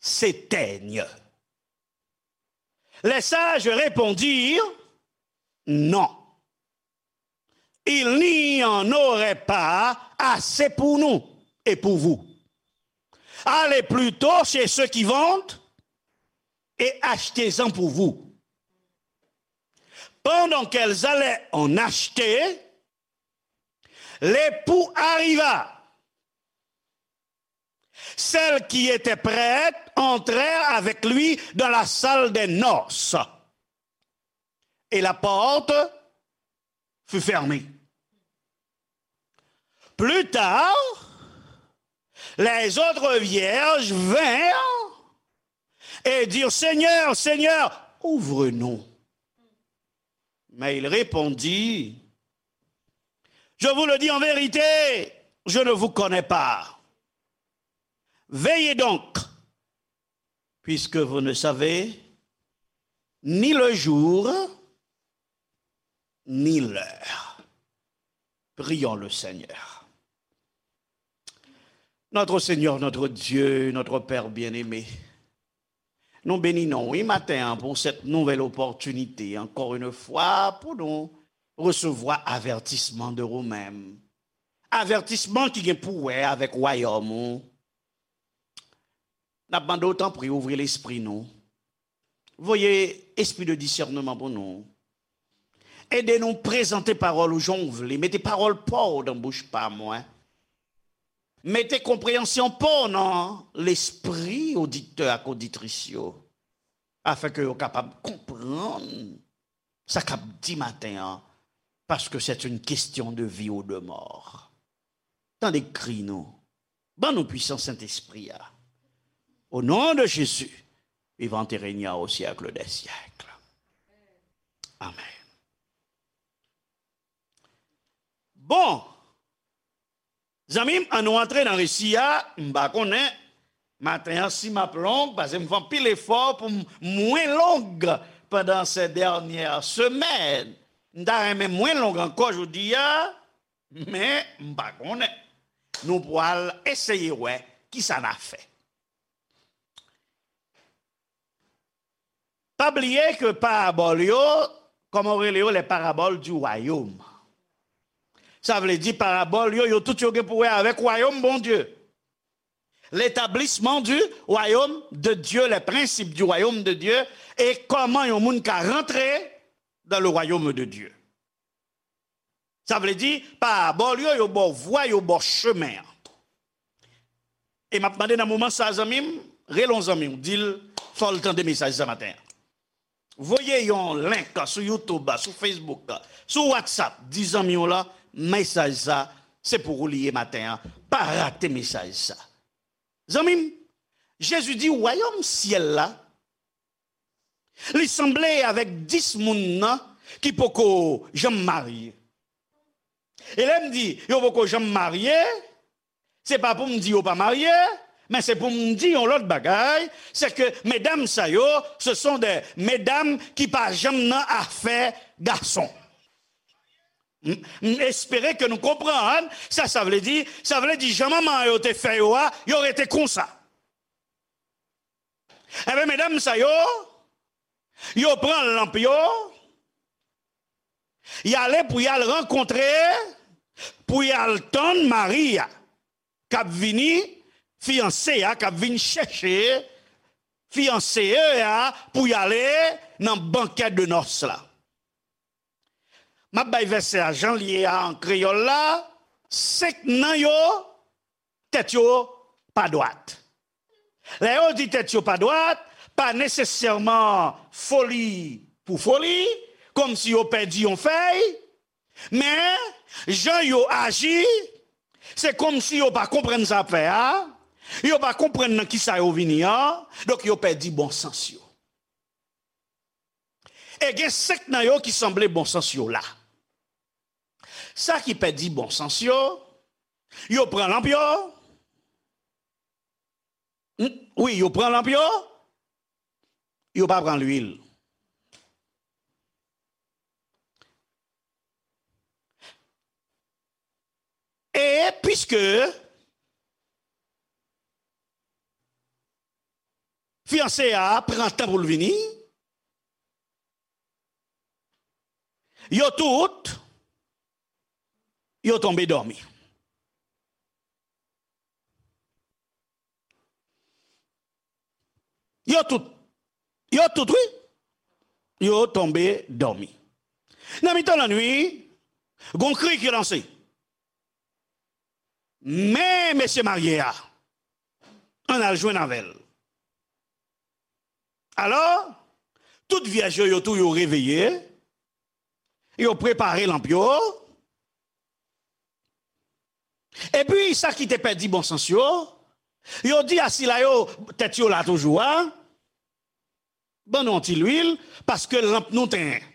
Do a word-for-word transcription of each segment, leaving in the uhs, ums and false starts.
s'éteignent. Les sages répondirent, non, il n'y en aurait pas assez pour nous et pour vous. Allez plutôt chez ceux qui vendent et achetez-en pour vous. Pendant qu'elles allaient en acheter, l'époux arriva. Celles qui étaient prêtes entrèrent avec lui dans la salle des noces. Et la porte fut fermée. Plus tard, les autres vierges vinrent et dirent, Seigneur, Seigneur, ouvre-nous. Mais il répondit, je vous le dis en vérité, je ne vous connais pas. Veillez donc, puisque vous ne savez ni le jour, ni l'heure. Prions le Seigneur. Notre Seigneur, notre Dieu, notre Père bien-aimé, nou beni non w, wi, maten an pou cette nouvelle opportunité, encore une fois, pou nou resevwa avètisman de ou menm. Avètisman ki gen pou wè avèk wayòm ou. N ap mande w, tanpri, ouvri lespri nou. Voye espri de disèneman pou nou. Ede nou prezante pawòl ou jan w vle. Mete pawòl pa w nan bouch pa mwen. Mete konpreyansyon pa w nan lespri oditè ak oditris yo, afin ke yo kapab konprann sa k ap di maten an, paske c'est une question de vie ou de mort. Tande kri nou. Ban nou pwisans Sentespri a. Au nom de Jésus, vivant et régnant au siècle des siècles. Amen. Bon, zanmi m, ann nou antre nan resi a. M pa konnen maten an si m ap long, paske m fè anpil efò pou m mwen long pandan ces dernières semaines. M ta renmen mwen long ankò jodi a, men m pa konnen. Nou pral eseye wè kisa n a fè. Pa bliye ke parabòl yo, kòman yo rele yo, les paraboles du royaume. Sa vle di parabòl yo, yo tout yo gen pou wè avèk wayòm Bondye. L'établissement du royaume de Dieu, les principes du royaume de Dieu, e kòman yon moun ka rantre dans le royaume de Dieu. Sa vle di, parabòl yo, yo ba w vwa, yo ba w chemen an. E m ap mande nan moman sa, zanmi m, rele yon zanmi w, di l, fò l tande mesaj sa maten an. Voye yon link sou YouTube, sou Facebook, sou WhatsApp, di zanmi w la, mesaj sa, se pou ou li ye maten an. Pa rate mesaj sa. Zanmi m, Jezi di, wayòm syèl la, li sanble avèk dis moun nan ki poko janm marye. E lè m di yo poko janm marye, se pa pou m di yo pa marye, men se pou m di yon lòt bagay, se ke medam sa yo, ce sont des medam ki pa janm nan afè gason. M, m espere ke nou konprann sa sa vle di. Sa vle di jan manman yo te fè yo a, yo rete konsa. Enben, medam sa yo, yo pran lanp yo, y ale pou y al rankontre, pou y al tann mari a, k ap vini, fiyanse a, k ap vin chèche fiyanse a pou y ale nan bankè de nòs la. M ap bay vèsè a jan l ye a an kreyòl la, senk nan yo, tèt yo pa dwat. Lè yo di tèt yo pa dwat, pa nesesèman foli pou foli, kòmsi yo pèdi yon fèy, men jan yo aji, se kòmsi yo pa konprann sa ap fè a, yo pa konprann nan kisa yo vini an, donk yo pèdi bon sans yo. E gen senk nan yo ki sanble bon sans yo la. Sa ki pèdi bon sans yo, yo pran lanp yo. N-, wi, yo pran lanp yo, yo pa pran lwil. E piske Fiyanse a pran tan pou l vini. Yo tout, yo tonbe dòmi. Yo tout, yo tout, wi. Yo tonbe dòmi. Nan mitan lannuit, gon kri ki lanse. Men mesye marye a, ann al jwenn avè l. Alò, tout vyèj yo, yo tou, yo reveye, yo prepare lanp yo. Epi, sa ki te pèdi bon sans yo, yo di a sila yo, tèt yo la toujou a, ban nou yon ti lwil, paske lanp nou tenyen.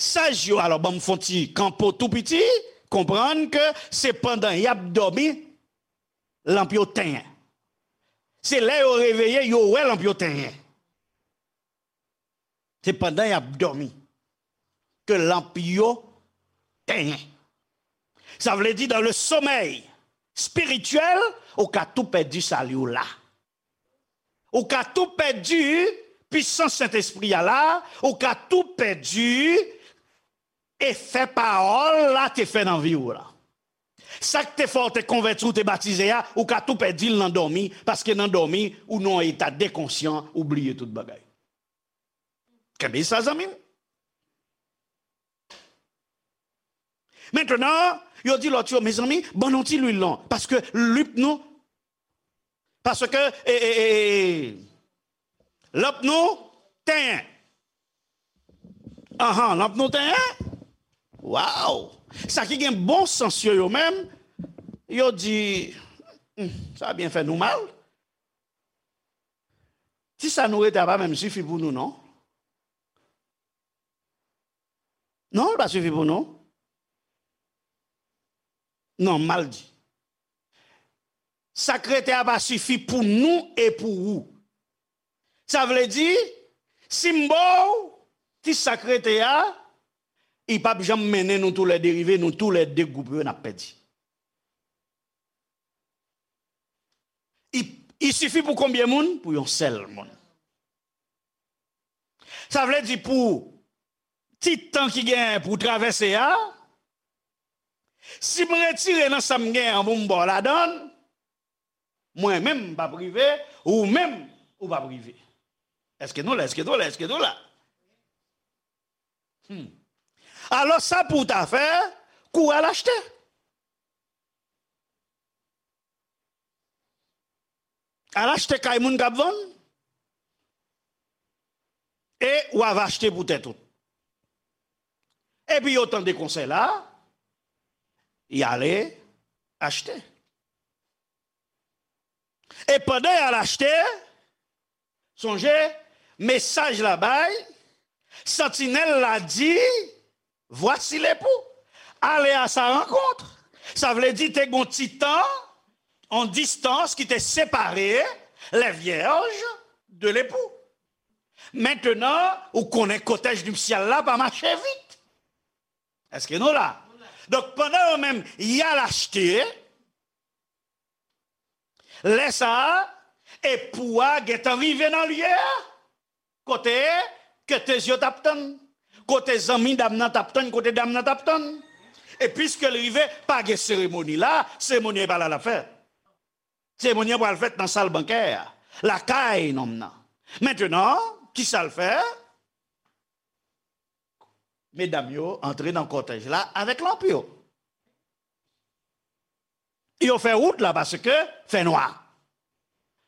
Saj yo, alò, ban m fè yon ti kanpo tou piti, konprann ke se pandan y ap dòmi, lanp yo tenyen. Se lè yo reveye, yo wè lanp yo tenyen. Se pandan y ap dòmi ke lanp yo tenyen. Sa vle di, dans le sommeil spirituel, ou ka tou pèdi sali w la. Ou ka tou pèdi pisans Sentespri a la, ou ka tou pèdi efè pawòl la te fè nan vi w la. Sa k te fè w te konvèti, w te batize a, ou ka tou pèdi l nan dòmi, paske nan dòmi, ou nan yon eta dekonsyan, ou bliye tout bagay. Kenbe sa, zanmi m. Mentnan, yo di lòt yo, mezanmi, ban nou ti lwil non, paske lanp nou, paske, e, e, e, e, lanp nou tenyen. Anhan, lanp nou tenyen? Waw! Sa ki gen bon sans yo, yo menm, yo di, "Hmm, sa byen fè nou mal. Ti sa nou rete a pa menm sifi pou nou, non." Non, l pa sifi pou nou. Non, m mal di. Sa k rete a pa sifi pou nou e pou ou. Sa vle di, si m ba w ti sa k rete a, li p ap janm mennen nou toulède rive, nou toulède gwoup yo n ap pèdi. Li, li sifi pou konbyen moun? Pou yon sèl moun. Sa vle di pou ti tan ki genyen pou travèse a, si m retire nan sa m genyen an pou m ba w ladan l, mwen menm m p ap rive, ou menm ou p ap rive. Èske nou la? Èske nou la? Èske nou la? Hmm. Alò, sa pou w ta fè, kouri al achte. Al achte kay moun k ap vann. E w ava achte pou tèt ou. Epi yo tande konsèy la, y ale achte. E pandan y al achte, sonje, mesaj la bay, santinèl la di, "Voici l'époux. Allez à sa rencontre." Sa vle di te gon ti tan, yon distans ki te separe les vierges de l'époux. Mentnan, ou konnen kòtèj nipsyal la pa mache vit. Èske nou la? Donk, pandan yo menm, y al achte, lè sa a, epou a gentan rive nan lye a. Kote ketez yo t ap tann? Kote zanmi dam nan t ap tann? Kote dam nan t ap tann? E piske l rive, pa gen seremoni la, seremoni a e pa la l ap fèt. Seremoni an pral fèt nan sal bankè a, lakay nonm nan. Mentnan, kisa l fè? Medam yo antre nan kòtèj la avèk lanp yo. Yo fè wout la paske fènwa.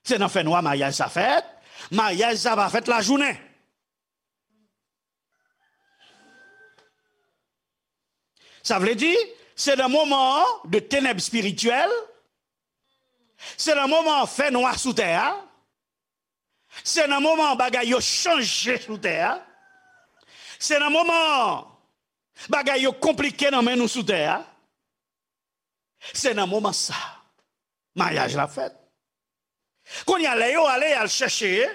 Se nan fènwa maryaj sa fèt. Maryaj sa pa fèt lajounen. Sa vle di, se nan moman de tenèb espirityèl, se nan moman fènwa sou tè a, se nan moman bagay yo chanje sou tè a, se nan moman bagay yo konplike nan men nou sou tè a. Se nan moman sa, maryaj la fèt. Kounye a, lè yo ale, y al chèche,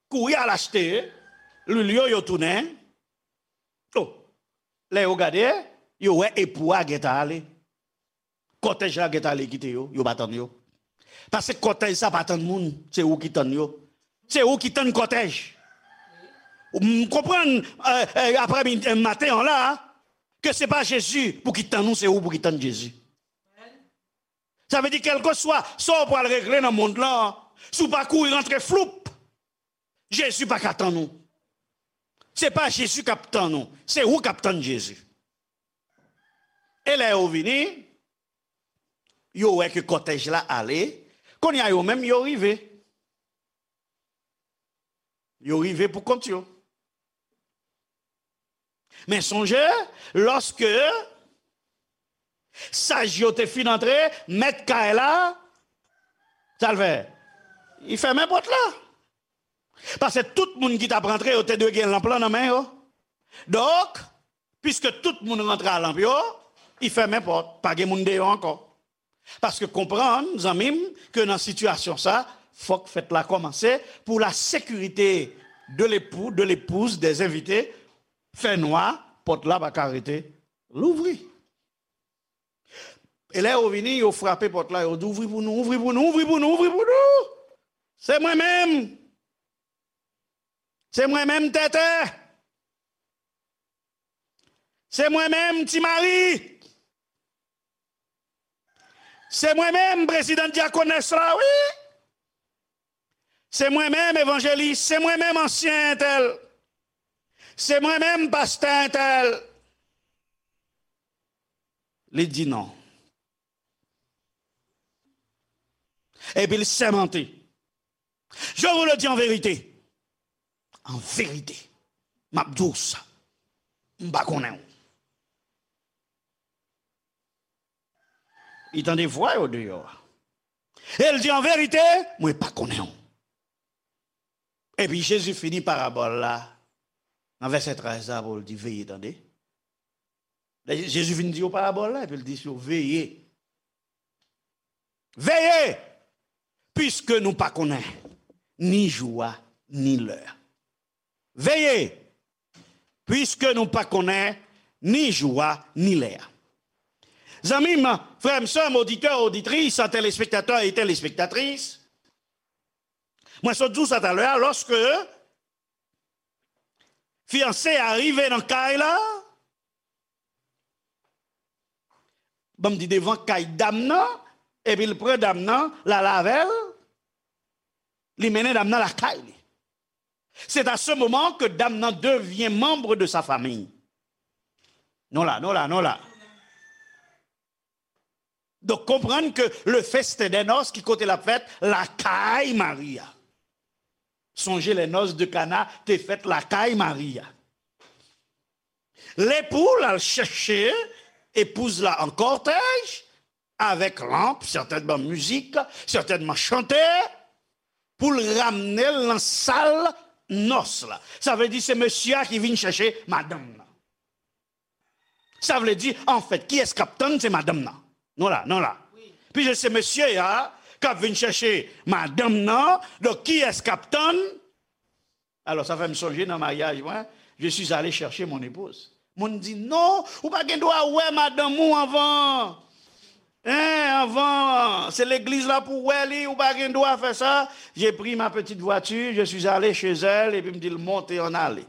kouri al achte, lwil yo, yo tounen. O, lè yo gade, yo wè epou a gentan ale. Kòtèj la gentan ale kite yo, yo pa tann yo. Paske kòtèj sa pa tann moun, se ou ki tann yo. Se ou ki tann kòtèj. M konprann, eh, eh, aprè midi, eh, maten an la, ke se pa Jezi pou ki tann ou, se ou pou ki tann Jezi. Sa vle di, kèlkeswa sa w pral regle nan mond lan, si w pa kouri rantre floup, Jezi pa ka tann ou. Se pa Jezi k ap tann ou, se ou k ap tann Jezi. E lè yo vini, yo wè ke kòtèj la ale, kounye a yo menm yo rive. Yo rive pou kont yo. Men sonje, lòske saj yo te fin antre, mèt kay la, sa l fè? Li fèmen pòt la. Paske tout moun ki t ap rantre, yo te dwe gen lanp lan nan men yo. Donk, piske tout moun rantre a lanp yo, li fèmen pòt, pa gen moun deyò ankò. Paske konprann, zanmi m, ke nan sitiyasyon sa, fòk fèt la kòmanse pou la sécurité de l'époux, de l'épouse, des invités, fè nwa, pòt la pa ka rete louvri. E lè yo vini, yo frape pòt la, yo di, "Ouvri pou nou, ouvri pou nou, ouvri pou nou, ouvri pou nou! Se mwen menm! Se mwen menm, Tètè! Se mwen menm, Ti Mari! Se mwen menm, prezidan dyakonès la, wi! Se mwen menm, evanjelis! Se mwen menm, ansyen entèl! Se mwen menm, pastè entèl!" Li di non. Epi l sèmante. "Je vous le dis en vérité. An verite, m ap di w sa. M pa konnen w." Li tande vwa yo deyò a. E l di, "An verite, mwen pa konnen w." Epi Jezi fini parabòl la nan vèsè trèz la pou l di, "Veye, tande." Jezi fin di yo parabòl la, epi l di yo, "Veye. Veye, piske nou pa konnen ni jou a, ni lè a. Veye, piske nou pa konnen ni jou a, ni lè a." Zanmi m, frè m, sè m, oditè, oditris, telespektatè e telespektatris, mwen sot di w sa talè a, lòske fiyanse a rive nan kay la, ban m di, devan kay dam nan, epi l pran dam nan, l al avè l, li mennen dam nan lakay li. C'est à ce moment que dame nan devient membre de sa famille. Nou la, nou la, nou la. Donk, konprann ke le festin de noces, ki kote l ap fèt? Lakay Mari a. Sonje, les noces de Cana te fèt lakay Mari a. Lepou l al chèche epouz la an kòtèj, avèk lanp, sètènman mizik, sètènman chante, pou l ramne l nan sal nòs la. Sa vle di se mesye a ki vin chèche madanm nan. Sa vle di, anfèt, kiyès k ap tann? Se madanm nan. Nou la, nou la. Piske se mesye a k ap vin chèche madanm nan, donk kiyès k ap tann? Alò, sa fè m sonje nan maryaj mwen, je suis allé chercher mon épouse. Moun di, "Non, ou pa gen dwa wè madanm ou anvan. Hein, anvan, se legliz la pou w wè li, ou pa gen dwa fè sa." J'ai pris ma petite voiture, je suis allé chez elle, epi m di l, "Monte, ann ale."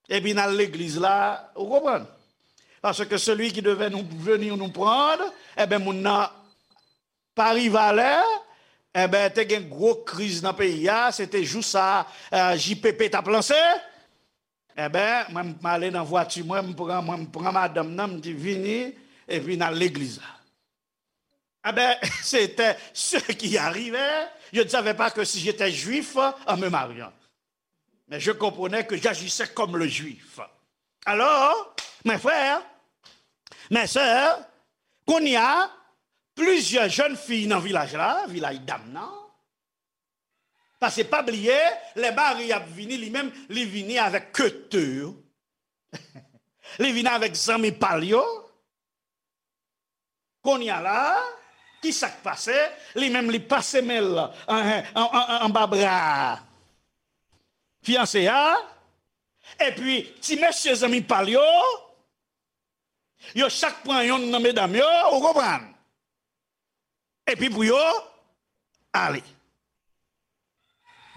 Epi n al legliz la, ou konprann? Parce que celui qui devait nous, venir nous prendre, enben, moun nan pa rive alè, enben, te gen gwo kriz nan peyi a, se te jou sa, eh, J P P t ap lanse. Enben, mwen, m ale nan vwati mwen, m pran, mwen, m pran madanm nan, m di, "Vini, epi n al legliz la." Enben, c'était ce qui arrivait. Je ne savais pas que si j'étais juif, en me mariant. Mais je comprenais que j'agissais comme le juif. Alors, mes frères, mes sœurs, kounye a, plizyè jèn fi nan vilaj la, vilaj dam nan, paske pa bliye, lè Mari ap vini, li menm, li vini avèk kete yo. Li vini avèk zanmi pa l yo. Kounye a la, ki sa k pase? Li menm, li pase men l an, an, an, an, anba bra fiyanse a. Epi, ti mesye zanmi pa l yo, yo chak pran yonn nan medam yo, ou konprann? Epi pou yo, ale.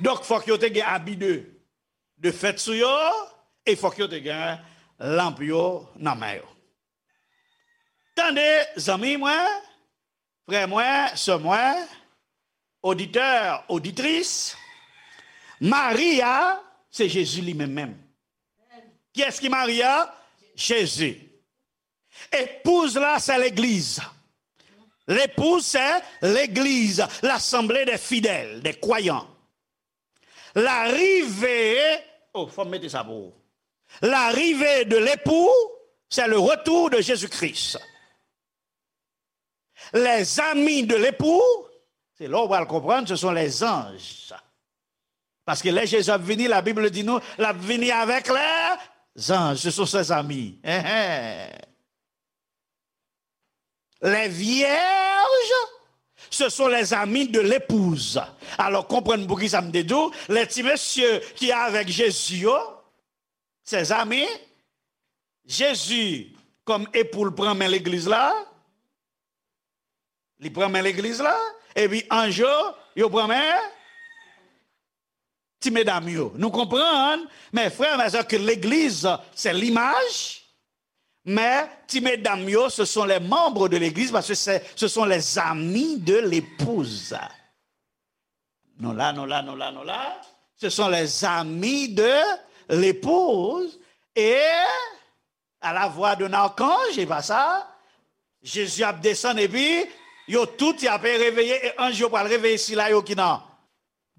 Donk, fòk yo te gen abi de, de fèt sou yo, e fòk yo te gen lanp yo nan men yo. Tande, zanmi mwen, frè mwen, sè mwen, oditè, oditris, Mari a, se Jezi li menm menm. Kiyès ki Mari a? Jezi. Épouse la, c'est l'Église. L'épouse, c'est l'Église, l'assemblée des fidèles, des croyants. L'arrivée, oh, fò m mete sa pou ou. L'arrivée de l'époux, c'est le retour de Jésus-Christ. Les amis de l'époux, se la w pral konprann, ce sont les anges. Paske lè Jezi ap vini, la Bible di nou, l ap vini avec les anges, ce sont ses amis. Hein, hein. Les vierges, ce sont les amis de l'épouse. Alò, konprann poukisa m te di w, lè ti mesye ki avèk Jezi yo, ses amis, Jezi, kòm epou l, pran men legliz la, li pran men legliz la, epi anj yo, yo pran men ti medam yo. Nou konprann, mes frères, mes sœurs, que l'église, c'est l'image, mais ti medam yo, ce sont les membres de l'église, parce que c'est, ce sont les amis de l'épouse. Nou la, nou la, nou la, nou la. Ce sont les amis de l'épouse. Et à la voix d'un archange, e pa sa, Jezi ap desann, epi yo tout y ap reveye, e anj yo pral reveye sila yo ki nan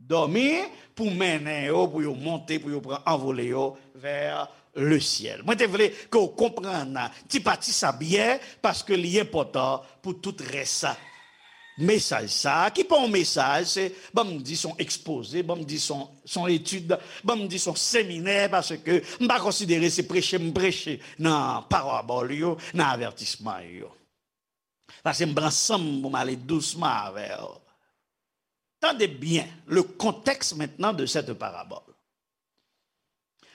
dòmi, pou mennen yo, pou yo monte, pou yo pran anvole yo vers le ciel. Mwen te vle ke w konprann ti pati sa byen, paske li enpòtan pou tout rès mesaj sa a, ki pa yon mesaj, se, ban m di, se yon ekspoze, ban m di, se yon, se yon etid, ban m di, se yon seminè, paske m pa konsidere se preche m preche nan parabòl yo, nan avètisman yo. Paske m pran san m pou m ale dousman avè w. Tande byen le contexte maintenant de cette parabole.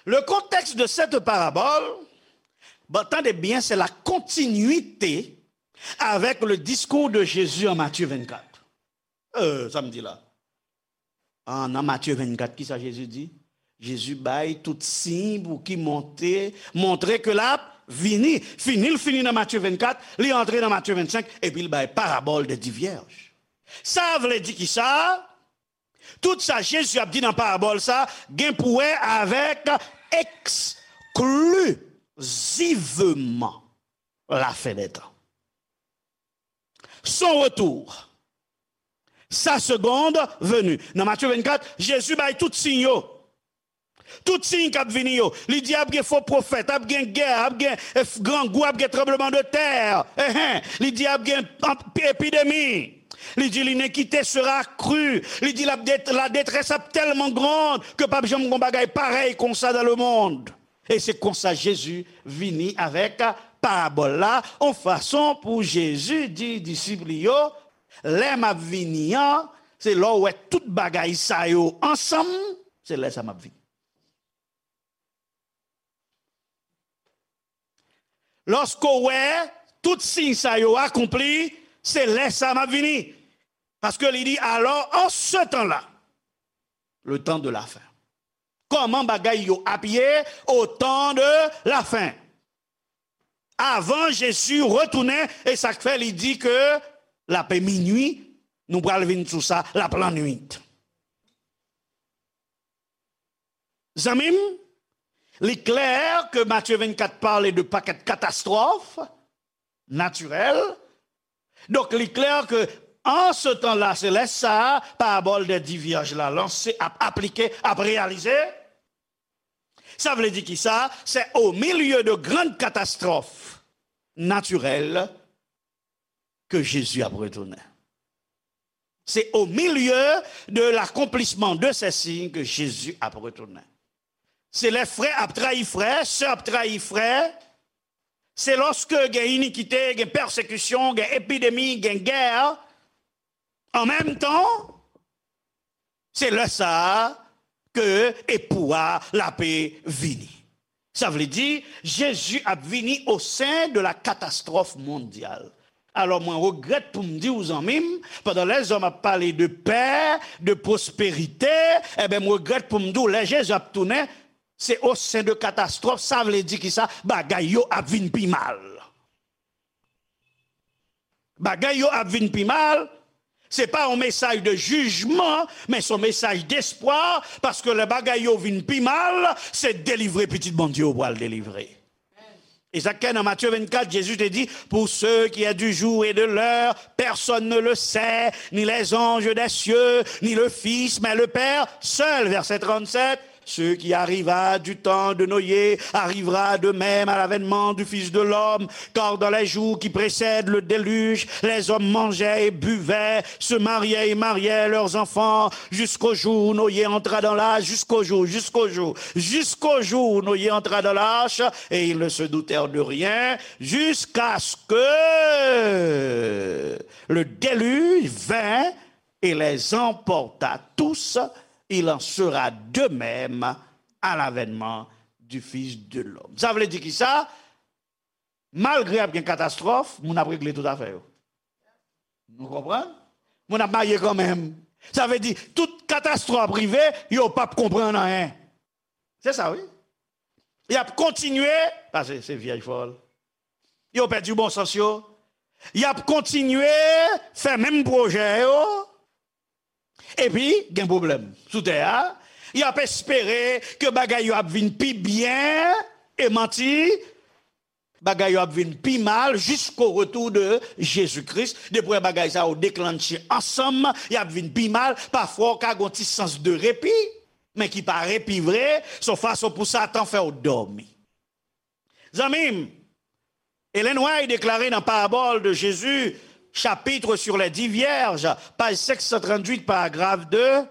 Le contexte de cette parabole, bon, tande byen, c'est la continuité avec le discours de Jésus en Matthieu vingt-quatre. Euh, sa m di la. Ah, nan Matthieu vingt-quatre, ki sa Jezi di? Jezi bay tout siy pou ki monte, montre ke l ap vini. Fini l fini nan Matthieu vingt-quatre, li antre nan Matthieu vingt-cinq, epi l bay parabòl de di vyèj. Sa vle di ki sa? Tout sa Jezi ap di nan parabòl sa gen pou wè avèk eksklizivman la fin des temps. Son retour, sa seconde venue. Nan Matthieu vingt-quatre, Jezi bay tout siy yo. Tout siy k ap vini yo. Li di ap gen fo pwofèt, ap gen gè, ap gen, eh, grangou, ap gen tranbleman de tè. Enhen. Li di ap gen anp-, epidemi. Li di l'inéquité sera accrue. Li di la dé-, la détresse ap tèlman grande que p ap janm gon bagay parèy konsa dans le monde. E se konsa Jezi vini avèk parabòl la, yon fason pou Jezi di disip li yo, lè m ap vini an, se lè w wè tout bagay sa yo ansanm, se lè sa m ap vini. Lòske w wè tout siy sa yo akonpli, se lè sa m ap vini. Paske li di, alors, en ce temps-là, le temps de la fin. Kòman bagay yo ap ye au temps de la fin? Avan Jezi retounen, e sa k fè li di ke l ap minui, nou pral vin sou sa, l ap lannwit. Zanmi m, li klè ke Matthieu vingt-quatre pale de pakèt katastwòf natirèl. Donk, li klè ke an se tan la, se lè sa a, parabòl dè di vyèj la lanse, ap aplike, ap reyalize. Sa vle di ki sa? C'est au milieu de grandes catastrophes naturelles que Jésus ap retounen. C'est au milieu de l'accomplissement de ces signes que Jésus ap retounen. Se lè frè ap trayi frè, sè ap trayi frè. Se lòske gen inikite, gen pèsekisyon, gen epidemi, gen gè. An menm tan, se lè sa a ke epou a l ape vini. Sa vle di, Jezi ap vini au sein de la catastrophe mondiale. Alò, mwen regrèt pou m di w, zanmi m, pandan lèzòm ap pale de pè, de pwosperite, enben, m regrèt pou m di w, lè Jezi ap tounen, se au sein de catastrophe, sa vle di ki sa? Bagay yo ap vin pi mal. Bagay yo ap vin pi mal. Se pa yon mesaj de jijman, men se yon mesaj despwa, paske lè bagay yo vin pi mal, se delivre pitit Bondye yo pral delivre. E sa k nan Matye vennkat, Jezi te di, pour ce qui est du jour et de l'heure, personne ne le sait, ni les anges des cieux, ni le Fils, mais le Père seul. Verset trente-sept, ce qui arriva du temps de Noé arrivera de même à l'avènement du Fils de l'homme, car dans les jours qui précèdent le déluge, les hommes mangeaient et buvaient, se mariaient et mariaient leurs enfants, jusqu'au jour où Noé entra dans l'arche, jusqu'au jour, jusqu'au jour, jusqu'au jour où Noé entra dans l'arche, et ils ne se doutèrent de rien, jusqu'à ce que le déluge vint et les emporta tous, il en sera de même à l'avènement du Fils de l'homme. Sa vle di ki sa? Malgre ap gen katastwòf, moun ap regle tout afè yo. Nou konprann? Moun ap marye kanmenm. Sa vle di, tout katastwòf ap rive, yo p ap konprann anyen. Se sa, wi. Y ap kontinye, paske se vyèj fòl. Yo pèdi bon sans yo. Y ap kontinye fè menm pwojè yo. Epi, gen pwoblèm sou tè a. Y ap espere ke bagay yo ap vin pi byen. E manti, bagay yo ap vin pi mal jusqu'au retour de Jésus-Christ. Depi w wè bagay sa yo deklannche ansanm, y ap vin pi mal. Pafwa, w ka gen yon ti sans de repi, men ki pa repi vre. Se yon fason pou Satan fè w dòmi. Zanmi m, Ellen White deklare nan Parabole de Jésus, chapitre sur les dix vierges, page cinq cent trente-huit, paragraphe deux,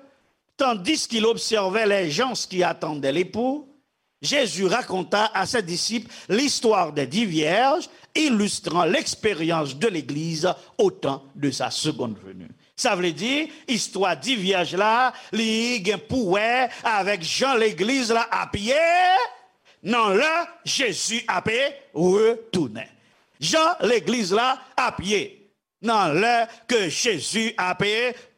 tandis qu'il observait les gens qui attendaient l'époux, Jésus raconta à ses disciples l'histoire des dix vierges, illustrant l'expérience de l'Église au temps de sa seconde venue. Sa vle di, istwa di vyèj la, li gen pou wè avèk jan legliz la ap ye nan lè Jezi ap retounen. Jan legliz la ap ye nan lè ke Jezi ap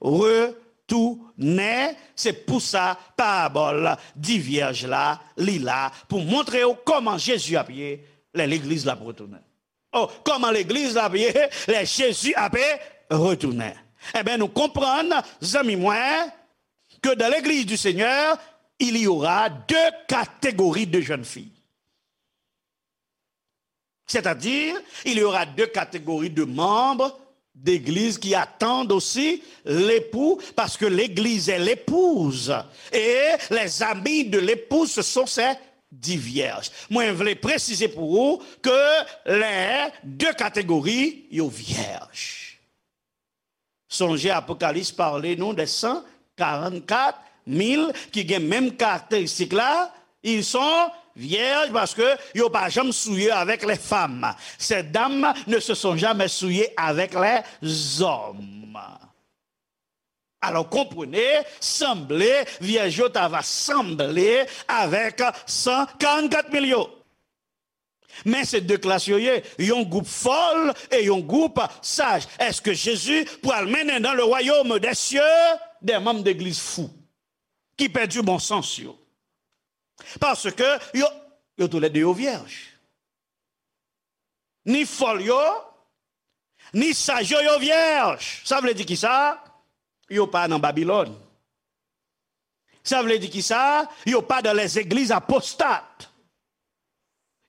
retounen, se pou sa parabòl di vyèj la, li la pou montre w kòman Jezi ap ye lè legliz la ap retounen. Oh, kòman legliz la ap ye lè Jezi ap retounen? Enben, nou konprann, zanmi mwen, que dans l'église du Seigneur, il y aura deux catégories de jeunes filles. C'est-à-dire, il y aura deux catégories de membres d'église qui attendent aussi l'époux, parce que l'église est l'épouse. Et les amis de l'épouse, ce sont ces dix vierges. Mwen vle presize pou ou ke les deux catégories, yo vyèj. Sonje Apokalips pale nou de san karannkat mil ki gen menm karakteristik la, ils sont vierges parce que yo pa janm souye avec les femmes. Ces dames ne se sont jamais souillées avec les hommes. Alò, konprann, sanble, vyèj yo ta va sanble avèk san karannkat mil yo. Men se de klas yo ye, yon gwoup fòl e yon gwoup saj. Èske Jezi pral mennen dans le royaume des cieux des membres d'église fou, ki pèdi bon sans yo? Paske yo, yo toulède yo vyèj. Ni fòl yo, ni saj yo, yo vyèj. Sa vle di ki sa? Yo pa nan Babilòn. Sa vle di ki sa? Yo pa dans les églises apostates.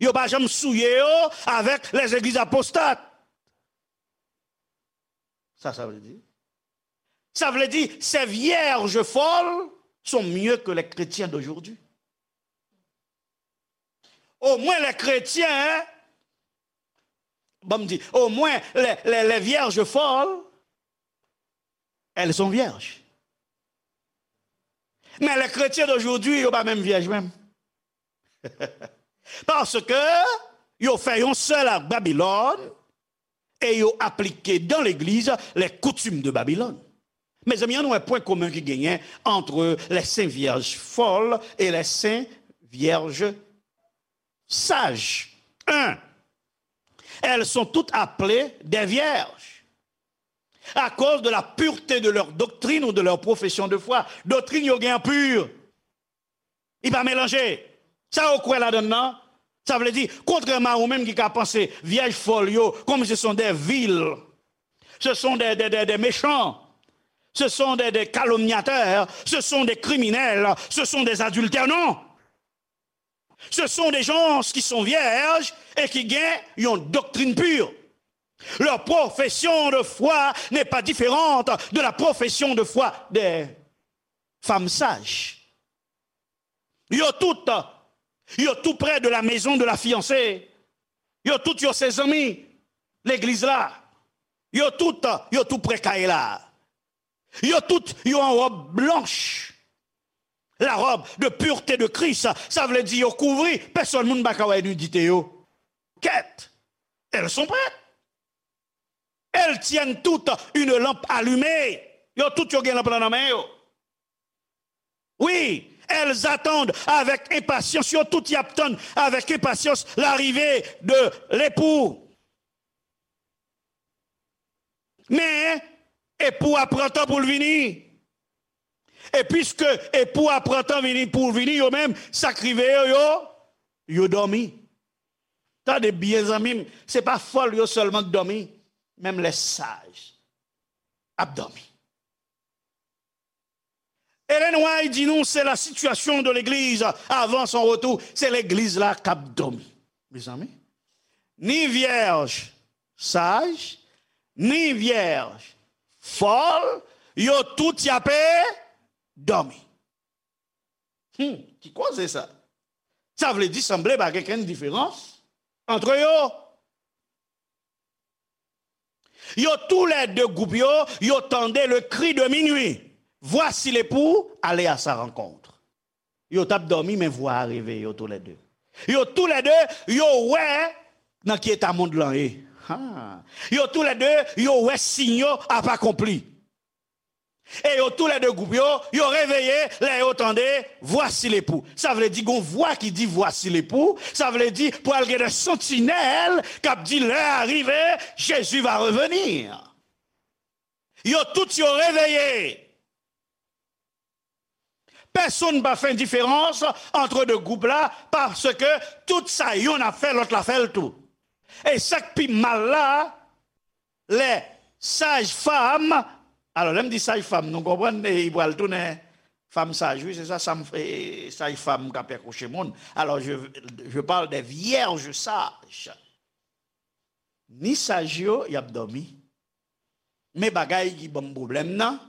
Yo pa janm souye yo avèk les églises apostates. Sa, sa vle di? Sa vle di, ces vierges folles sont mieux que les chrétiens d'aujourd'hui. Omwen lè kretyen, bon, m di, omwen lè, lè, lè vyèj fòl, elles sont vierges. Men lè kretyen d'aujourd'hui, yo pa menm vyèj menm. Paske yo fè yon sèl ak Babilòn, e yo aplike dans l'église les coutumes de Babylone. Mezanmi, ann wè pwen komen ki genyen entre les saintes vierges folles et les saintes vierges sages. Un, Elles sont toutes appelées des vierges à cause de la pureté de leur doctrine ou de leur profession de foi. Doktrin yo gen an pi. Li pa melanje. Sa yo kwè ladan l nan, sa vle di, kontrèman a ou menm ki ka panse, vyèj fòl yo, comme ce sont des vils, ce sont des, des, des, des méchants, ce sont des, des calomniateurs, ce sont des criminels, ce sont des adultères. Non. Ce sont des gens qui sont vierges et qui gagnent une doctrine pure. Leur profession de foi n'est pas différente de la profession de foi des femmes sages. Yo tout, yo tou prè de la maison de la fiancée. Yo tout, yo se zanmi legliz la. Yo tout, yo tou prè kay la. Yo tout, yo an wòb blanch. La robe de pureté de Christ, sa vle di yo kouvri, pèsonn moun pa ka wè nidite yo. Kèt, elles sont prêtes. Elles tiennent toutes une lampe allumée. Yo tout yo gen lanp lan nan men yo. Oui, elles attendent avec impatience, yo tout y ap tann avec impatience l'arrivée de l'époux. Men, epou a pran tan pou l vini. E piske epou a pran tan vini pou l vini, yo menm, sa k rive yo, yo, yo dòmi. Tande byen, zanmi m, se pa fòl yo sèlman k dòmi, menm lè saj ap dòmi. Ellen White di nou, se la situation de l'église avant son retour, se legliz la k ap dòmi. Mezanmi, ni vyèj saj, ni vyèj fòl, yo tout y ape dòmi. Hmm, ki koze sa? Sa vle di sanble pa gen kenn diferans antre yo. Yo toulède gwoup yo, yo tande le cri de minuit. Voici l'époux, allez à sa rencontre. Yo t ap dòmi, men vwa a reveye yo toulède. Yo toulède, yo wè nan ki eta mond lan ye. Ha. Yo toulède, yo wè siy yo ap akonpli. E yo toulède gwoup yo, yo reveye lè yo tande, voici l'époux. Sa vle di gon vwa ki di, voici l'époux. Sa vle di pral gen de santinèl k ap di, lè a rive, Jésus va revenir. Yo tout yo reveye. Pèsonn pa fè diferans antre de gwoup la, paske tout sa yonn ap fè, lòt la fè l tou. E sa k pi mal la, lè saj fanm, alò, lè m di saj fanm, nou konprann, e, li pral tounen fanm saj, wi, se sa, sa m, e, saj fanm k ap akouche moun. Alors, je, je parle des vierges sages. Ni saj yo, y ap dòmi. Men bagay ki ban m pwoblèm nan,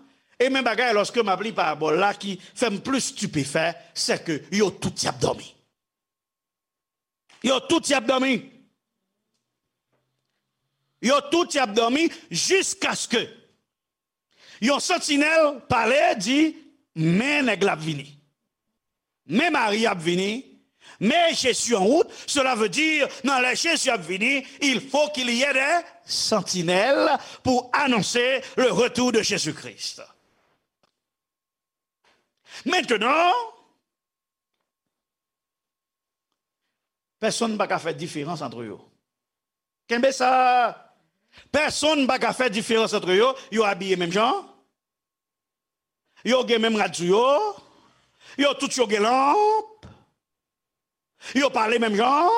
e men bagay lòske m ap li parabòl la ki fè m plis stipefè, se ke yo tout y ap dòmi. Yo tout y ap dòmi. Yo tout y ap dòmi jiskaske yon santinèl pale, di, men nèg la ap vini. Men mari ap vini, men Jezi an wout, cela veut dire, nan lè Jezi ap vini, il faut qu'il y ait des sentinelles pour annoncer le retour de Jésus-Christ. Maintenant, pèsonn pa ka fè diferans antre yo. Kenbe sa. Pèsonn pa ka fè diferans antre yo. Yo abiye menm jan. Yo gen menm rad sou yo. Yo tout yo gen lanp. Yo pale menm jan.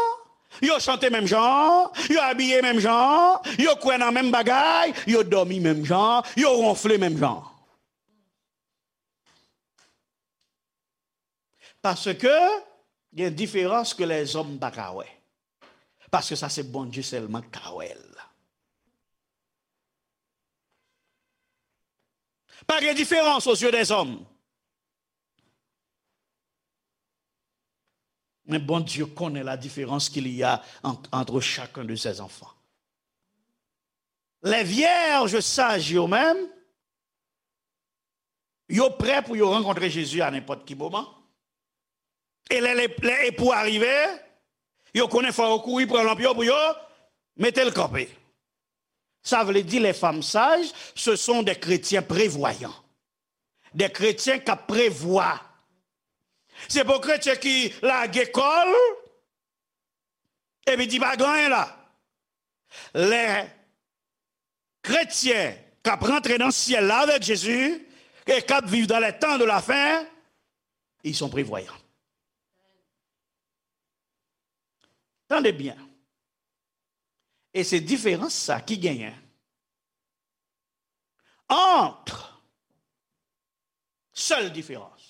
Yo chante menm jan. Yo abiye menm jan. Yo kwè nan menm bagay. Yo dòmi menm jan. Yo wonfle menm jan. Paske gen diferans ke lèzòm pa ka wè. Paske sa se Bondye sèlman k ka wè l. Pa gen diferans aux yeux des hommes. Men Bondye konnen la différence qu'il y a ant, entre chacun de ses enfants. Les vierges sages yo menm, yo prè pou yo rankontre Jezi a nenpòt ki moman. E lè, lè, lè epou a rive, yo konnen fò yo kouri pran lanp yo pou yo mete l kanpe. Sa vle di, les femmes sages, ce sont des chrétiens prévoyants. Des chrétiens k ap prevwa. Se pa kretyen ki lage kò l, epi di pa gen anyen la. Lè kretyen k ap rantre nan syèl la avèk Jezi e k ap viv dans les temps de la fin, ils sont prévoyants. Tande byen. E se diferans sa ki genyen ant, sèl diferans,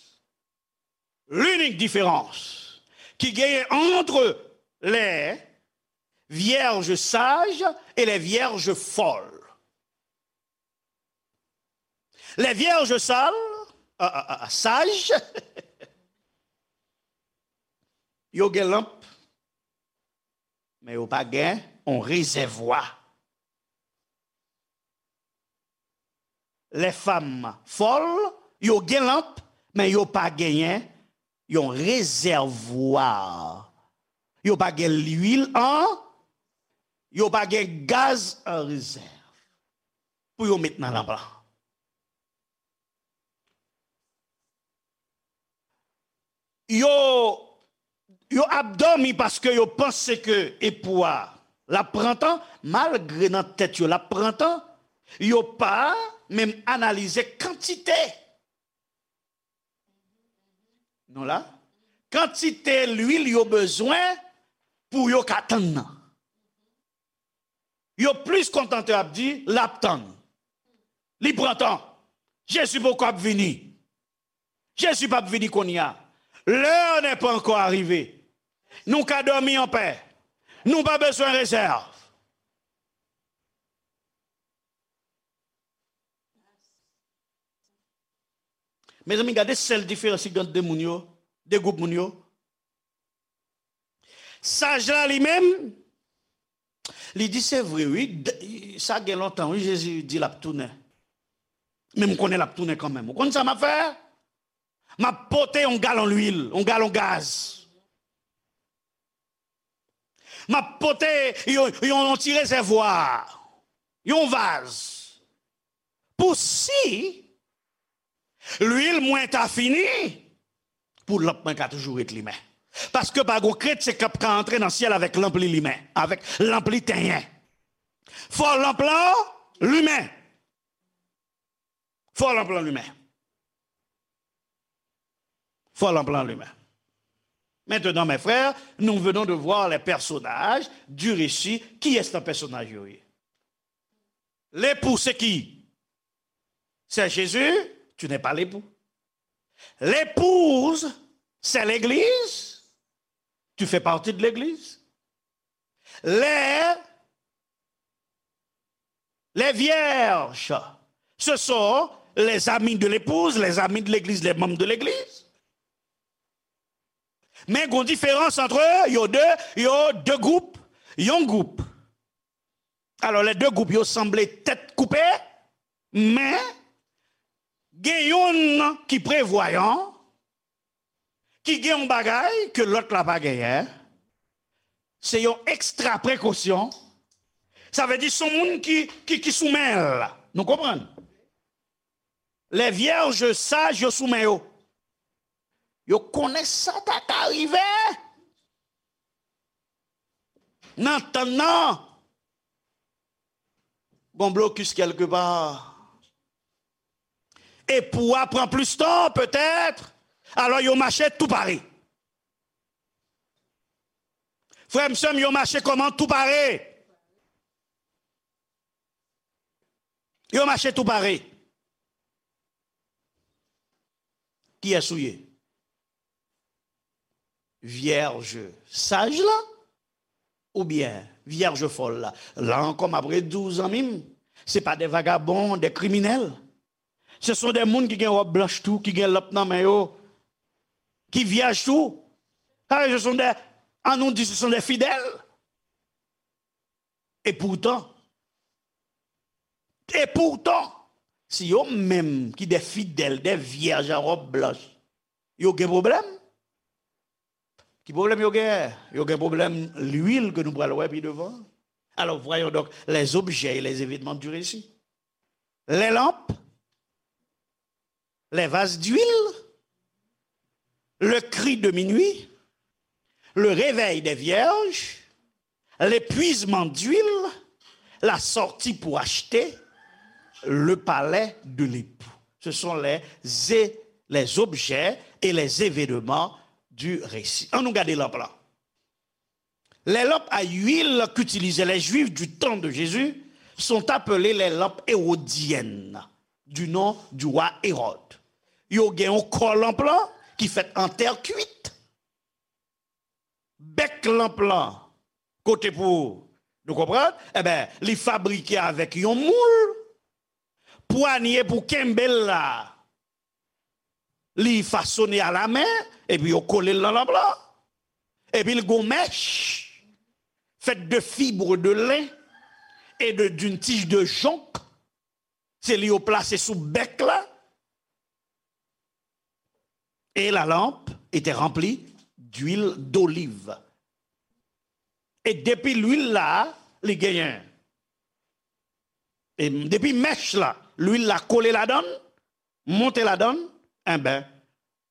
l'unique différence qui gagne entre les vierges sages et les vierges folles. Les vierges sales, ah, ah, ah, sages, yo gen lanp, men yo pa gen yon rezèvwa. Les femmes folles, yo gen lanp, men yo pa genyen yon rezèvwa. Yo pa gen lwil an, yo pa gen gaz an rezèv pou yo met nan lanp lan. Yo, yo ap dòmi paske yo panse ke epou a l ap pran tan, malgre nan tèt yo l ap pran tan, yo pa menm analize kantite, nou la, kantite lwil yo bezwen pou yo ka tann nan. Yo plis kontante ap di, l ap tann. Li pran tan. Jezi poko ap vini. Jezi p ap vini kounye a. L'heure n'est pas encore arrivée. Nou ka dòmi anpè. Nou pa bezwen rezèv. Mezanmi, gade sèl diferans ki gen ant de moun yo, de gwoup moun yo. Saj la li menm, li di, se vre, wi, d- sa gen lontan, wi, Jezi di l ap tounen. Men m konnen l ap tounen kanmenm. Ou konn sa m ap fè? M ap pote yon galon lwil, yon galon gaz. M ap pote yon, yon, yon ti rezèvwa, yon vaz. Pou si lwil mwen ta fini, pou lanp mwen ka toujou ret limen. Paske pa gon kretyen k ap ka antre nan syèl avèk lanp li limen, avèk lanp li tenyen. Fò lanp lan limen. Fò lanp lan limen. Fò lanp lan limen. Maintenant, mes frères, nous venons de voir les personnages du récit. Kiyès nan pèsonaj yo ye? L'époux, c'est qui? C'est Jésus, tu n'es pas l'époux. L'épouse, c'est l'Église, tu fais partie de l'Église. Les, les vierges, ce sont les amis de l'épouse, les amis de l'Église, les membres de l'Église. Men gon diferans ant yo de, yo de gwoup, yon gwoup. Alò, les deux groupes, yo sanble tèt koupe, men gen youn ki prevwayan, ki gen yon bagay ke lòt la pa genyen. Se yon ekstra prekosyon. Sa vle di se yon moun ki, ki, ki sou men l. Nou konprann? Les vierges sages, yo sou men yo. Yo konnen sa ta ka rive. Nan tann nan, gon blokis kèlkepa. Epou a pran plis tan, petèt. Alò, yo mache tou pare. Frè m, sè m, yo mache kòman? Tou pare. Yo mache tou pare. Kiyès ou ye? Vyèj saj la? Oubyen vyèj fòl la? La ankò, m ap redi w, zanmi m, se pa de vagabon, de kriminèl. Ce sont des moun ki gen wòb blanch tou, ki gen lanp nan men yo, ki vyèj tou. Sa vle di, ce sont des, ann nou di, ce sont des fidèles. E poutan, e poutan, si yo menm ki de fidèl, de vyèj an wòb blanch, yo gen pwoblèm. Ki pwoblèm yo gen? Yo gen pwoblèm lwil ke nou pral wè pi devan. Alors, voyons donc les objets et les événements du récit. Les lampes, les vases d'huile, le cri de minuit, le réveil des vierges, l'épuisement d'huile, la sortie pour acheter le palais de l'époux. Ce sont les, les objets et les événements du récit. Ann nou gade lanp lan. Les lampes à huile qu'utilisaient les Juifs du temps de Jésus sont appelées les lampes hérodiennes, du nom du roi Hérode. Yo gen yon kò lanp lan ki fèt an tè kwit. Bèk lanp lan, kote pou nou konprann, enben, li fabrike avèk yon moul, pwanye pou kenbe l la, li fasone alamen, epi yo kole l nan lanp lan, epi l gon mèch, faite de fibres de lin et de, d'une tige de jonc, se li yo plase sou bèk la, et la lampe était remplie d'huile d'olive. E depi lwil la, li genyen. E depi mèch la, lwil la kole ladann, monte ladann, enben,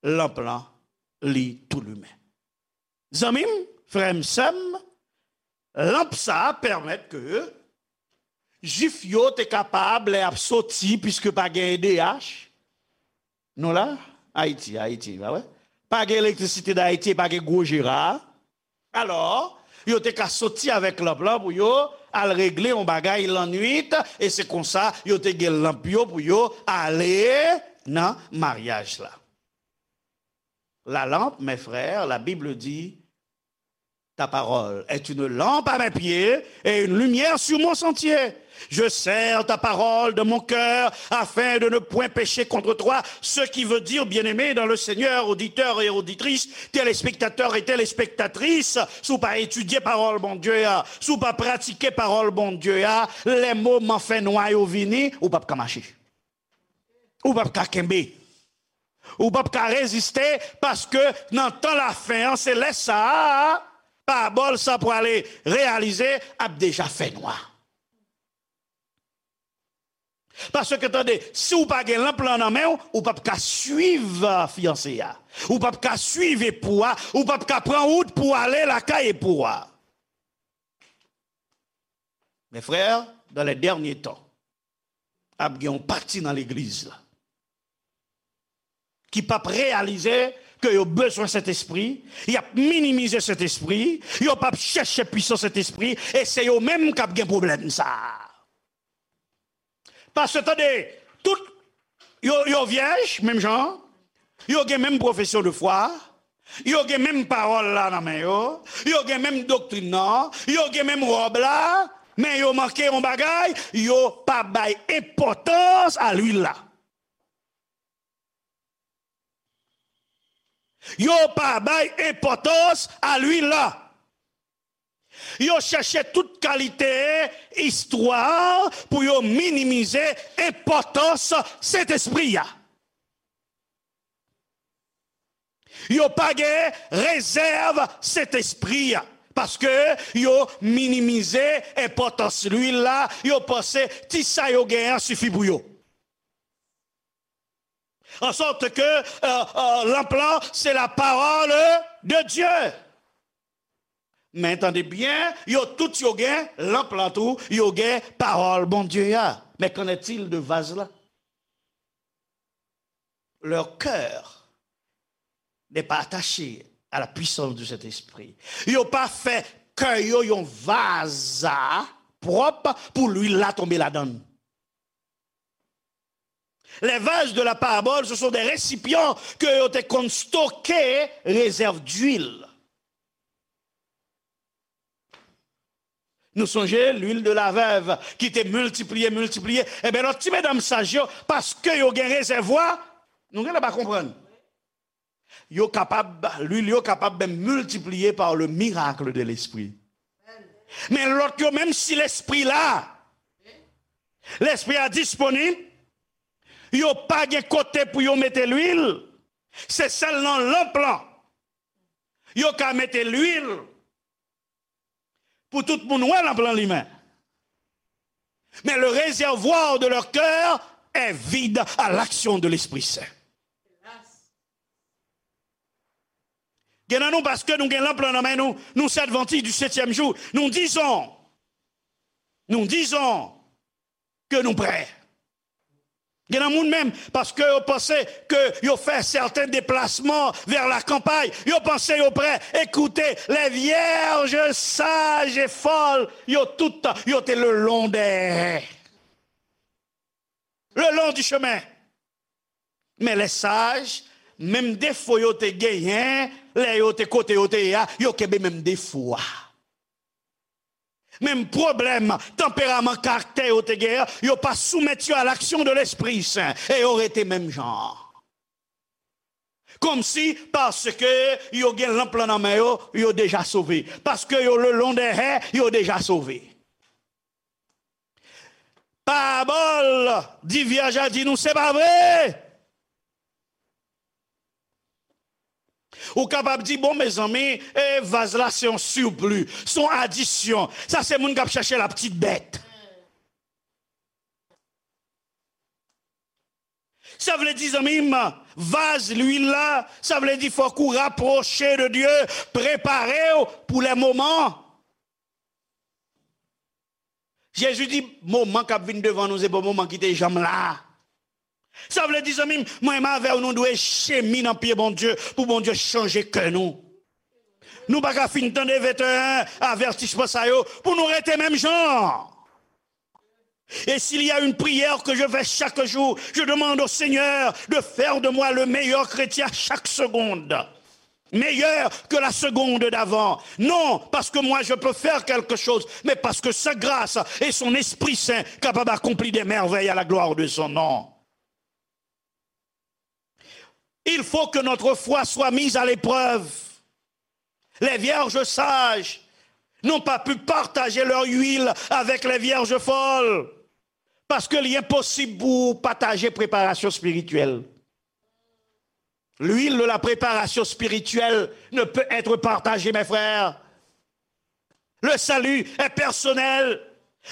lanp lan, li tou limen. Zanmi m, frè m, sè m, lanp sa a pèmèt ke Jwif yo te kapab, lè y ap soti, piske pa gen E D H, nou la, Ayiti, Ayiti, pa vre? Pa gen elektrisite d Ayiti, pa gen gwo jera. Alò, yo te ka soti avèk lanp lan pou yo al regle yon bagay lannwit, e se konsa yo te gen lanp yo pou yo ale nan maryaj la. La lampe, mes frères, la Bible dit, ta parole est une lampe à mes pieds et une lumière sur mon sentier. Je serre ta parole dans mon cœur afin de ne point pécher contre toi. Ce qui veut dire, bien-aimés dans le Seigneur, auditeurs et auditrices, téléspectateurs et téléspectatrices, si w pa etidye pawòl Bondye a, si w pa pratike pawòl Bondye a, lè moman fènwa yo vini, ou p ap ka mache. Ou p ap ka kenbe. Ou p ap ka reziste, paske nan tan lafen an, se lè sa a, pawòl sa pwale reyalize, ap deja fènwa. Paske tande, si w pa gen lanp lan nan men w, ou p ap ka swiv fiyanse a. Ou p ap ka swiv epou a, ou p ap ka pran wout pou ale lakay epou a. Mes frères, dans les derniers temps, ap gen yon pati nan legliz la ki p ap reyalize ke yo bezwen Sentespri, y ap minimize Sentespri, yo p ap chèche pwisans Sentespri, e se yo menm k ap gen pwoblèm sa a. Paske tande, tout yo, yo vyèj, menm jan, yo gen menm pwofesyon de fwa, yo gen menm pawòl la nan men yo, yo gen menm doktrin nan, yo gen menm wòb la, men yo manke yon bagay, yo pa bay enpòtans a lwil la. Yo pa bay enpòtans a lwil la. Yo chèche tout kalite istwa pou yo minimize enpòtans Sentespri a. Yo pa gen rezèv Sentespri a, paske yo minimize enpòtans lwil la, yo panse ti sa yo genyen an sifi pou yo. En sorte que euh, euh, lanp lan, c'est la parole de Dieu. Men tande byen, yo tout yo gen lanp lan tou, yo gen pawòl Bondye a. Mais qu'en est-il de vaz la? Leur cœur n'est pas attaché à la puissance du Saint-Esprit. Yo pa fè kè yo yon vaz pwòp pou lwil la tonbe ladann. Les vases de la parabole, ce sont des récipients ke yo te konn stoke rezèv dwil. Nou sonje lwil de la vèv ki te miltipliye, miltipliye. Enben, lòt ti medam saj yo, paske yo gen rezèvwa, nou genlè pa konprann. Yo kapab, lwil yo kapab menm miltipliye par le miracle de l'esprit. Men lòt yo, menm si lespri la, lespri a disponib, yo pa gen kote pou yo mete lwil, se sèl nan lanp lan yo ka mete lwil. Pou tout moun wè lanp lan limen. Mais le réservoir de leur cœur est vide à l'action de l'Esprit Saint. Gen nan nou, paske nou gen lanp lan nan men nou, nou se Adventiste du septième jour. Nous disons, Nous disons que nous prêts. Gen nan moun menm, paske yo panse ke yo fè sèten deplasman vè la kanpay, yo panse yo prè. Écoutez, les vierges sages et folles, yo tout, yo te le long des, le long du chemin. Men les sages, menm defo yo te genyen, lè yo te kote yo te ye a, yo kenbe menm defo a. Menm pwoblèm, tanperaman, karaktè yo te genyen, yo pa soumèt yo à l'action de l'Esprit Saint, e yo rete menm jan. Kòmsi, paske yo gen lanp lan nan men yo, yo deja sove. Paske yo le long des haies, yo deja sove. Parabòl di vyèj la di nou, se pa vre. Ou kapab di, bon, mezanmi, e vaz la se yon sipli, se yon adisyon. Sa se moun k ap chèche la petite bête. Sa vle di, zanmi m, vaz lwil la, sa vle di fòk ou rapwoche de Dye, prepare w pou lè moman. Jezi di, moman k ap vin devan nou, se pa moman ki te janm la. Sa vle di, zanmi m, mwen menm avè w, nou dwe chemine nan pye Bondye pou Bondye chanje kè nou. Nou pa ka fin tande venteyen avètisman sa yo pou nou rete menm jan. Et s'il y a une prière que je fais chaque jour, je demande au Seigneur de faire de moi le meilleur chrétien chaque seconde. Meilleur que la seconde d'avant. Non parce que moi je peux faire quelque chose, mais parce que sa grâce et son Esprit Saint capable d'accomplir des merveilles à la gloire de son nom. Il faut que notre foi soit mise à l'épreuve. Les vierges sages n'ont pas pu partager leur huile avec les vierges folles. Paske li enposib pou w pataje preparasyon espirityèl. L'huile de la préparation spirituelle ne peut être partagée, mes frères. Le salut est personnel.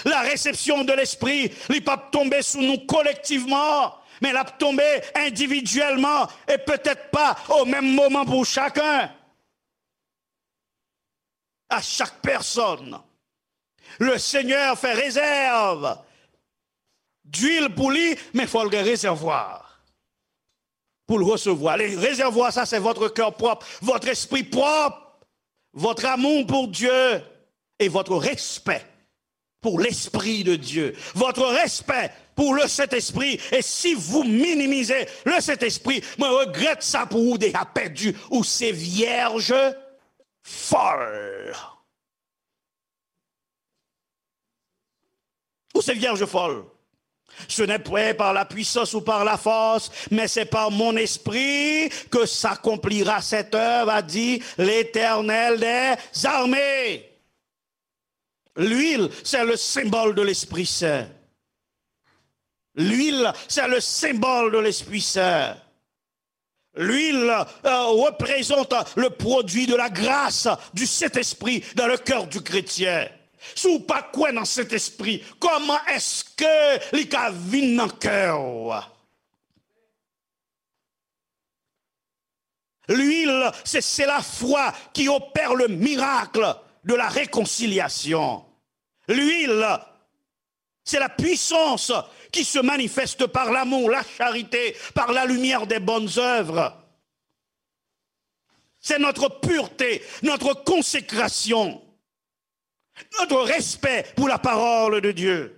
La réception de l'Esprit, li p ap tonbe sou nou kolektivman, men l ap tonbe endividyèlman e petèt pa o menm moman pou chaken. À chaque personne, le Seigneur fait réserve d'huile pou li, men fò l gen rezèvwa pou l resevwa. Le réservoir, ça, c'est votre cœur propre, votre esprit propre, votre amour pour Dieu et votre respect pour l'Esprit de Dieu, votre respect pour le Saint-Esprit. Et si vous minimisez le Saint-Esprit, mwen regrèt sa pou ou, deja pèdi, ou se vyèj fòl. Ou se vyèj fòl. Ce n'est point par la puissance ou par la force, mais c'est par mon esprit que s'accomplira cette œuvre, a dit l'Éternel des armées. L'huile, c'est le symbole de l'Esprit Saint. L'huile, c'est le symbole de l'Esprit Saint. L'huile, euh, représente le produit de la grâce du Saint-Esprit dans le cœur du chrétien. Si w pa kwè nan Sentespri, kòman èske li ka vin nan kè w? L'huile, c'est, c'est la foi qui opère le miracle de la réconciliation. L'huile, c'est la puissance qui se manifeste par l'amour, la charité, par la lumière des bonnes œuvres. C'est notre pureté, notre consécration, notre respect pour la parole de Dieu.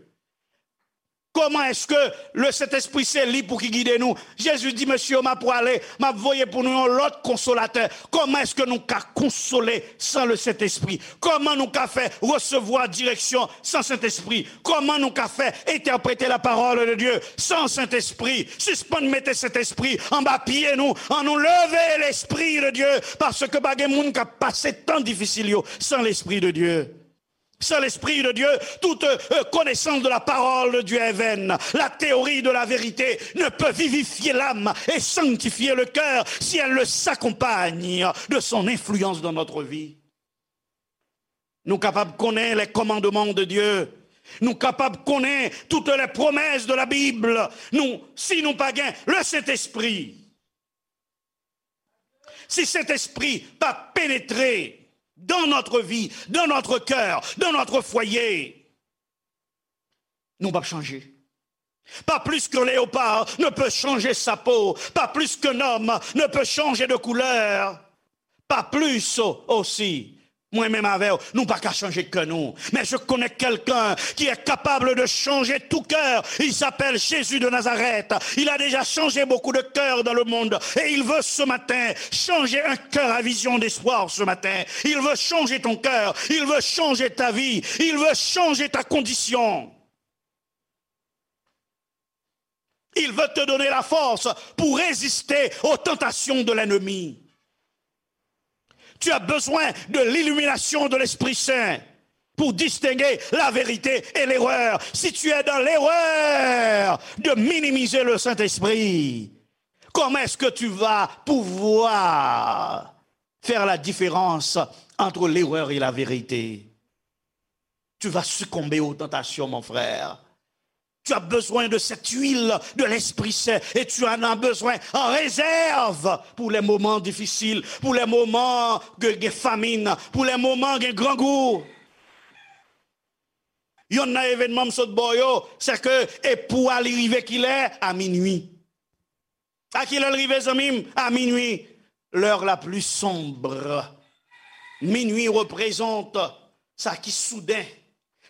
Kòman èske le Sentespri se li pou ki gide nou? Jezi di, mesye, m ap prale, m ap voye pou nou yon lòt konsolatè. Kòman èske nou ka konsole san le Sentespri? Kòman nou ka fè resevwa direksyon san Sentespri? Kòman nou ka fè entèprete la parole de Dieu san Sentespri? Sispann mete Sentespri anba pye nou. An nou leve l'Esprit de Dieu, paske pa gen moun k ap pase tan difisil yo san l'Esprit de Dieu. Sans l'Esprit de Dieu, toute euh, connaissance de la parole de Dieu est vaine. La théorie de la vérité ne peut vivifier l'âme et sanctifier le cœur si elle ne s'accompagne de son influence dans notre vie. Nou kapab konnen les commandements de Dieu. Nou kapab konnen toutes les promesses de la Bible. Nou, si nou pa gen le Saint-Esprit, si Saint-Esprit pa pénétrer dans notre vie, dans notre cœur, dans notre foyer, Nou p ap chanje. Pas plus qu'un léopard ne peut changer sa peau, pas plus qu'un homme ne peut changer de couleur, pas plus aussi, mwen menm avè w, nou pa ka chanje kè nou. Mais je connais quelqu'un qui est capable de changer tout cœur. Il s'appelle Jésus de Nazareth. Il a déjà changé beaucoup de cœurs dans le monde. Et il veut ce matin changer un cœur à vision d'espoir ce matin. Il veut changer ton cœur. Il veut changer ta vie. Il veut changer ta condition. Il veut te donner la force pour résister aux tentations de l'ennemi. Tu as besoin de l'illumination de l'Esprit Saint pour distinguer la vérité et l'erreur. Si tu es dans l'erreur de minimiser le Saint-Esprit, comment est-ce que tu vas pouvoir faire la différence entre l'erreur et la vérité? Tu vas succomber aux tentations, mon frère. Tu as besoin de cette huile de l'Esprit Saint et tu en as besoin en réserve pour les moments difficiles, pour les moments de, de famine, pour les moments de grand goût. Youn nan evènman m sot ba w yo, se ke epou a li rive kilè? A minui. A kilè l rive, zanmi m? A minui. L'heure la plus sombre. Minui reprezante sa ki souden,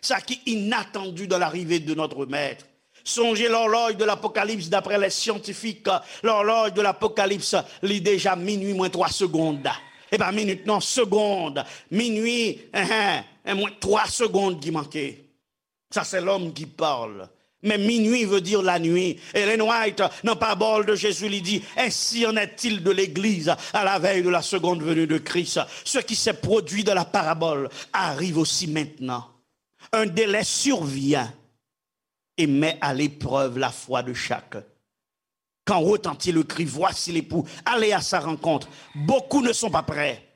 sa ki inatandi dans l'arrivée de notre Maître. Sonje lòlòj de l'Apocalypse, d'après les scientifiques, lòlòj de l'Apocalypse, li deja minui mwen twa segond. E pa minit non, segond. Minui, en, en, en, mwen twa segond ki manke. Ça, c'est l'homme qui parle. Mais minuit veut dire la nuit. Ellen White, nan Parabole de Jésus, li di, ainsi en est-il de l'Église à la veille de la seconde venue de Christ. Ce qui s'est produit dans la parabole arrive aussi maintenant. Un délai survient et met à l'épreuve la foi de chacun. Quand retentit le cri, voici l'époux, allez à sa rencontre. Beaucoup ne sont pas prêts.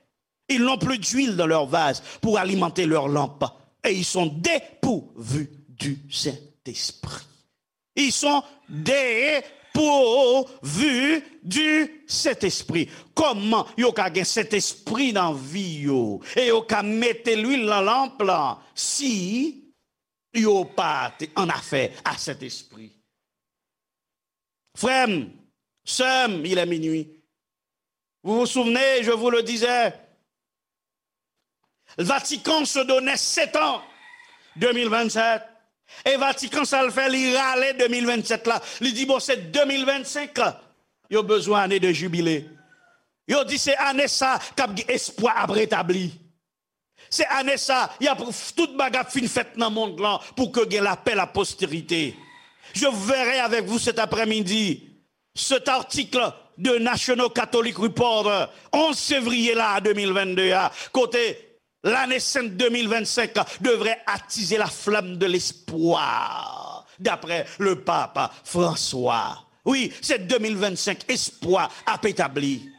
Ils n'ont plus d'huile dans leur vase pour alimenter leur lampe. Et ils sont dépourvus du Saint-Esprit. Ils sont dépourvus du Saint-Esprit. Kòman yo ka gen Sentespri nan vi yo? E yo ka mete lwil nan lanp lan si yo pa te an afè a Sentespri? Frè m, sè m, il est minuit. Vous vous souvenez, je vous le disais, Vatican se donnait sept ans, deux mille vingt-sept. E Vatican sa l fè, li rale de mil vennsenk la. Li di, bon, se de mil vennsenk yo bezwen ane de jibile. Yo di se ane sa k ap gen espwa ap retabli. Se ane sa, y ap, tout bagay ap fin fèt nan mond lan pou ke gen lapè, la postérité. Je verrai avec vous cet après-midi cet article de National Catholic Reporter, onze février la, de mil vennde a, kote lane sent de mil vennsenk devrait attiser la flamme de l'espoir, d'après le pape François. Wi, se de mil vennsenk, espwa ap etabli.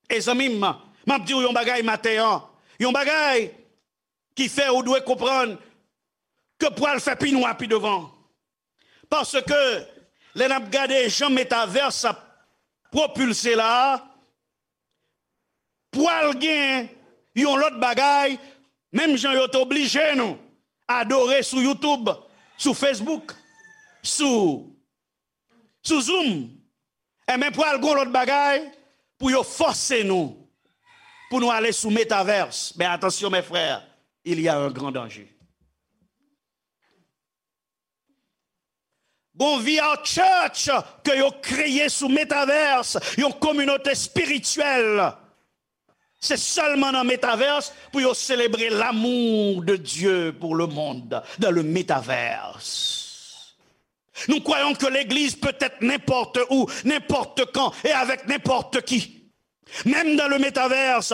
E zanmi m, m ap di w yon bagay maten an, yon bagay ki fè ou dwe konprann ke pral fè pi nwa pi devan. Paske lè n ap gade jan metavers ap pwopilse la a, pral gen yon lòt bagay, menm jan yo te oblije nou adore sou YouTube, sou Facebook, sou, sou Zoom, enben pral gen yon lòt bagay pou yo fòse nou, pou nou ale sou metavers. Men atansyon, mes frères, il y a un grand danger. Gon V R Church ke yo kreye sou metavers, yon kominote espirityèl. Se sèlman nan metavers pou yo selebre l'amour de Dieu pour le monde, dans le métavers. Nous croyons que l'Église peut être n'importe où, n'importe quand et avec n'importe qui. Même dans le métavers,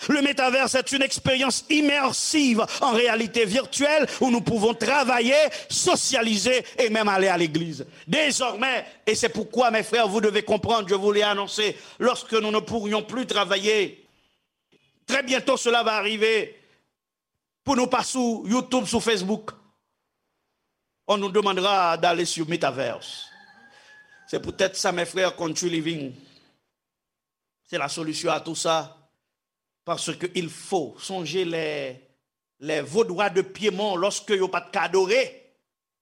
le métavers est une expérience immersive en réalité virtuelle où nous pouvons travailler, socialiser et même aller à l'église. Désormais, et c'est pourquoi, mes frères, vous devez comprendre, je vous l'ai annoncé, lorsque nous ne pourrions plus travailler, très bientôt cela va arriver, pour nous pas sur YouTube, sur Facebook, on nous demandera d'aller sur Metaverse. C'est peut-être ça, mes frères, Country Living. C'est la solution à tout ça. Parce qu'il faut songer les, les Vaudois de Piémont lorsque yo pas de adoré.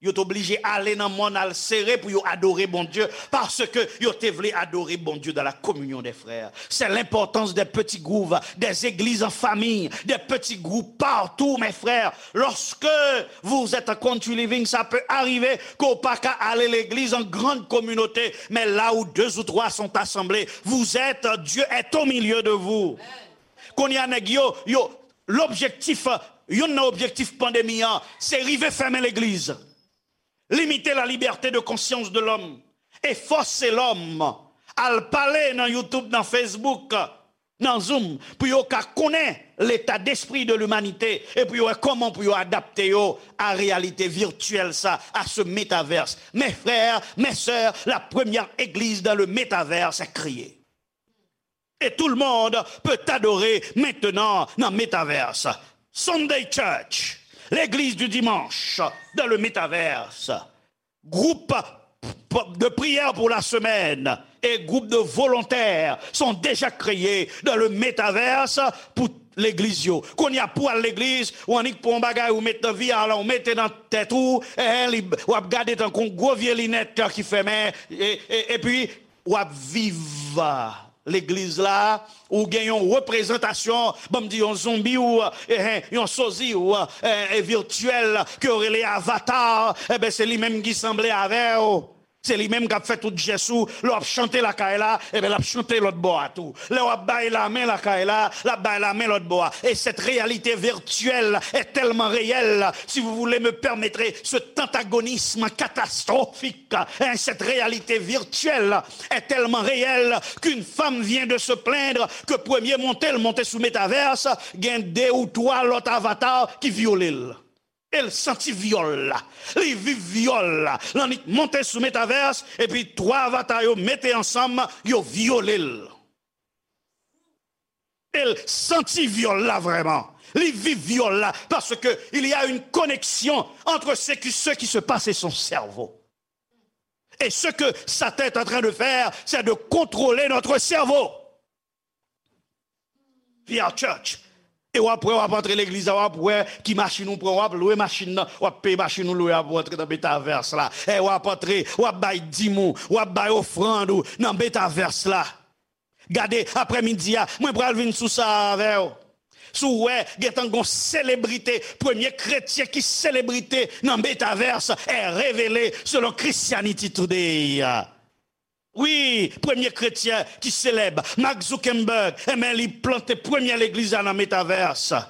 Yo t oblije ale nan mòn al sere pou yo adore Bondye, paske yo te vle adore Bondye dans la communion des frères. C'est l'importance des petits groupes, des églises en famille, des petits groupes partout, mes frères. Lorsque vous êtes en country living, ça peut arriver ke w pa ka ale legliz an grann kominote, men là où deux ou trois sont assemblés, vous êtes, Dieu est au milieu de vous. Kounye a nèg yo, yo, lobjektif, youn nan objektif pandemi an, se rive fèmen legliz. Limite la liberté de conscience de l'homme e fòse lòm al pale nan YouTube, nan Facebook, nan Zoom, pou yo ka konnen l'état d'esprit de l'humanité e pou yo wè kòman pou yo adapte yo a réalité virtuelle sa, à ce métaverse. Mes frères, mes sœurs, la première église dans le métaverse est créée. Et tout le monde peut adorer maintenant dans métaverse. Sunday Church, l'église du dimanche dans le métaverse. Groupe de prière pour la semaine et groupe de volontaires sont déjà créés dans le métaverse pour legliz yo. Kounye a pou al legliz, ou annik pran yon bagay ou met nan V R la, ou mete nan tèt ou, eh, li, w ap gade tankou yon gwo vye linèt ki fèmen, e, e, epi w ap viv legliz la, ou gen yon reprezantasyon, ban m di yon zonbi ou, eh, yon sozi ou, eh, e virtyèl ke yo rele avatar, enben se li menm ki sanble avè w. Se li menm k ap fè tout jès ou. Lè w ap chante lakay la, enben l ap chante lòt bò a tou. Lè w ap bay lamen lakay la, l ap bay lamen lòt bò a. Et cette réalité virtuelle est tellement réelle, si vous voulez me permettre ce antagonisme catastrophique, hein, cette réalité virtuelle est tellement réelle qu'une femme vient de se plaindre que premye monte l monte sou Metaverse, gen de ou twa lòt avatar ki vyole l. E l santi vyòl la. Li viv vyòl la. L annik monte sou Metaverse, epi twa avatar yo mete ansanm, yo vyole l. E l santi vyòl la vrèman. Li viv vyòl la, parce que il y a une connexion entre ce qui, ce qui se passe et son cerveau. Et ce que Satan est en train de faire, c'est de contrôler notre cerveau. V R Church. E w ap wè, w ap antre legliz la, w ap wè ki machin ou pran, w ap lwe machin nan, w ap peye machin ou lwe a pou antre nan Metaverse la. E w ap antre, w ap bay dim ou, w ap bay ofrann ou nan Metaverse la. Gade, aprèmidi a, mwen pral vin sou sa avè w. Si w wè, gentan gon selebrite, premye kretyen ki selebrite nan Metaverse est révélé selon Christianity Today. Wi, premye kretyen ki selèb, Mark Zuckerberg, enben, li plante premyè legliz la nan Metaverse.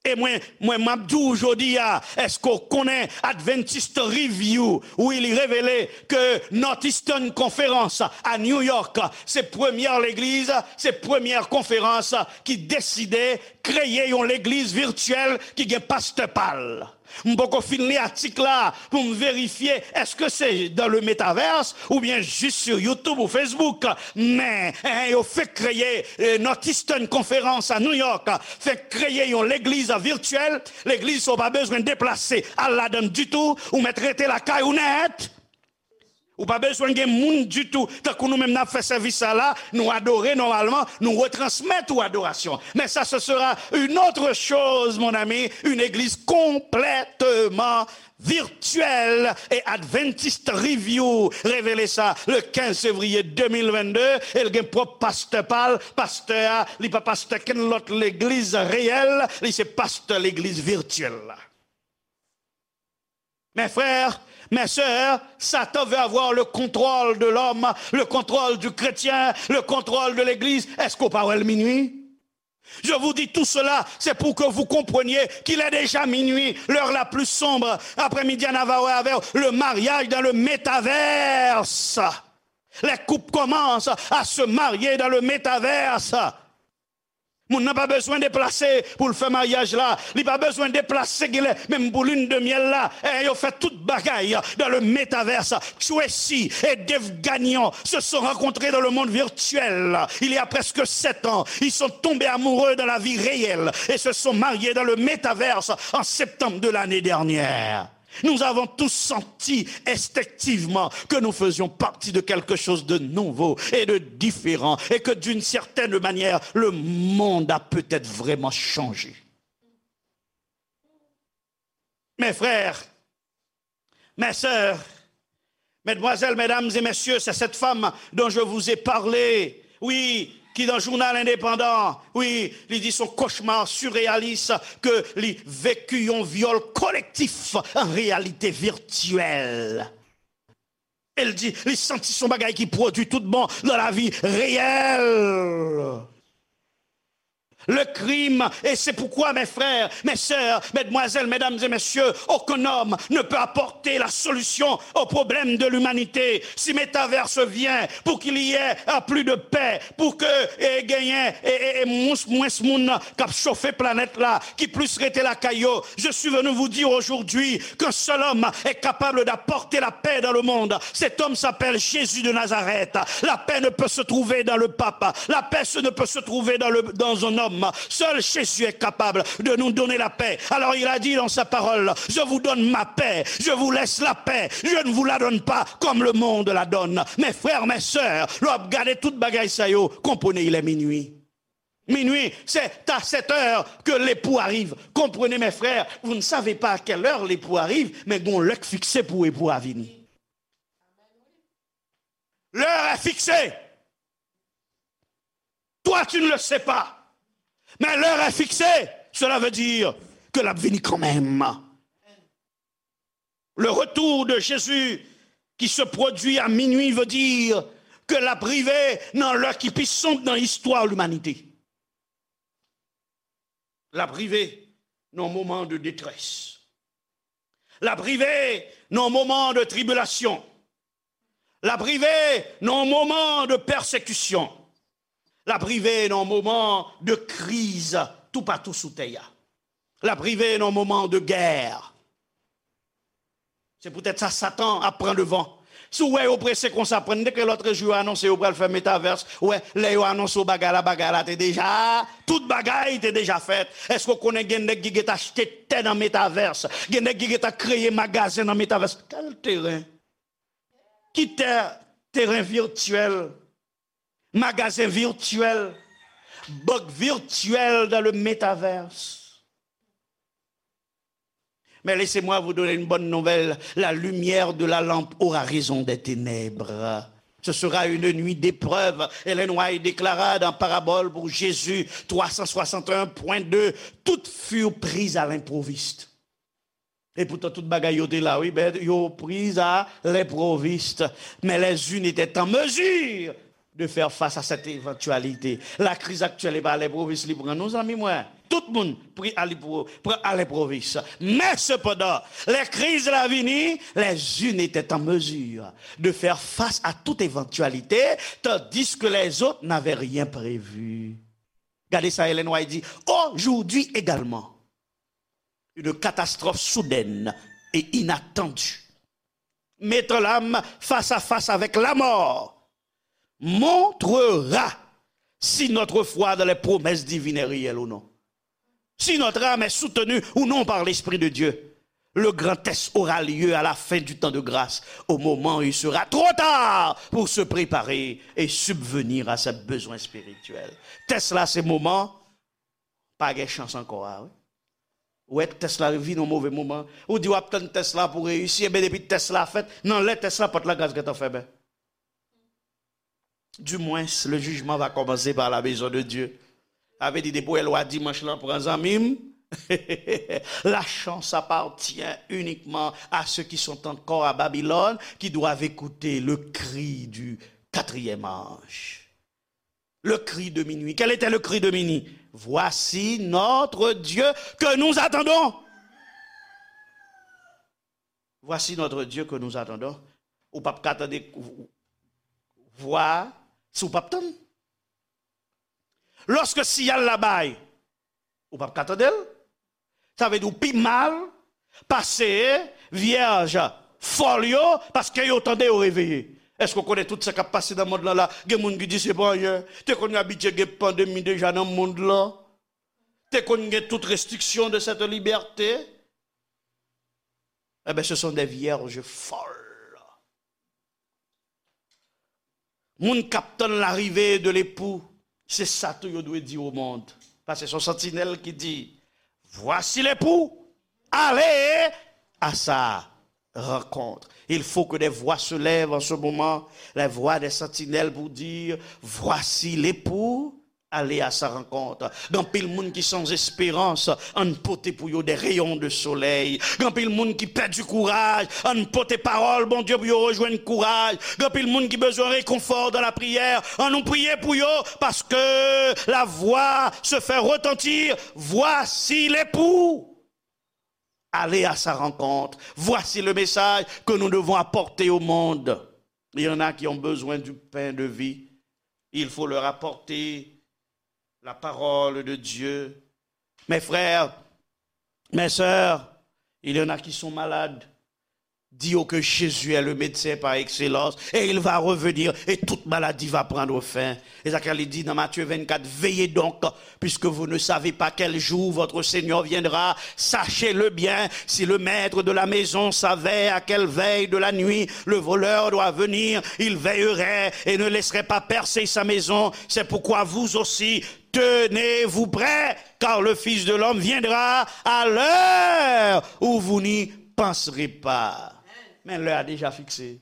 E mwen, mwen, m ap di w jodi a, èske w konnen Adventist Review? Wi, li revele ke Northeastern Conference a New York, se premyè legliz, se premyè konferans ki deside kreye yon legliz vityèl ki gen pastè pa l. M poko fin li atik la pou m verifye èske se dans le métaverse oubyen jis sou YouTube ou Facebook. Men, eh, yo fenk kreye, eh, Northeastern Conference a New York, fenk kreye yon legliz vityèl. Legliz sa w pa bezwen deplase al ladan l ditou, ou mèt rete lakay ou nèt. Ou pa bezwen gen moun ditou. Tankou nou menm n ap fè sèvis sa la, nou adore nòmalman, nou retransmèt ou adorasyon. Mais ça, ce sera une autre chose, mon ami, une église complètement virtuelle. Et Adventist Review revele sa le quinze février deux mille vingt-deux. E l gen pwòp pastè pa l. Pastè a, li pa pastè kenn lòt legliz reyèl, li se pastè legliz vityèl la. Mes frères, mes sœurs, Satan veut avoir le contrôle de l'homme, le contrôle du chrétien, le contrôle de l'église. Èske w pa wè l minui? Je vous dis tout cela, c'est pour que vous compreniez qu'il est déjà minuit, l'heure la plus sombre. Après-midi, on va voir avec le mariage dans le métaverse. Les couples commencent à se marier dans le métaverse. Moun nan pa bezwen deplase pou l fè maryaj la. Li pa bezwen deplase genlè, menm pou lune de miel la. E yo fè tout bagay dans le métaverse. Tracy et Dave Gagnon se sont rencontrés dans le monde virtuel. Il y a presque sept ans, ils sont tombés amoureux dans la vie réelle et se sont mariés dans le métaverse en septembre de l'année dernière. Nous avons tous senti instinctivement que nous faisions partie de quelque chose de nouveau et de différent et que d'une certaine manière, le monde a peut-être vraiment changé. Mes frères, Mes sœurs, mesdemoiselles, mesdames et messieurs, c'est cette femme dont je vous ai parlé. Oui, qui dans Journal Indépendant, oui, li di son cauchemar surréaliste ke li veki yon vyòl kolektif an reyalite virtyèl. El di, li santi son bagay ki pwodui tout bon dans la vie réelle. Le crime, et c'est pourquoi, mes frères, mes sœurs, mesdemoiselles, mesdames et messieurs, aucun homme ne peut apporter la solution au problème de l'humanité. Si métaverse vient pour qu'il y ait euh, plus de paix, pour que eh, genyen eh, eh, eh, mwens, mwens moun k ap chofe planèt la, ki plis rete lakay yo, je suis venu vous dire aujourd'hui qu'un seul homme est capable d'apporter la paix dans le monde. Cet homme s'appelle Jésus de Nazareth. La paix ne peut se trouver dans le pape. La paix se- ne peut se trouver dans, le, dans un homme. Seul Jésus est capable de nous donner la paix. Alors il a dit dans sa parole, je vous donne ma paix, je vous laisse la paix, je ne vous la donne pas comme le monde la donne. Mes frères, mes sœurs, lè w ap gade tout bagay sa yo, comprenez, il est minuit. Minuit, c'est à cette heure que l'époux arrive. Comprenez, mes frères, vous ne savez pas à quelle heure l'époux arrive, mais gon lè k fikse pou epou a vini. L'heure est fixée. Toi, tu ne le sais pas. Mais l'heure est fixée. Cela veut dire que l ap vini kanmenm. Le retour de Jésus qui se produit à minuit veut dire que l ap rive nan lè ki pi sonb nan istwa limanite. L ap rive nan yon moman de detrès. L ap rive nan yon moman de tribilasyon. L ap rive nan yon moman de pèsekisyon. L ap rive nan yon moman de kriz toupatou sou tè a. L ap rive nan yon moman de gè. Se poutèt sa Satan ap pran devan. Si w wè yo prese konsa, pran, m te kwè lòt jou yo anonse yo pral fè metavès. Ou wè, lè yo anonse w bagay la, bagay la te deja, tout bagay te deja fèt. Èske w konnen gen nèg ki gentan achte tè nan metavès? Gen nèg ki gentan kreye magazen nan metavès. Kèl teren? Ki tè? Teren virtyèl, magazen virtyèl, bank virtyèl dans le métavers. Mais laissez-moi vous donner une bonne nouvelle. La lumière de la lampe aura raison des ténèbres. Ce sera une nuit d'épreuve. Ellen White déclara dans Parabole pour Jésus trois cent soixante et un point deux, toutes furent prises à l'improviste. Et pourtant, tout bagay yo te la, wi, ben, yo prises à l'improviste. Mais les unes étaient en mesure de faire face à cette éventualité. La crise actuelle, e pa à l'improviste li pran nou, zanmi mwen. Tout moun pri a li pou pran a lenprovis. Men sepandan, lè kriz la vini, les unes étaient en mesure de faire face à toute éventualité, tandis que les autres n'avaient rien prévu. Gade sa Ellen White di, aujourd'hui également, une catastrophe soudaine et inattendue mettant l'âme face à face avec la mort montrera si notre foi dans les promesses divines est réelle ou non. Si notre âme est soutenue ou non par l'Esprit de Dieu, le grand test aura lieu à la fin du temps de grâce, au moment où il sera trop tard pour se préparer et subvenir à ses besoins spirituels. Tès la se moman pa gen chans ankò a, wi. Ou wè tès la vin yon move moman. Ou di w ap tann tès la pou reyisi, enben depi tès la fèt, nan lè tès la, pòt la gras gentan fèmen. Du moins, le jugement va commencer par la maison de Dieu. Sa vle di depi w wè lwa dimanch lan pran zanmi m, la chance appartient uniquement à ceux qui sont encore à Babylone, qui doivent écouter le cri du quatrième ange. Le cri de minuit. Quel était le cri de minuit? Voici notre Dieu que nous attendons. Voici notre Dieu que nous attendons. Ou p ap ka tande vwa si w p ap tann. Lòske siyal la bay, ou p ap ka tande l. Sa vle di w pi mal pase vyèj fòl yo, paske yo tande, yo reveye. Èske w konnen tout sa k ap pase nan mond lan la? Gen moun ki di se pa anyen. Te konn abitye gen pandemi deja nan mond lan. Te konn gen tout restriksyon de cette liberté. Eh bien, ce sont des vierges folles. Moun k ap tann larive de lepou, se sa tou yo dwe di o mond. Paske se yon santinèl ki di, voici l'époux, allez à sa rencontre. Il faut que des voix se lèvent en ce moment, les voix des sentinelles pour dire, voici l'époux, allez à sa rencontre. Gen anpil moun ki san esperans, ann pote pou yo des rayons de soleil. Gen anpil moun ki pèdi kouraj, ann pote pawòl Bondye pou yo rejwenn kouraj. Gen anpil moun ki bezwen réconfort dans la prière, ann nou priye pou yo, parce que la voix se fait retentir, voici l'époux. Allez à sa rencontre. Voici le message que nous devons apporter au monde. Il y en a qui ont besoin du pain de vie. Il faut leur apporter la parole de Dieu. Mes frères, mes sœurs, il y en a qui sont malades. Dis-le que Jésus est le médecin par excellence et il va revenir et toute maladie va prendre fin. E sa k li di nan Matthieu vingt-quatre, veillez donc, puisque vous ne savez pas quel jour votre Seigneur viendra. Sachez-le bien, si le maître de la maison savait à quelle veille de la nuit le voleur doit venir, il veillerait et ne laisserait pas percer sa maison. C'est pourquoi vous aussi, tenez-vous prêts, car le Fils de l'homme viendra à l'heure où vous n'y penserez pas. Men lè a deja fikse.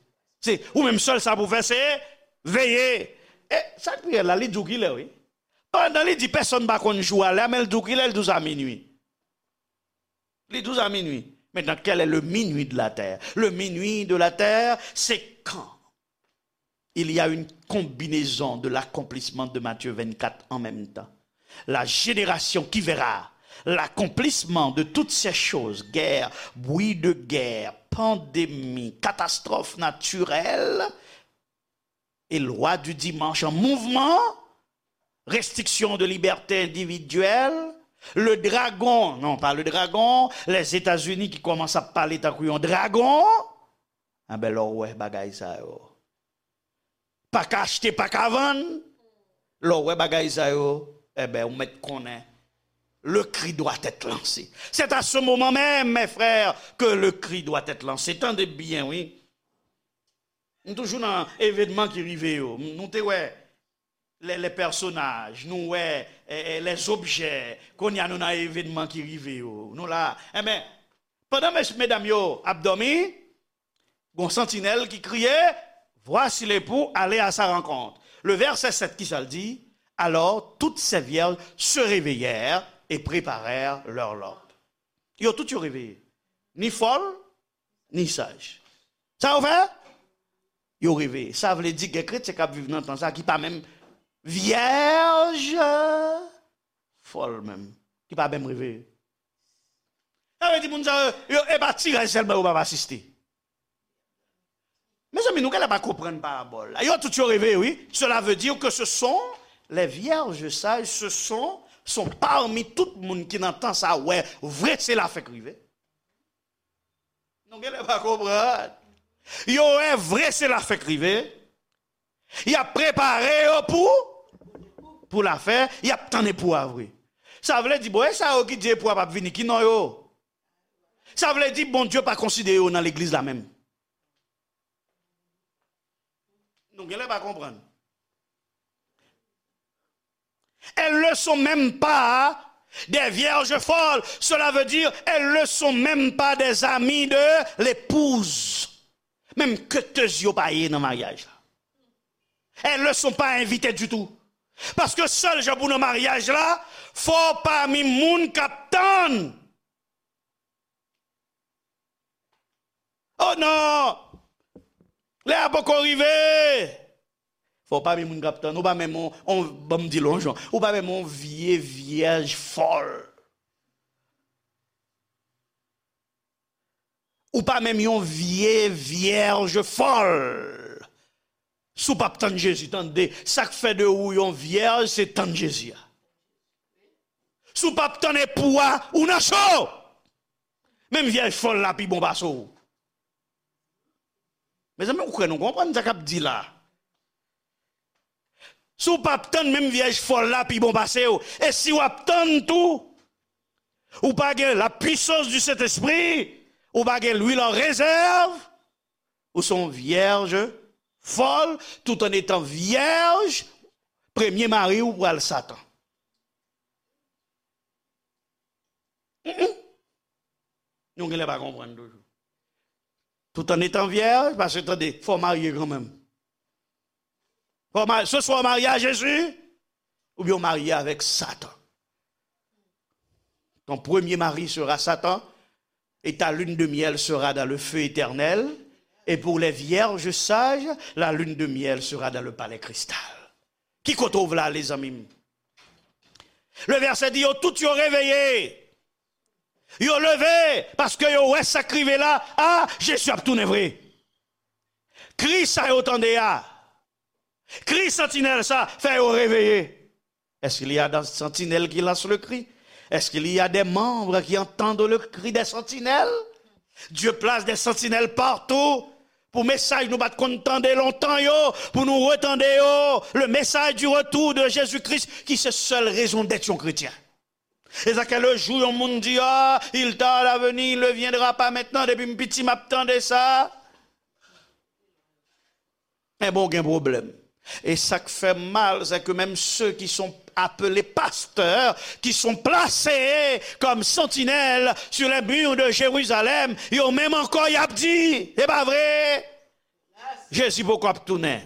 Se ou menm sèl sa pou fè, se veye. E sa k pi rèd la, li di w kilè, wi. Pandan li di pèsonn pa konn jou a, lè a, men l di w kilè, l di w sa minui. Li di w sa minui. Maintenant, quel est le minuit de la terre? Le minuit de la terre, c'est quand il y a une combinaison de l'accomplissement de Matthieu vingt-quatre en même temps. La génération qui verra l'accomplissement de toutes ces choses, guerre, bruit de guerre, pandémie, catastrophe naturelle, et loi du dimanche en mouvement, restriction de liberté individuelle, le dragon, non, pas le dragon, les États-Unis ki kòmanse ap pale tankou yon dragon, enben, lè w wè bagay sa yo, pa ka achte, pa ka vann, lè w wè bagay sa yo, enben, ou mèt konnen, le cri doit être lancé. C'est à ce moment même, mes frères, que le cri doit être lancé. Tande byen, wi. M toujou nan evènman ki rive yo. Nou te wè les, les personnages, nou wè, eh, eh, les objets. Kounye a nou nan evènman ki rive yo. Nou la. Enben, pandan mes-, medam yo ap dòmi, gon santinèl ki kriye, voici l'époux, allez à sa rencontre. Le verset sept, ki sa l di? Alors toutes ces vierges se réveillèrent et préparèrent leur lot. Yo tout yo reveye. Ni fòl, ni saj. Sa yo fè? Yo reveye. Sa vle di gen kretyen k ap viv nan tan sa ki pa menm vyèj fòl menm, ki pa menm reveye. Sa vle di moun sa yo, yo, e pa tiraj sèlman yo p ap asiste. Mezanmi, nou genlè pa konprann parabòl la. Yo tout yo reveye, wi. Cela veut dire que ce sont les vierges sages, ce sont, sont parmi tout moun ki nan tan sa wè vre se la fèk rive. Nou genlè pa konprann. Yo wè vre se la fèk rive. Y ap prepare yo pou, pou la fèt, y ap tann epou a vre. Sa vle di, bon, e sa yo ki di epou a p ap vini, ki non yo? Sa vle di, Bondye pa konsidere yo nan legliz la menm. Nou genlè pa konprann. Elles ne sont même pas des vierges folles. Cela veut dire, elles ne sont même pas des amies de l'épouse. Menm ketez yo pa ye nan maryaj la. Elles ne sont pas invitées du tout. Paske sèl jan pou nan maryaj la, fò w pami moun k ap tann. Oh non! Lè a poko rive! Fò w pami moun k ap tann. Ou pa menm on, on, ban m di l on jan. Ou pa menm on vye vyèj fòl. Ou pa menm yon vye vyèj fòl. Si w p ap tann Jezi, tande, sa k fè de ou yon vyèj, se tann Jezi a. Si w p ap tann epou a, ou nan cho! Menm vyèj fòl la pi bon pase w. Mezanmi, ou kwè nou konprann sa k ap di la? Si w p ap tann, menm vyèj fòl la pi bon pase w. E si w ap tann tou, ou pa gen la puissance du Saint-Esprit, ou pa gen lwil an rezèv, ou se yon vyèj fòl, tout en étant vyèj, premye mari w pral Satan. Mm-mm. Nou genlè pa konprann toujou. Tout en étant vierge, paske tande, fò w marye kanmenm. Fò w marye, se swa w marye a Jezi, oubyen w marye avèk Satan. Ton premier mari sera Satan, et ta lune de miel sera dans le feu éternel, et pour les vierges sages, la lune de miel sera dans le palais cristal. Ki kote w vle ale, zanmi m? Le vèsè di, yo tout yo reveye. Yo leve, paske yo wè sa k rive la. Ah, Jezi ap tounen vre. Kri sa yo tande a, kri santinèl sa, fè yo reveye. Est-ce qu'il y a des sentinelles qui lancent le cri? Est-ce qu'il y a des membres qui entendent le cri des sentinelles? Dieu place des sentinelles partout. Pou mesaj nou pa t konn tande lontan yo, pou nou retande yo. Le message du retour de Jésus-Christ, ki se sèl rezon dèt yon kretyen. E sa ke le jou yon moun di, ah, il tarde à venir, il ne viendra pas maintenant, depi m piti m ap tande sa. Enben, w gen pwoblèm. E sa k fè m mal, c'est que même ceux qui sont appelés pasteurs, qui sont placés comme sentinelles sur les murs de Jérusalem, yo menm ankò y ap di, se pa vre? Jezi poko ap tounen.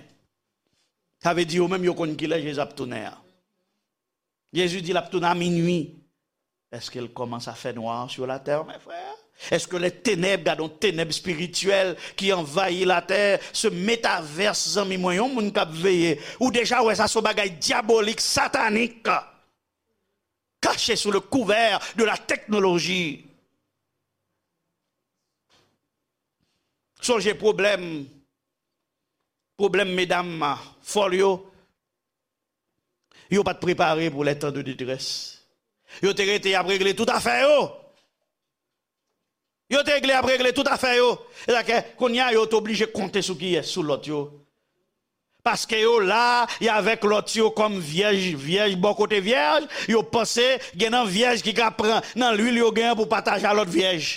Sa vle di yo menm yo konn kilè Jezi ap tounen an. Jezi di l ap tounen a minui. Est-ce qu'il commence à faire noir sur la terre, mes frères? Est-ce que les ténèbres, gade yon tenèb espirityèl ki anvayi latè, se metavers, zanmi mwen, yon moun k ap veye. Ou deja wè sa se yon bagay dyabolik, satanik, caché sous le couvert de la technologie. Sonje pwoblèm, pwoblèm medam fòl yo, yo pa t prepare pou les temps de détresse. Yo te rete y ap regle tout afè yo. Yo te regle y ap regle tout afè yo. E sa ke, kounye a, yo t oblije konte sou kiyès? Sou lòt yo. Paske yo la, y avèk lòt yo kòm vyèj, vyèj bò kote vyèj, yo panse gen nan vyèj ki ka pran nan lwil yo gen an pou pataje a lòt vyèj.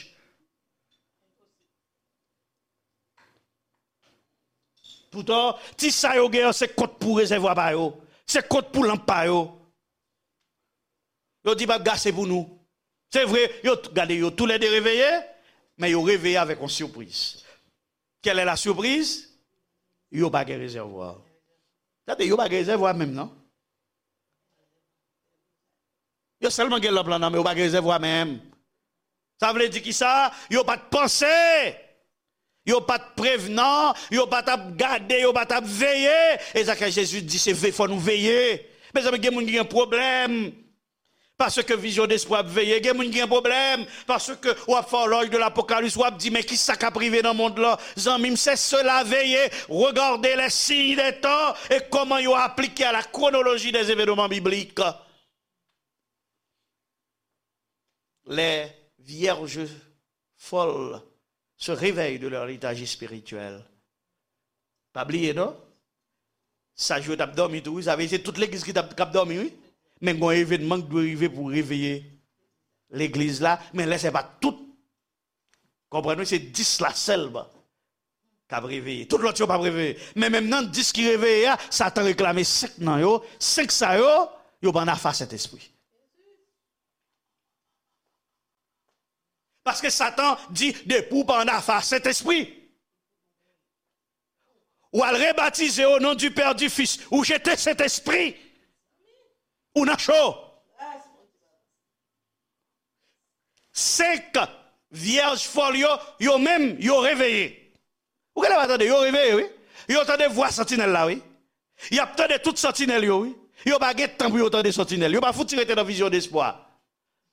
Poutan, ti sa yo gen an, se kont pou rezèvwa pa yo. Se kont pou lanp pa yo. Yo di p ap gase pou nou. Se vre, yo t-, gade, yo toulède reveye, men yo reveye avèk yon sipriz. Quelle est la surprise? Yo pa gen rezèvwa. Gade, yo pa gen rezèvwa menm, non. Yo sèlman gen lanp lan nan men, yo pa gen rezèvwa menm. Sa vle di kisa? Yo pa t panse. Yo pa t prevnan, yo pa t ap gade, yo pa t ap veye. E sa ke Jezi di, se ve-, fò nou veye. Mezanmi, gen moun ki gen pwoblèm. Paske Vision d'Espoir ap veye, gen moun ki gen pwoblèm. Paske w ap fè òlòj de l'Apocalypse, w ap di, men kisa k ap rive nan mond lan? Zanmi m, c'est cela, veillez, regardez les signes des temps et comment yo aplike à la chronologie des événements bibliques. Les vierges folles se réveillent de leur léthargie spirituelle. Pa bliye, non? Saj yo t ap dòmi tou, wi. Sa vle di se tout legliz ki t ap, k ap dòmi, wi. Men gen yon evènman ki dwe rive pou reveye legliz la. Men lè se pa tout. Konprann, wi, se dis la sèlman k ap reveye. Tout lòt yo p ap reveye. Men menm nan dis ki reveye a, Satan reklame senk nan yo. Senk sa yo, yo pa ann afè a Sentespri. Paske Satan di, depi w pa ann afè a Sentespri, ou al rebatize au nom du Père, du Fils, ou jete Sentespri, ou nan cho. Senk vyèj fòl yo, yo menm, yo reveye. Ou genlè pa tande, yo reveye, wi. Yo tande vwa santinèl la, wi. Y ap tande tout santinèl yo, wi. Yo pa gen tan pou yo tande santinèl. Yo pa fouti rete nan Vision d'Espoir.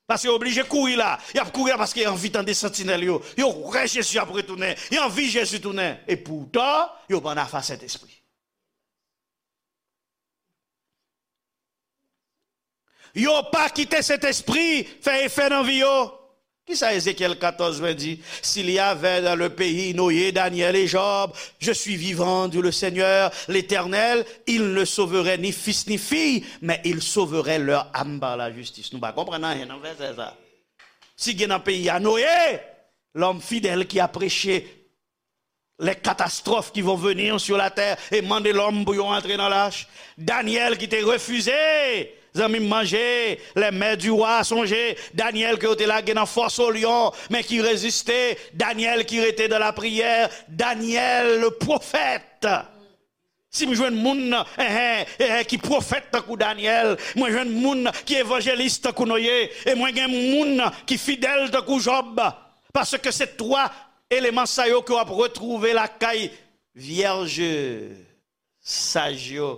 Paske yo oblije kouri la. Y ap kouri la paske y anvi tande santinèl yo. Yo kwè Jezi ap retounen. Y anvi Jezi tounen. E poutan, yo pa ann afè a Sentespri. Yo pa kite Sentespri fè efè nan vi yo. Kisa Ezekyèl katòz ven di? S'il y avait dans le pays Noé, Daniel et Job, je suis vivant, dit le Seigneur, l'Éternel, ils ne sauveraient ni fils ni fille, mais ils sauveraient leur âme par la justice. Nou pa konprann anyen nan vèsè sa. Si gen nan peyi a Noye, lòm fidèl ki ap preche les catastrophes qui vont venir sur la terre et mande lòm pou yo antre nan lach. Daniel ki te refize Zanmi m, manje, les mets du roi, sonje Danyèl ke yo te lage nan fòs o lyon, men ki reziste, Danyèl ki rete dans la prière, Danyèl le prophète. Si m jwenn moun, eh, eh, eh, ki pwofèt tankou Danyèl, mwen jwenn moun ki evanjelis tankou Noye, e mwen gen moun ki fidèl tankou Jòb, paske se twa eleman sa yo ke w ap retwouve lakay vyèj saj yo.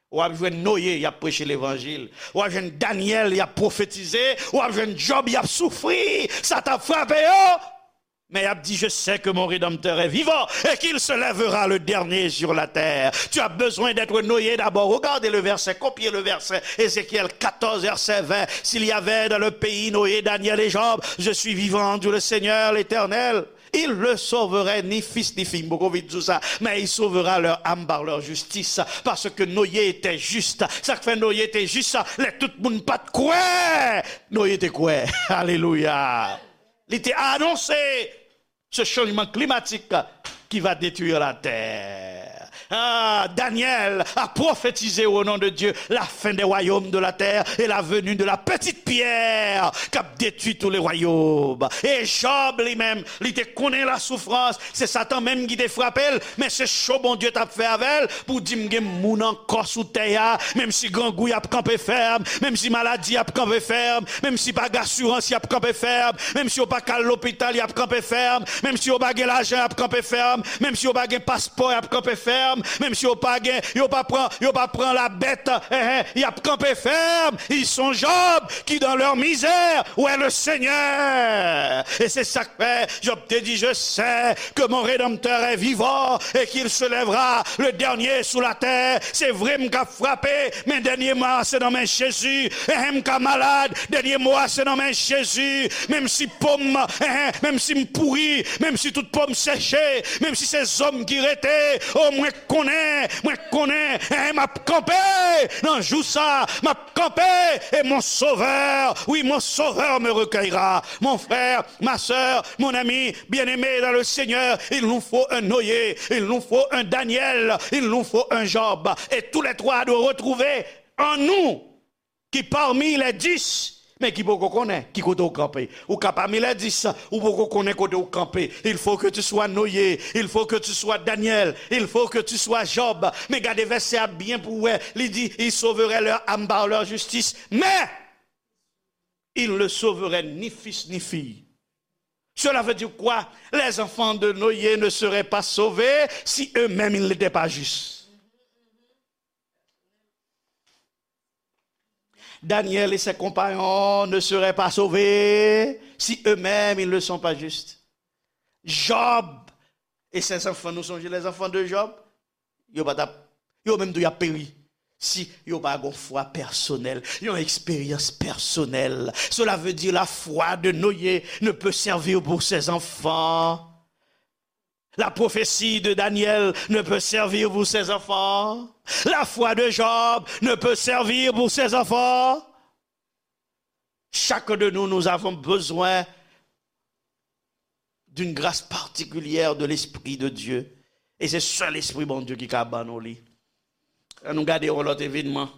W ap jwenn Noye, y ap preche levanjil. W ap jwenn Danyèl, y ap pwofetize. W ap jwenn Jòb, y ap soufri. Sa t ap frape yo. Men y ap di, je sais que mon Rédempteur est vivant et qu'il se lèvera le dernier sur la terre. Tu as besoin d'être Noé d'abord. Regardez le verset, copiez le verset. Ézéchiel quatorze, verset vingt. S'il y avait dans le pays Noé, Daniel et Job, je suis vivant, dit le Seigneur l'Éternel. Il ne sauverait ni fils ni fille, m poko vin di w sa, mais il sauvera leur âme par leur justice, parce que Noé était juste. Sa k fè Noye te jis, lè tout moun pa t kwè, Noye te kwè. Alelouya. Li te anonse ce changement climatique qui va détruire la terre. Ah, Daniel a prophétisé au nom de Dieu la fin des royaumes de la terre et la venue de la petite pierre k ap detwi tous les royaumes. E Jòb li menm, li te konnen la soufrans, se Satan menm ki te frape l, men se cho Bondye t ap fè avè l pou di m gen moun ankò sou tè a, menm si grangou y ap kanpe fèm, menm si maladi y ap kanpe fèm, menm si pa gen asirans y ap kanpe fèm, menm si yo pa ka al lopital y ap kanpe fèm, menm si yo pa gen lajan y ap kanpe fèm, menm si yo pa gen paspò y ap kanpe fèm, menm si yo pa gen, yo pa pran, yo pa pran la bèt, eh, eh, y ap kanpe fèm. Ils sont Job qui dans leur misère ouais le Seigneur. E se sa k fè Jòb te di, je sais que mon Rédempteur est vivant et qu'il se lèvera le dernier sur la terre. Se vre m ka frape, men dènye mo a se nan men Jezi. Enhen, m ka malad, dènye mo a se nan men Jezi. Menm si po m, enhen, menm si m pouri, menm si tout po m seche, menm si se zo m ki rete, o mwen konnen, mwen konnen, enhen, m ap kanpe nan jou sa, m ap kanpe, et mon Sauveur, oui, mon Sauveur me recueillera. Mon frère, ma sœur, mon ami bien-aimé dans le Seigneur, il nous faut un Noé, il nous faut un Daniel, il nous faut un Job. Et tous les trois doivent retrouver en nous ki pami les dix, men ki poko konnen ki kote w kanpe. Ou ka pami les dix, ou poko konnen kote w kanpe. Il faut que tu sois Noé, il faut que tu sois Daniel, il faut que tu sois Job. Men gade vèsè a byen pou w wè. Li di, ils sauveraient leur âme par leur justice, mais ils ne sauveraient ni fils ni fille. Cela veut dire quoi? Les enfants de Noé ne seraient pas sauvés si eux-mêmes ils n'étaient pas justes. Daniel et ses compagnons ne seraient pas sauvés si eux-mêmes ils ne sont pas justes. Job et ses enfants, nou sonje les enfants de Job? Yo pa t ap, yo menm tou y ap peri. Si yo pa gon fwa pèsonèl, yon eksperyans pèsonèl. Cela veut dire la foi de Noé ne peut servir pour ses enfants. La prophétie de Daniel ne peut servir pour ses enfants. La foi de Job ne peut servir pour ses enfants. Chacun de nous, nous avons besoin d'une grâce particulière de l'Esprit de Dieu. E se sèl Espri Bondye ki ka ban nou li. Ann nou gade yon lòt evenman.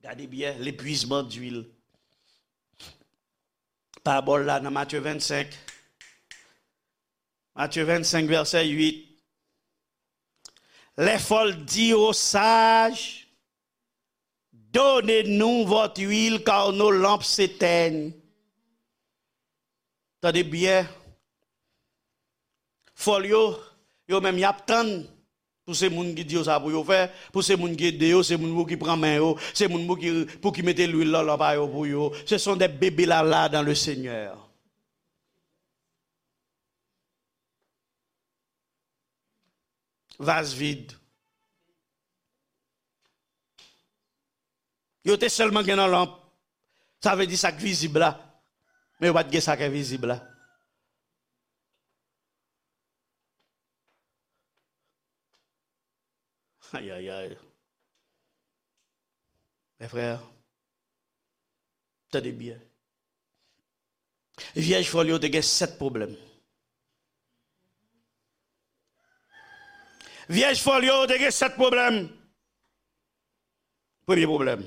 Gade byen, l'épuisement d'huile. Parabòl la nan Matye vennsenk. Matye vennsenk, vèsè uit. Les folles dirent aux sages, donnez-nous votre huile, car nos lampes s'éteignent. Tande byen. Fòl yo, yo menm y ap tann pou se moun ki di yo sa pou yo fè, pou se moun ki ede yo, se moun pou ki pran men yo, se moun pou ki, pou ki mete lwil nan lanp a yo pou yo. Ce sont des bébés lala dans le Seigneur. Vaz vid. Yo te sèlman gen nan lanp. Sa vle di sa k vizib la. Men yo pa t gen sa k envizib la. Ayayay. Mes frères, tande byen. Vyèj fòl yo te gen sèt pwoblèm. Vyèj fòl yo te gen sèt pwoblèm. Premye pwoblèm,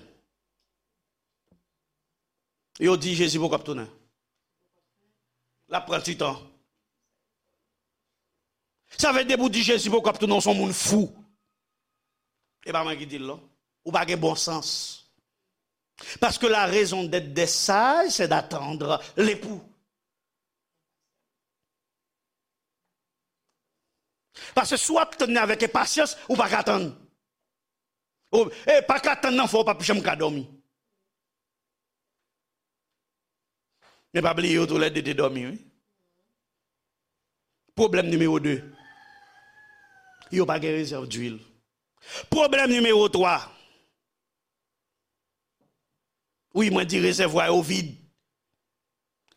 Yo di Jezi poko ap tounen. L ap pran ti tan. Sa vle di depi w di Jezi poko ap tounen, w se yon moun fou. E pa mwen ki di l non. Ou pa gen bon sans. Parce que la raison d'être des sages, c'est d'attendre l'époux. Paske si w ap tann li avèk enpasyans, ou pa ka tann. Ou, e pa ka tann nan fè w p ap janm ka dòmi. Men pa bliye yo toulède te dòmi, wi. Pwoblèm nimewo de. Yo pa gen rezèv dwil. Pwoblèm nimewo twa. Wi, mwen di rezèvwa yo vid.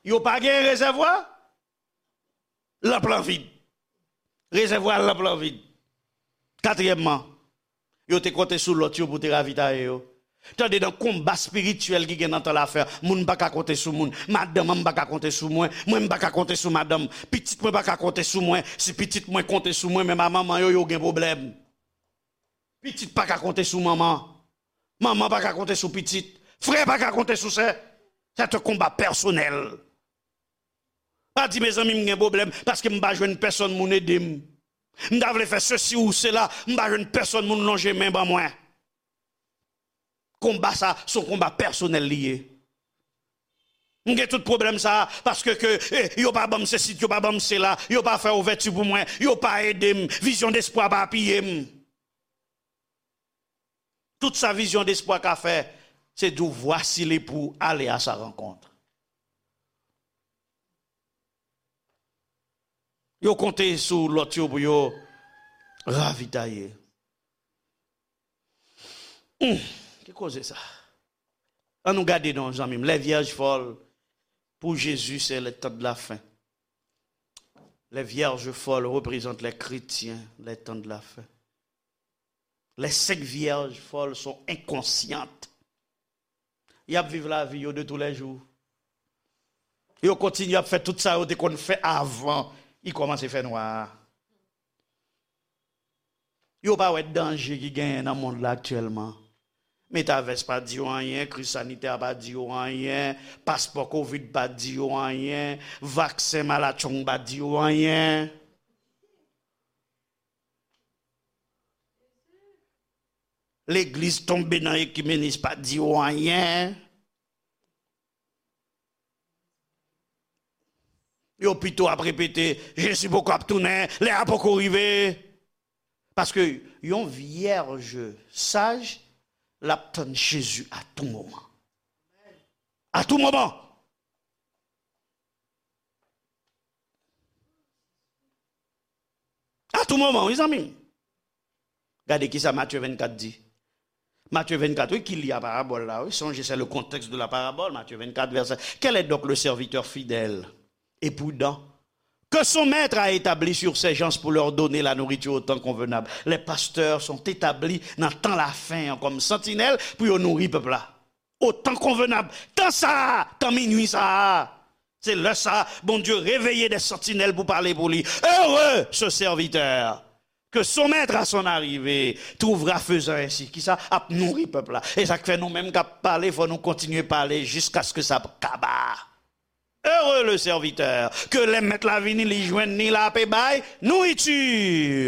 Yo pa gen rezèvwa. Lanp lan vid. Rezèvwa lanp lan vid. Katriyèmman, yo te konte sou lòt yo pou te ravitaye yo. Tande, nan konba espirityèl ki gen nan tan lafen an, moun pa ka konte sou moun. Madanm an, m pa ka konte sou mwen. Mwen, m pa ka konte sou madanm. Pitit mwen pa ka konte sou mwen. Si pitit mwen konte sou mwen, menm a manman yo, yo gen pwoblèm. Pitit pa ka konte sou manman. Manman pa ka konte sou pitit. Frè pa ka konte sou sè. C'est un combat personnel. Pa di, mezanmi, m gen pwoblèm paske m pa jwenn pèsonn moun ede m. M ta vle fè sesi ou sela, m pa jwenn pèsonn moun lonje men ban mwen. Konba sa, se yon konba pèsonèl li ye. M gen tout pwoblèm sa, paske ke, eh, yo pa ban m sesi, yo pa ban m sela, yo pa fè ouvèti pou mwen, yo pa ede m, vizyon despwa pa apiye m. Tout sa vizyon despwa ka fè, se di w, voici l'époux, allez à sa rencontre. Yo konte sou lòt yo pou yo ravitaye. Hmm, ki koze sa? An nou gade non, zanmi m. Les vierges folles pour Jésus, c'est les temps de la fin. Les vierges folles représentent les chrétiens, les temps de la fin. Les cinq vierges folles sont inconscientes. Y ap viv lavi yo de tous les jours. Yo kontinye ap fè tout sa yo te konn fè avan li kòmanse fè nwa a. Yo pa wè danje ki genyen nan mond la aktyèlman. Metavès pa di yo anyen, kriz sanitè a pa di yo anyen, paspò kovid pa di yo anyen, vaksen malatchong pa di yo anyen. Legliz tonbe nan ekimenis pa di yo anyen. Yo pito ap repete, Jezi poko ap tounen, lè a poko rive. Paske yon vyèj saj, l ap tann Jezi a tou moman. A tou moman. A tou moman, wi, zanmi m. Gade kisa Matye vennkat di. Matye vennkat, wi, ki li a parabòl la, wi. Songez, c'est le contexte de la parabole, Matthieu vingt-quatre, verset. Quel est donc le serviteur fidèle et prudent que son maître a établi sur ses gens pour leur donner la nourriture au temps convenable? Les pasteurs sont établis nan tan lafen an kòm santinèl pou yo nouri pèp la. Au temps convenable. Tan sa a, tan minui sa a. Se lè sa a, Bondye reveye des sentinelles pou pale pou li. Heureux ce serviteur que son maître à son arrivée trouvera faisant ainsi. Kisa? Ap nouri pèp la. E sa k fè nou menm k ap pale, fò nou kontinye pale jiskaske sa kaba. Heureux le serviteur, ke lè mèt la vini, li jwenn ni l ape bay nouriti.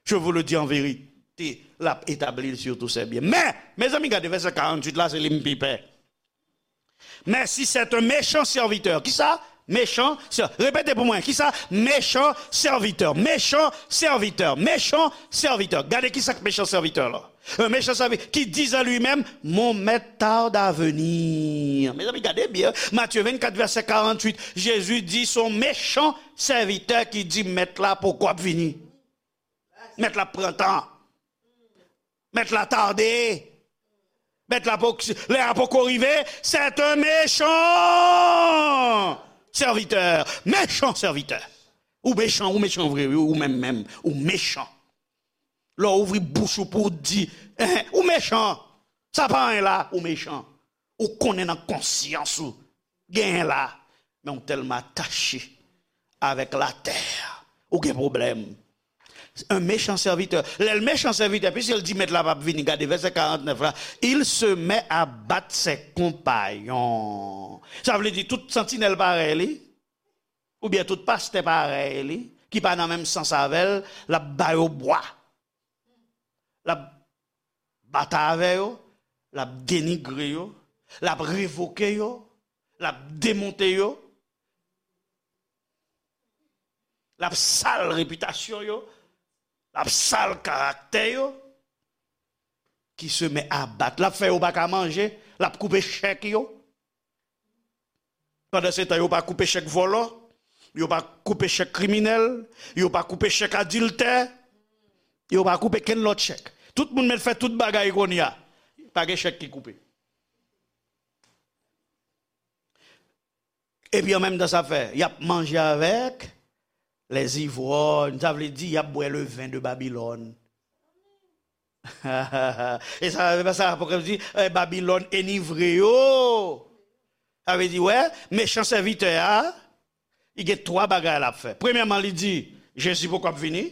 Je vous le dis en vérité, l ap etabli l sur tous ses biens. Men, mezanmi, gade vèsè karanntuit la, se li m pi pè. Mais si c'est un méchant serviteur, kisa? Méchant, sè-, repete pou mwen, kisa? Méchant serviteur, méchant serviteur, méchant serviteur. Gade kisa k méchant serviteur la. Un méchant serviteur qui dit en lui-même, mon maître tarde à venir. Mezanmi, gade byen. Matthieu vingt-quatre, verset quarante-huit. Jésus dit, son méchant serviteur qui dit, mèt la poko ap vini. Mèt la pran tan. Mèt la tade. Mèt la poko, lè a poko rive. C'est un méchant serviteur. Méchant serviteur. Ou mechan, ou mechan vre, wi, ou menm menm, ou mechan. Lè w ouvri bouch ou pou w di, eh, ou mechan. Sa pa anyen la, ou mechan. Ou konnen nan konsyans ou, genyen la, men ou tèlman atache avèk latè, ou gen pwoblèm. Un méchant serviteur. Lè l mechan sèvitè, piske l di mèt la p ap vini, gade vèsè karantnèf la, il se met à battre ses compagnons. Sa vle di tout santinèl parèy li, oubyen tout pastè parèy li, ki pa nan menm sans avè l, l ap ba yo bwa. L ap batay avè yo, l ap denigre yo, l ap revoke yo, l ap demonte yo, l ap sal repitasyon yo, l ap sal karaktè yo, qui se met à battre. L ap fè yo pa ka manje, l ap koupe chèk yo. Pandansetan, yo pa koupe chèk vòlò, yo pa koupe chèk kriminèl, yo pa koupe chèk adiltè, yo pa koupe kenn lòt chèk. Tout moun mèt fè tout bagay kounye a. Pa gen chèk ki koupe. Epi an menm tan sa fè, y ap manje avèk les ivrognes, sa vle di y ap bwè le vin de Babylone. E sa, sa Apokrips di, eh, Babylone enivre yo. Sa vle di, wè, mechan sèvitè a, li gen twa bagay l ap fè. Premyèman, li di, Jezi poko ap vini.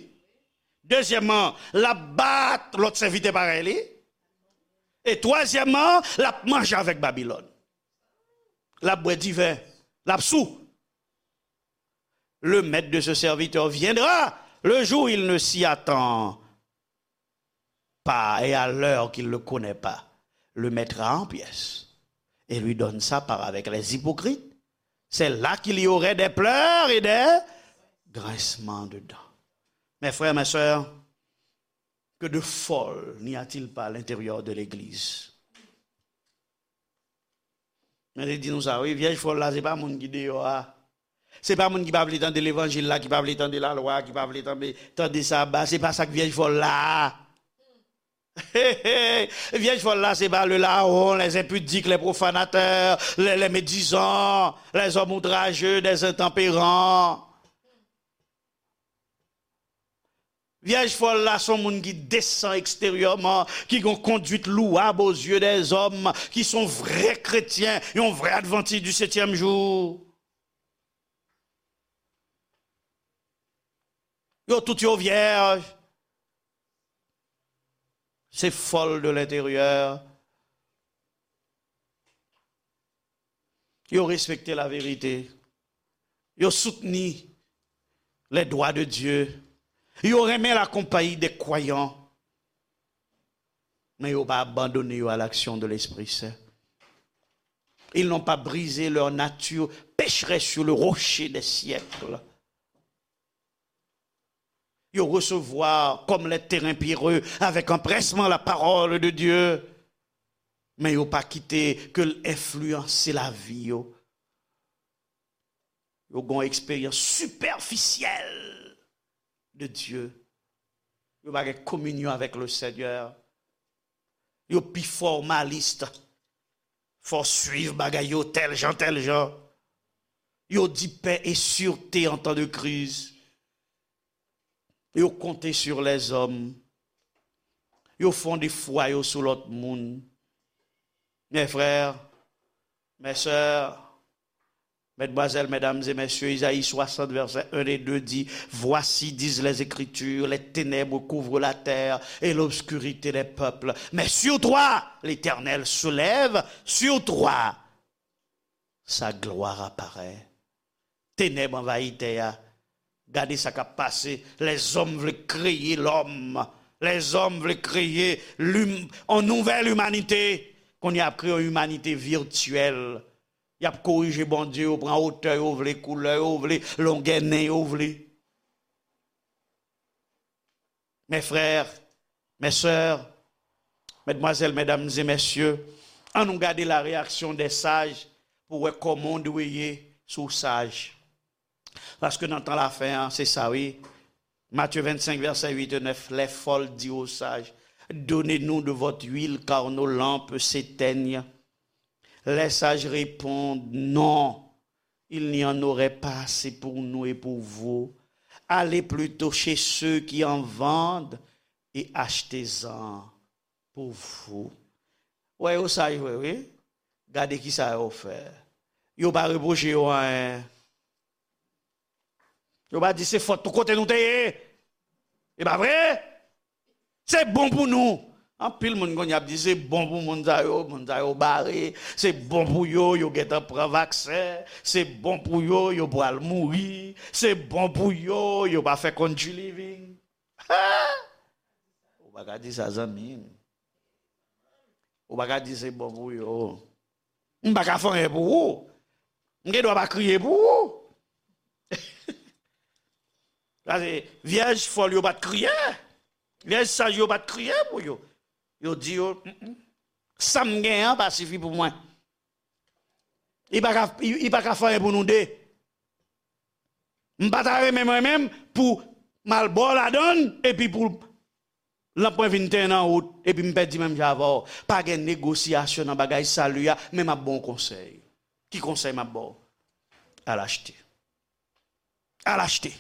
Dezyèmman, l ap bat lòt sèvitè parèy li. E twazyèmman, l ap manje avèk Babylone. L ap bwè diven, l ap sou. Le maître de ce serviteur viendra le jour où il ne s'y attend pas et à l'heure qu'il ne connaît pas. Le mettra en pièces et lui donne sa part avec les hypocrites. C'est là qu'il y aurait des pleurs et des grincements de dents. Mes frères, mes sœurs, que de folle n'y a-t-il pas à l'intérieur de l'Église? Mwen te di nou sa, wi, vyèj fòl la, se pa moun ki deyò a. Se pa moun ki pa vle tande levanjil la, ki pa vle tande lalwa, ki pa vle tande, tande saba. Se pa sa k vyèj fòl la. Vyèj fòl la, se pa le larron, les impudiques, les profanateurs, les, les médisants, les hommes outrageux, des intempérants. Vyèj fòl la se yon moun ki desan eksteryèman, ki gen yon conduite louable aux yeux des hommes, ki se yon vrè kretyen, yon vrè advantis du septième jour. Yo tout yo vyèj. Se fòl de lenteryè. Yo respekte laverite. Yo soutni les droits de Dieu. Yo renmen lakonpayi des croyants. Men yo pa abandone yo à l'action de l'Esprit Saint. Ils n'ont pas brisé leur nature pécheresse sur le rocher des siècles. Yo resevwa kòm les terrains pierreux avec empressement la parole de Dieu. Men yo pa kite ke l enfliyanse lavi yo. Yo gen yon eksperyans sipèfisyèl de Dye. Yo pa gen kominyon avèk le Seigneur. Yo pi fòmalis. Fò swiv bagay yo tèl jan, tèl jan. Yo di paix et sûreté en temps de crise. Yo konte sur les hommes. Yo fonde fwa yo sou lòt moun. Mes frères, mes sœurs, mesdemoiselles, mesdames et messieurs, Isaïe soixante, versets un et deux dit, voici, disent les Écritures, les ténèbres couvrent la terre et l'obscurité les peuples. Mais sur toi, l'Éternel se lève, sur toi, sa gloire apparaît. Tenèb anvayi tè a. Gade sa k ap pase. Lèzòm vle kreye lòm. Lèzòm vle kreye lim-, yon nouvèl imanite. Kounye a y ap kreye yon imanite vityèl. Y ap korije Bondye, yo pran otè yo vle, koulè yo vle, longè nen yo vle. Mes frères, mes sœurs, mesdemoiselles, mesdames et messieurs, ann nou gade la réaction des sages pou wè kòman w dwe ye si w saj. Paske nan tan lafen an, se sa wi. Matthieu vingt-cinq, verset huit et neuf, les folles dirent aux sages, donnez-nous de votre huile, car nos lampes s'éteignent. Les sages répondent, non, il n'y en aurait pas assez pour nous et pour vous. Allez plutôt chez ceux qui en vendent et achetez-en pour vous. Wè yo saj vre, wi. Gade ki sa yo fè. Yo pa repwoche yo anyen. Yo pa di se fòt nou kote nou te ye. E pa vre? Se bon pou nou. Anpil moun kounye a ap di se bon pou moun sa yo, moun sa yo bare, se bon pou yo, yo gentan pran vaksen, se bon pou yo, yo pral mouri, se bon pou yo, yo pa fè country living. Ha! Ou pa ka di sa, zanmi m. Ou pa ka di se bon pou yo. M pa ka fè anyen pou ou. M gen dwa pa kriye pou ou. Paske vyèj fòl yo pa t kriye. Vyèj saj yo pa t kriye pou yo. Yo di yo, "Mm, mm. Sa m genyen an pa sifi pou mwen." Li pa ka, li, li pa ka fè anyen pou nou de. M pa ta renmen mwen menm pou m al ba w ladann epi pou lanp mwen vin tenyen nan wout epi m pèdi menm jan avè w. Pa gen negosyasyon nan bagay sali a, men m ap ba w konsèy. Ki konsèy m ap ba w? Al achte. Al achte.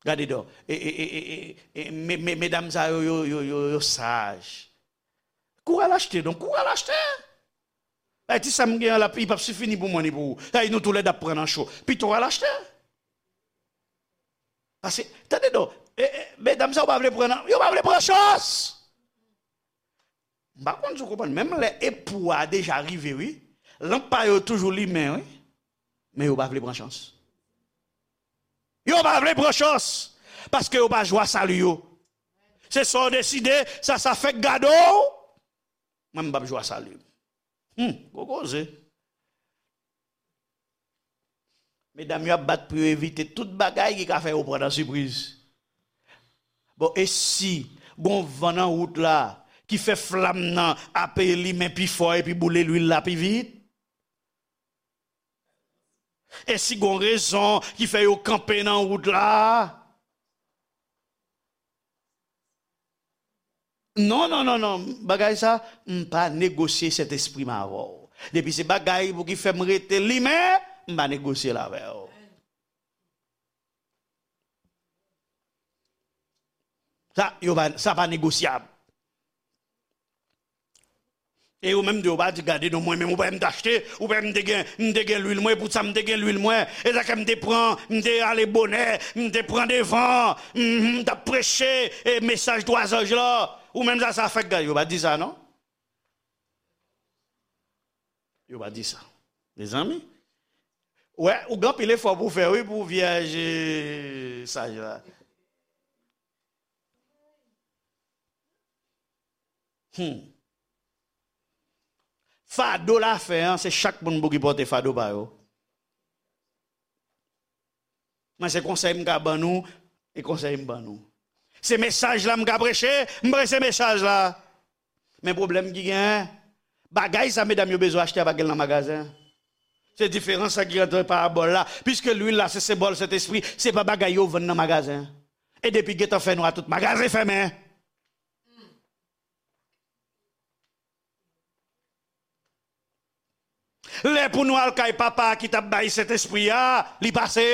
Gade dò. E, e, e, e, e, e, me, me, medam sa yo, yo, yo, yo, yo saj. Kouri al achte, donk, kouri al achte. Ay, ti sa m gen an, l ap, li p ap sifi ni pou mwen, ni pou ou. Ay, nou toulède ap pran nan cho. Pito w al achte. Paske, tande non, e, e, medam sa yo pa vle pran nan, yo pa vle pran chans. M pa konn si w konprann, menm lè epou a deja rive, wi. Lanp pa yo toujou limen, wi. Men yo pa vle pran chans. Yo pa vle pran chans. Paske yo pa jwa sali yo. Se sa w deside, sa, sa fèk gade w. Mwen, m p ap jwa sali m. Hmm, gwo koze. Medam yo ap bat pou yo evite tout bagay ki ka fè yo pran nan sipriz. Bon, e si gon van nan wout la ki fè flam nan ape limen pi fò epi boule lwil la pi vit? E si gon rezon ki fè yo kanpe nan wout la? Non, non, non, non. Bagay sa, m pa negosye Sentespri m avè w. Depi se bagay pou ki fè m rete limen, m pa negosye l avè w. Sa, yo pa, sa pa negosyab. E yo menm tou, yo pa di, "Gade non, mwen menm, ou pa wè m t achte, ou pa wè m te gen, m te gen lwil mwen, e pou sa m te gen lwil mwen. E sa k fè m te pran, m te ale bonè, m te pran devan, m, m t ap preche, e mesaj twa zanj la." Ou menm sa, sa fèk gade, yo pa di sa, non? Yo pa di sa. Mezanmi, wè, ou gen anpil efò pou w fè, wi, pou vyèj, e, saj la. Hmm. Fado lafen an, se chak moun pou ki pote fado pa yo. Mwen, se konsèy m ka ban nou, e konsèy m ban nou. Se mesaj la m ka preche, m preche mesaj la. Men pwoblèm ki genyen, bagay sa medam yo bezwen achte a pa gen l nan magazen. Se diferans sa ki antre parabòl la. Piske lwil la se senbòl Sentespri, se pa bagay yo vann nan magazen. E depi gentan fè nwa, tout magazen fèmen. Lè pou nou al kay papa a ki t ap bay Sentespri a, li pase.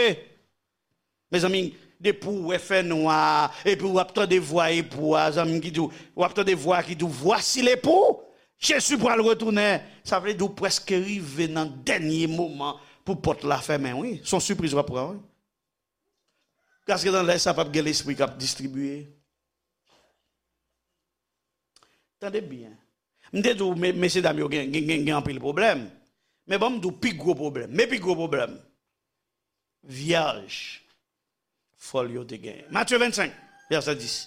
Mezanmi, depi w wè fènwa, epi w ap tande vwa epou a, zanmi m ki di w, w ap tande vwa ki di w, "Voici l'époux, Jésus pral retounen." Sa vle di w prèske rive nan dènye moman pou pòt la fèmen, wi. Se yon sipriz w ap pran, wi. Paske nan lè sa p ap gen lespri k ap distribiye. Tande byen. M te di w, me-, mesye dam yo gen, gen, gen, gen anpil pwoblèm. Men ban m di w pi gwo pwoblèm. Men pi gwo pwoblèm. Vyèj fòl yo te genyen. Matye vennsenk, vèsè dis.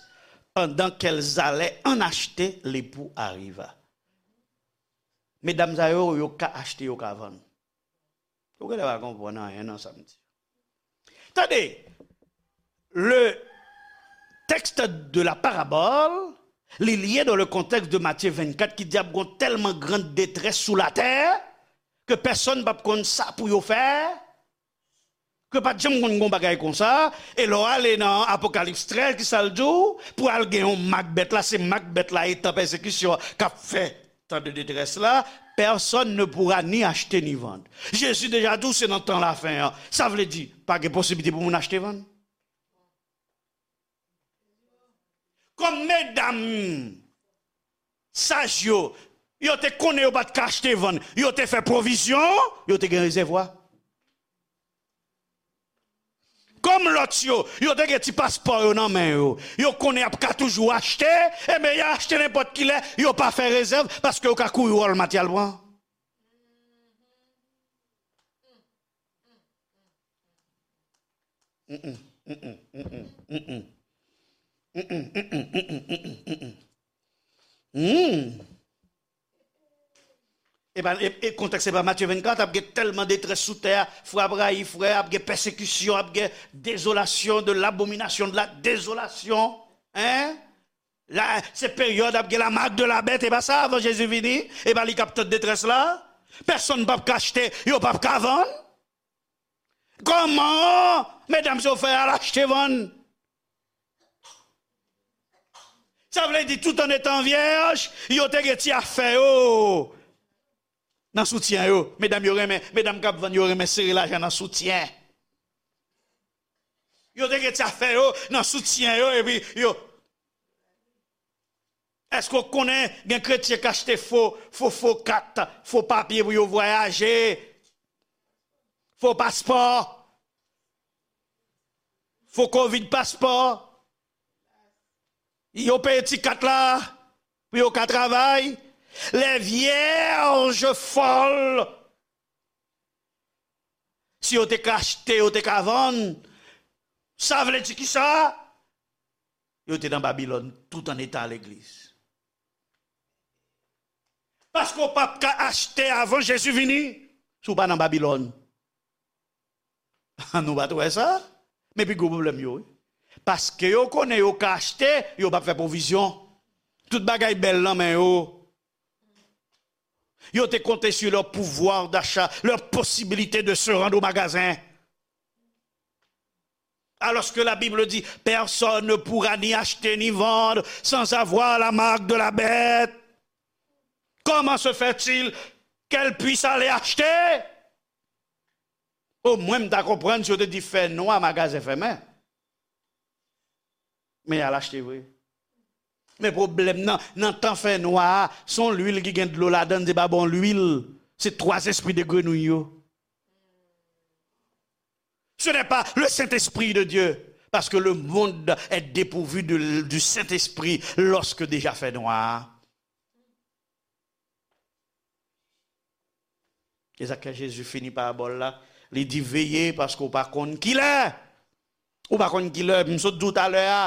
Pendant qu'elles allaient en acheter, l'époux arriva. Medam sa yo, yo ka achte, yo ka vann. Ou genlè pa konprann anyen nan sa m di. Tande, le texte de la parabole, li lye dans le contexte de Matthieu vingt-quatre ki di ap gon tèlman grand détresse sous la terre que pèsonn p ap konn sa pou yo fè, ke pa t janm konn gon bagay konsa, e lè w ale nan Apokalips trèz, ki sa l di w? Pou al gen yon mak bèt la, se mak bèt la e tan pèsekisyon k ap fè tan de detrès la, personne ne pourra ni acheter ni vendre. Jezi deja di w se nan tan lafen an. Sa vle di, pa gen posiblite pou moun achte vann. Kòm medam saj yo, yo te konnen yo pa t ka achte vann, yo te fè pwovizyon, yo te gen rezèvwa. Kòm lòt yo, yo te gen ti paspò yo nan men yo. Yo konnen y ap ka toujou achte, enben y a achte nenpòt kilè, yo pa fè rezèv, paske yo ka kouri Walmart y al pran. Hmm. E pa, e, e kontèks se pa Matye vennkat, ap gen tèlman detrès sou tè a, frè ap rayi frè, ap gen pèsekisyon, ap gen désolation, de l'abomination, de la désolation. Hein? La, se peryòd ap gen la marque de la bête, e pa sa, avan Jezi vini, e pa li k ap tann detrès la. Pèsonn p ap ka achte, yo p ap ka vann. Kòman medam sa yo fè al achte vann? Sa vle di, tout an etan vyèj, yo te gen ti afè yo nan soutyen yo. Medam yo renmen, medam k ap vann yo renmen sere lajan nan soutyen. Yo te gen ti afè yo nan soutyen yo, epi yo. Èske w konnen gen kretyen k achte fo, fo, fo kat, fo papye pou yo vwayaje? Fo paspò. Fo covid paspò. Yo peye ti kat la pou yo ka travay. Les vierges folles. Si yo te ka achte, yo te ka vann. Sa vle di kisa? Yo te nan Babilòn tout an eta legliz. Paske w p ap ka achte avan Jezi vini si w pa nan Babilòn. Nou pa t wè sa? Men pi gwo pwoblèm yo, wi. Paske yo konnen yo ka achte, yo p ap fè pwovizyon. Tout bagay bèl nan men yo. Yo te konte sur leur pouvoir d'achat, leur possibilité de se rendre au magasin. Alors que la Bible dit, personne ne pourra ni acheter ni vendre sans avoir la marque de la bête. Comment se fait-il qu'elle puisse aller acheter? O mwen, m ta konprann si yo te di fè nwa, magazen fèmen. Men y al achte vre. Men pwoblèm nan, nan tan fè nwa a, se yon lwil ki gen dlo ladan l, se pa bon lwil. Se twa zespri de grenouy yo. Ce n'est pas le Saint-Esprit de Dieu, parce que le monde est dépourvu de, du Saint-Esprit lorsque déjà fait noir. E sa k fè Jezi fini parabòl la, li di, veye, paske w pa konn kilè. Ou pa konn kilè, m sot di w talè a.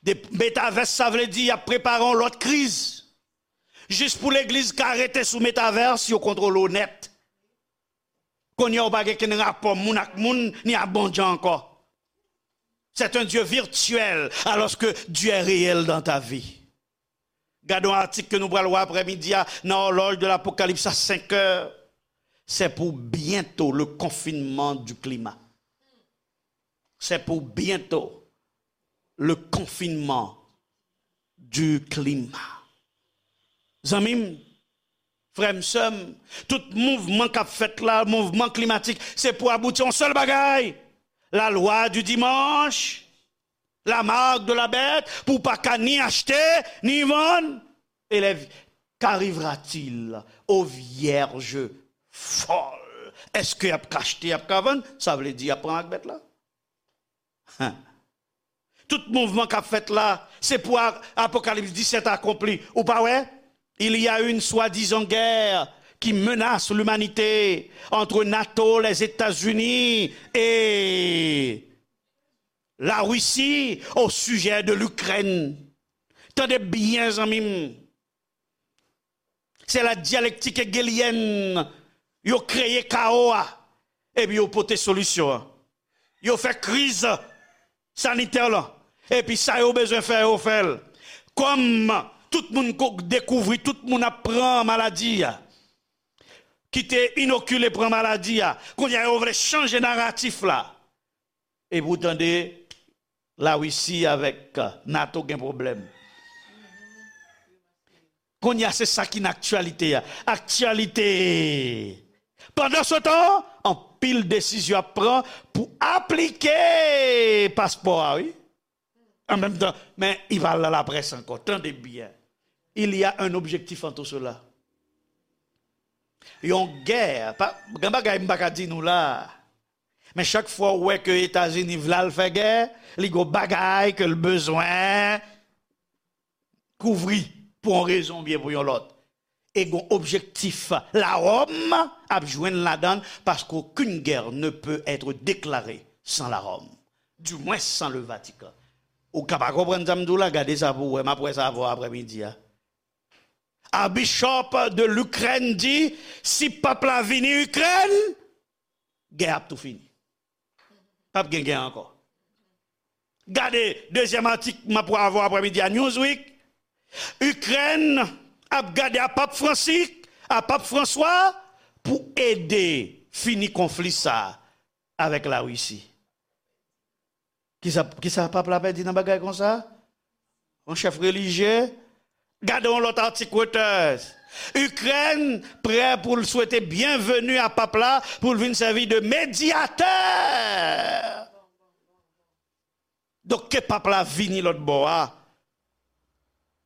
De, metavès, sa vle di y ap prepare yon lòt kriz. Jis pou legliz ka rete sou metavès, yo kontwole w nèt. Kounye a, ou pa gen kenn rapò moun ak moun, ni ak Bondye ankò. C'est un Dieu virtuel, alors que Dieu est réel dans ta vie. Gade yon atik ke nou pral wè aprèmidi a nan Horloge de l'Apocalypse à cinq heures. C'est pour bientôt le confinement du climat. C'est pour bientôt le confinement du climat. Zanmi m, frè m, sè m, tout mouvman k ap fèt la, mouvman klimatik, se pou abouti yon sèl bagay, la loi du dimanche, la marque de la bête, pou w pa ka ni achte, ni vann. Elèv, qu'arrivera-t-il aux vierges folles? Èske y ap ka achte, y ap ka vann? Sa vle di y ap pran ak bèt la. Hen. Tout mouvman k ap fèt la, se pou a-, Apokalips disèt akonpli. Ou pa wè? Il y a une soi-disant guerre qui menace l'humanité entre nato, les États-Unis et la Russie au sujet de l'Ukraine. Tande byen, zanmi m. Se la dialektik hegelyèn. Yo kreye kawo a, epi yo pote solisyon an. Yo fè kriz sanitè lan, epi sa yo bezwen fè, yo fè l. Kòm tout moun ko-, dekouvri, tout moun ap pran maladi a, ki te inokile pran maladi a, kounye a yo vle chanje naratif la. Epi w tande Larisi avèk, euh, nato gen pwoblèm. Kounye a, se sa ki nan aktyalite a. Aktyalite. Pandansetan, anpil desizyon ap pran pou aplike paspò a, wi. An menm tan, men i pral nan laprès ankò. Tande byen. Il y a un objectif en tout cela. Yon gè, pa, gen bagay m pa ka di nou la. Men chak fwa w wè ke Etazini vle al fè gè, li gon bagay ke l bezwen kouvri pou yon rezon oubyen pou yon lòt. E gon objektif. Laròm ap jwenn ladan l, paske aucune guerre ne peut être déclarée sans la Rome. Du moins sans le Vatican. Ou ka pa konprann sa m di w la, gade sa pou w wè, m ap wè sa avè w aprèmidi a. Archbishop de l'Ukraine di, si pap la vini Ikrèn, gè ap tou fini. Pap gen gè ankò. Gade dezyèm atik m ap avè w aprèmidi a Newsweek. Ikrèn ap gade a Pap Fransis, a Pap Franswa pou ede fini konfli sa avèk Larisi. Kisa, kisa pap la pèdi nan bagay konsa? Yon chèf relijye? Gade yon lòt atik Reuters. Ikrèn prè pou l swete byenveni a pap la pou l vin sèvi de medyatè. Donk, ke pap la vini lòt bò a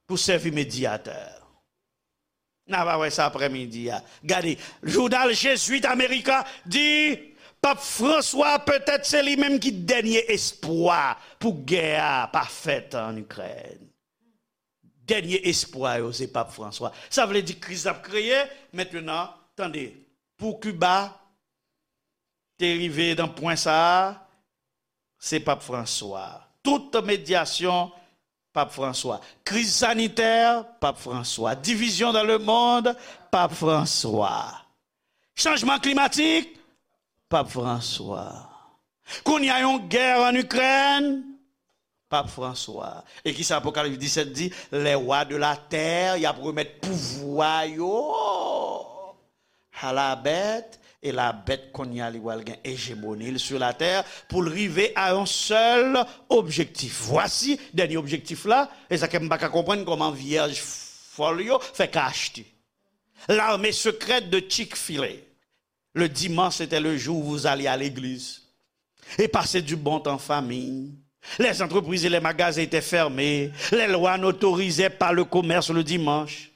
pou sèvi medyatè. N a va wè sa aprèmidi a. Gade, jounal Jesuit America di, Pap Franswa petèt se li menm ki dènye espwa pou gè a pa fèt an Ikrèn. Dènye espwa yo se Pap Franswa. Sa vle di kriz ap kreye. Mentnan, tande, pou Kiba te rive nan pwen sa a, se Pap Franswa. Tout medyasyon, Pap Franswa. Kriz sanitè, Pap Franswa. Division dans le monde, Pap Franswa. Chanjman klimatik, Pap Franswa. Kounye a yon gè an Ikrèn, Pap Franswa. E kisa Apokalips disèt di? Les rois de la terre, y ap remèt pouvwa yo a la bèt, e la bèt kounye a li pral gen ejemoni l sur la terre pou l rive a yon sèl objektif. Vwasi dènye objektif la, e sa ke m pa ka konprann kòman vyèj fòl yo fè ka achte. L'armée secrète de Chick-fil-A. Le dimanche, c'était le jour où vous alliez à l'église et passer du bon temps en famille. Les entreprises et les magasins étaient fermés. Les lois n'autorisaient pas le commerce le dimanche.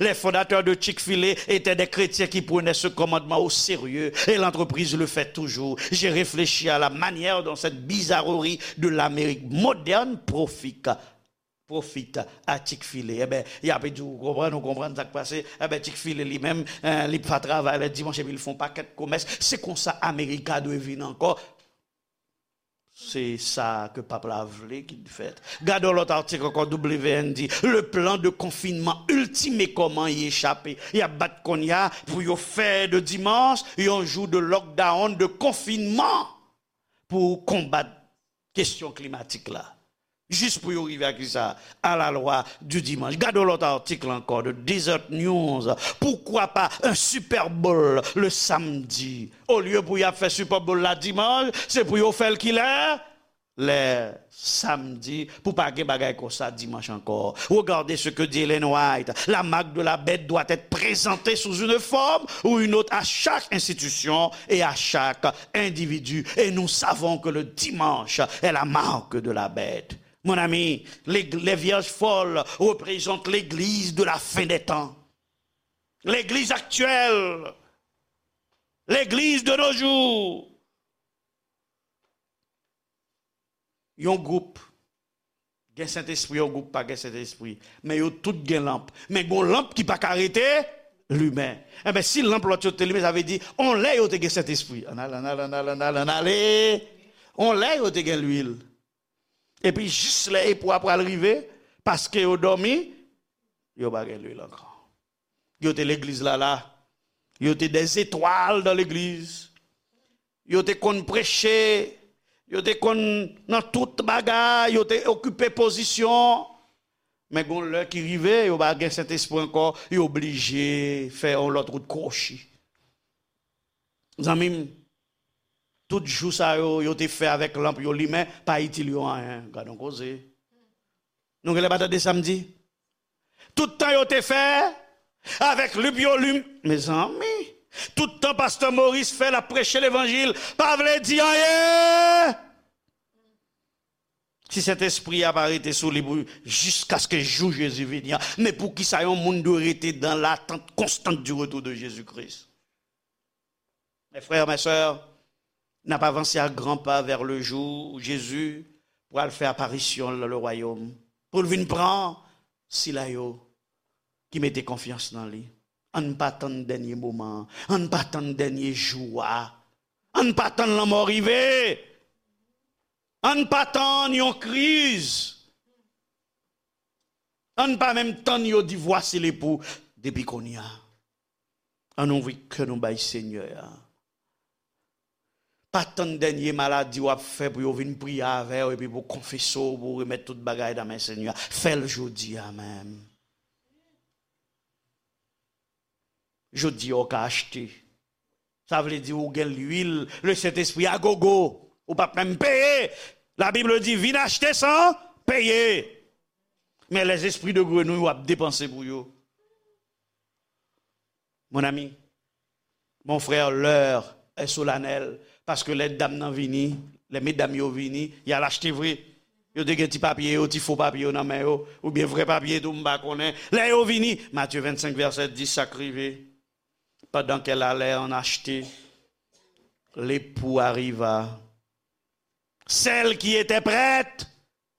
Les fondateurs de Chick-fil-A étaient des chrétiens qui prenaient ce commandement au sérieux et l'entreprise le fait toujours. J'ai réfléchi à la manière dont cette bizarrerie de l'Amérique moderne profite profite à Chick-fil-A. Enben, y ap di w konprann, ou konprann sa k pase. Enben, Chick-fil-A li menm, eh, li pa travay lè dimanch epi l fè yon pakèt komès. Se konsa Amerika dwe vin ankò. Se sa ke pap la vle ki fèt. Gade yon lòt atik ankò, W N di, le plan de confinement ultimé, kòman y echape. Y ap bat kounye a pou yo fè de dimanch yon jou de lockdown, de confinement pou konbat kesyon klimatik la. Jis pou yo rive a kisa? A la lwa di dimanch. Gade yon lòt atik la ankò, de Desert News. Pourquoi pas un Super Bowl le samedi? Olye pou y ap fè Super Bowl la dimanch, se pou yo fè l kilè? Lè samdi, pou pa gen bagay konsa dimanch ankò. Regardez ce que dit Ellen White. La marque de la bête doit être présentée sous une forme ou une autre à chaque institution et à chaque individu. Et nous savons que le dimanche est la marque de la bête. Mon ami, les, les vierges folles représentent l'église de la fin des temps. L'église actuelle. L'église de nos jours. Yon gwoup gen Sentespri, yon gwoup pa gen Sentespri. Men yo tout gen lanp. Men gon lanp ki pa ka rete limen. Enben, si lanp lòt yo te limen, sa vle di, on lè yo te gen Sentespri. Ann al, ann al, ann al, ann al, ann ale. On lè yo te gen lwil. Epi jis lè epou a pral rive, paske yo dòmi, yo pa gen lwil ankò. Yo te legliz la la. Yo te des étoiles dans l'église. Yo te konn preche. Yo te konn nan tout bagay. Yo te okipe pozisyon. Men gon lè ki rive, yo pa gen Sentespri ankò. Yo oblije fè yon lòt wout kwochi. Zanmi m, tout jou sa yo, yo te fè avèk lanp yo limen, pa itil yo anyen. Gad yon koze. Nou genlè pa tande sa m di? Tout tan yo te fè avèk lanp yo lim-, mezanmi, tout tan pastè Moris fè l ap preche levanjil, pa vle di anyen. Si Sentespri a pa rete sou li pou jiskaske jou Jezi vini an, men poukisa yon moun dwe rete dans l'attente constante du retour de Jésus-Christ? Mes frères, mes sœurs, N ap avanse a gran pa vè le jou Jezi pral fè aparisyon l nan le wayòm, pou l vin pran sila yo ki mete konfyans nan li. Ann pa tann dènye moman an, ann pa tann dènye jou a, ann pa tann lanmò rive, ann pa tann yon kriz, ann pa menm tann yo di vwasi lepou depi kounye a. Ann ouvri kè nou bay Senyè a. Pa tann dènye maladi w ap fè pou yo vin priye avè w epi pou konfese w, pou w remèt tout bagay nan men Senyè a. Fè l jodi a menm. Jodi a w ka achte. Sa vle di ou gen lwil, le Sentespri a gogo. Ou p ap menm peye. La Bible di, vin achte san peye. Men les esprits de grenouille w ap depanse pou yo. Mon ami, mon frère, l'heure est solennelle, paske lè dam nan vini, lè medam yo vini, y al achte vre. Yo te gen ti papye yo, ti fo papye yo nan men yo, oubyen vrè papye tou, m pa konnen. Lè yo vini, Matye vennsenk vèsè dis, sa k rive. Pendant qu'elle allait en acheter, l'époux arriva. Celles qui étaient prêtes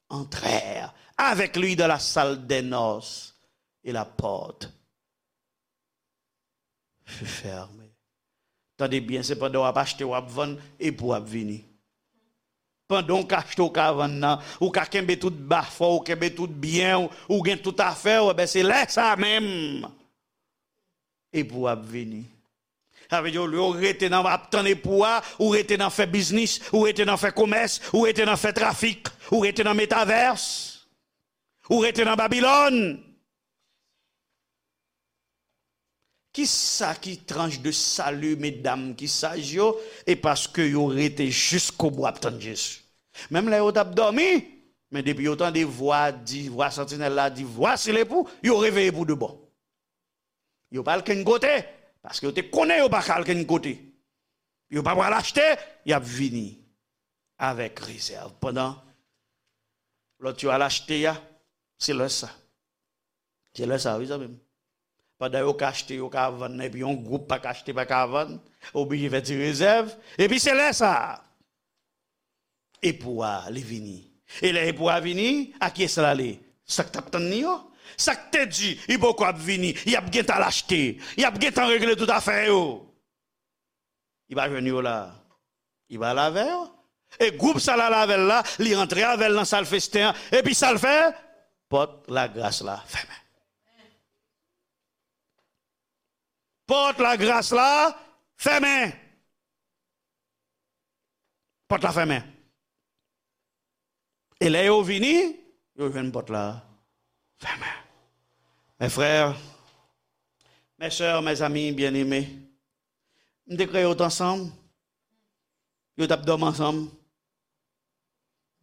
entrèrent avec lui dans la salle des noces, et la porte fut fermée. Tande byen, se pandan w ap achte, w ap vann, epou w ap vini. Pandan w ka achte, w ka vann nan, ou ka kenbe tout bafò, ou kenbe tout byen, ou, ou gen tout afè w, enben se lè sa menm epou w ap vini. Sa vle di, olye w rete nan ap tann epou a, ou rete nan fè biznis, ou rete nan fè komès, ou rete nan fè trafik, ou rete nan metavès, ou rete nan Babilòn. Kisa ki tranche de sali medam ki saj yo, e paske yo rete jiskobou ap tann Jezi? Menm lè yo t ap dòmi, men depi yo tande vwa di, vwa santinèl la di, vwasi lepou, yo reveye pou de bon. Yo pa al kenn kote, paske yo te konnen yo pa ka al kenn kote. Yo pa pral achte, y ap vini avèk rezèv. Pandan lòt yo al achte a, se lè sa. Se lè sa, wi, zanmi m. Pandan yo ka achte, yo ka vann, epi yon gwoup pa ka achte, pa ka vann, oblije fè ti rezèv, epi se lè sa. Epou a, li vini. E lè epou a vini, a kiyès l ale? Sa k t ap tann li yo? Sa k te di, li poko ap vini, y ap gentan al achte, y ap gentan regle tout afè yo. Li pa jwenn yo la. Li pa al avè yo. E gwoup sa l al avè l la, li antre avè l nan sal festen an, epi sa l fè? Pòt lagras la fèmen. Pòt lagras la fèmen. Pòt la fèmen. E lè yo vini, yo jwenn pòt la fèmen. Mes frères, mes sœurs, mes amis bien-aimés, m te kreye yo t ansanm. Yo t ap dòmi ansanm.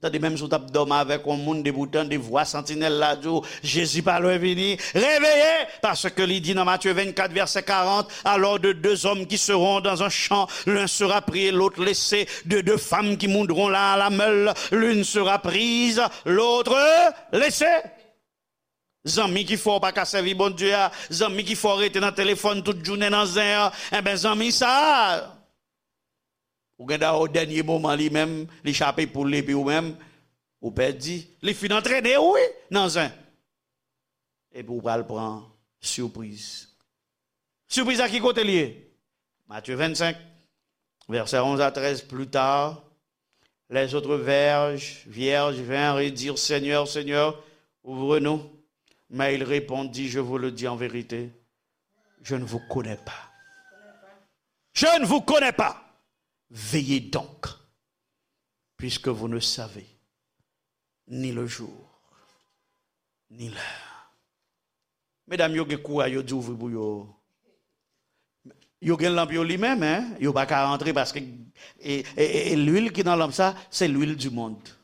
Tande, menm si w t ap dòmi avèk yon moun, depi w tande vwa santinèl la di w, Jezi pa lwen vini, réveillez, paske li di nan Matye vennkat, vèsè karant, alors de deux hommes qui seront dans un champ, l'un sera pris et l'autre laissé, de deux femmes qui moudront la, la meule, l'une sera prise, l'autre laissée. Zanmi ki fè w pa ka sèvi Bondye a, zanmi ki fè w rete nan telefòn tout jounen nan zen an, enben zanmi sa a, ou gen dwa o dènye moman li menm, li chape poul li epi ou menm, ou pèdi. Li fin antrene w, wi, nan zen. Epi ou pral pran sipriz. Sipriz la ki kote li ye? Matthieu vingt-cinq, versets onze à treize. Plus tard, les autres vierges, vierges vinrent et dirent, Seigneur, Seigneur, ouvre-nous. Mais il répondit, Je vous le dis en vérité, je ne vous connais pas. Je ne vous connais pas. Veillez donc, puisque vous ne savez ni le jour, ni l'heure. Medam yo gen kouray, yo di ouvri pou yo. Yo gen lanp yo limen, men yo pa ka rantre paske e, e, e, e lwil ki nan lanp sa, se lwil di mond.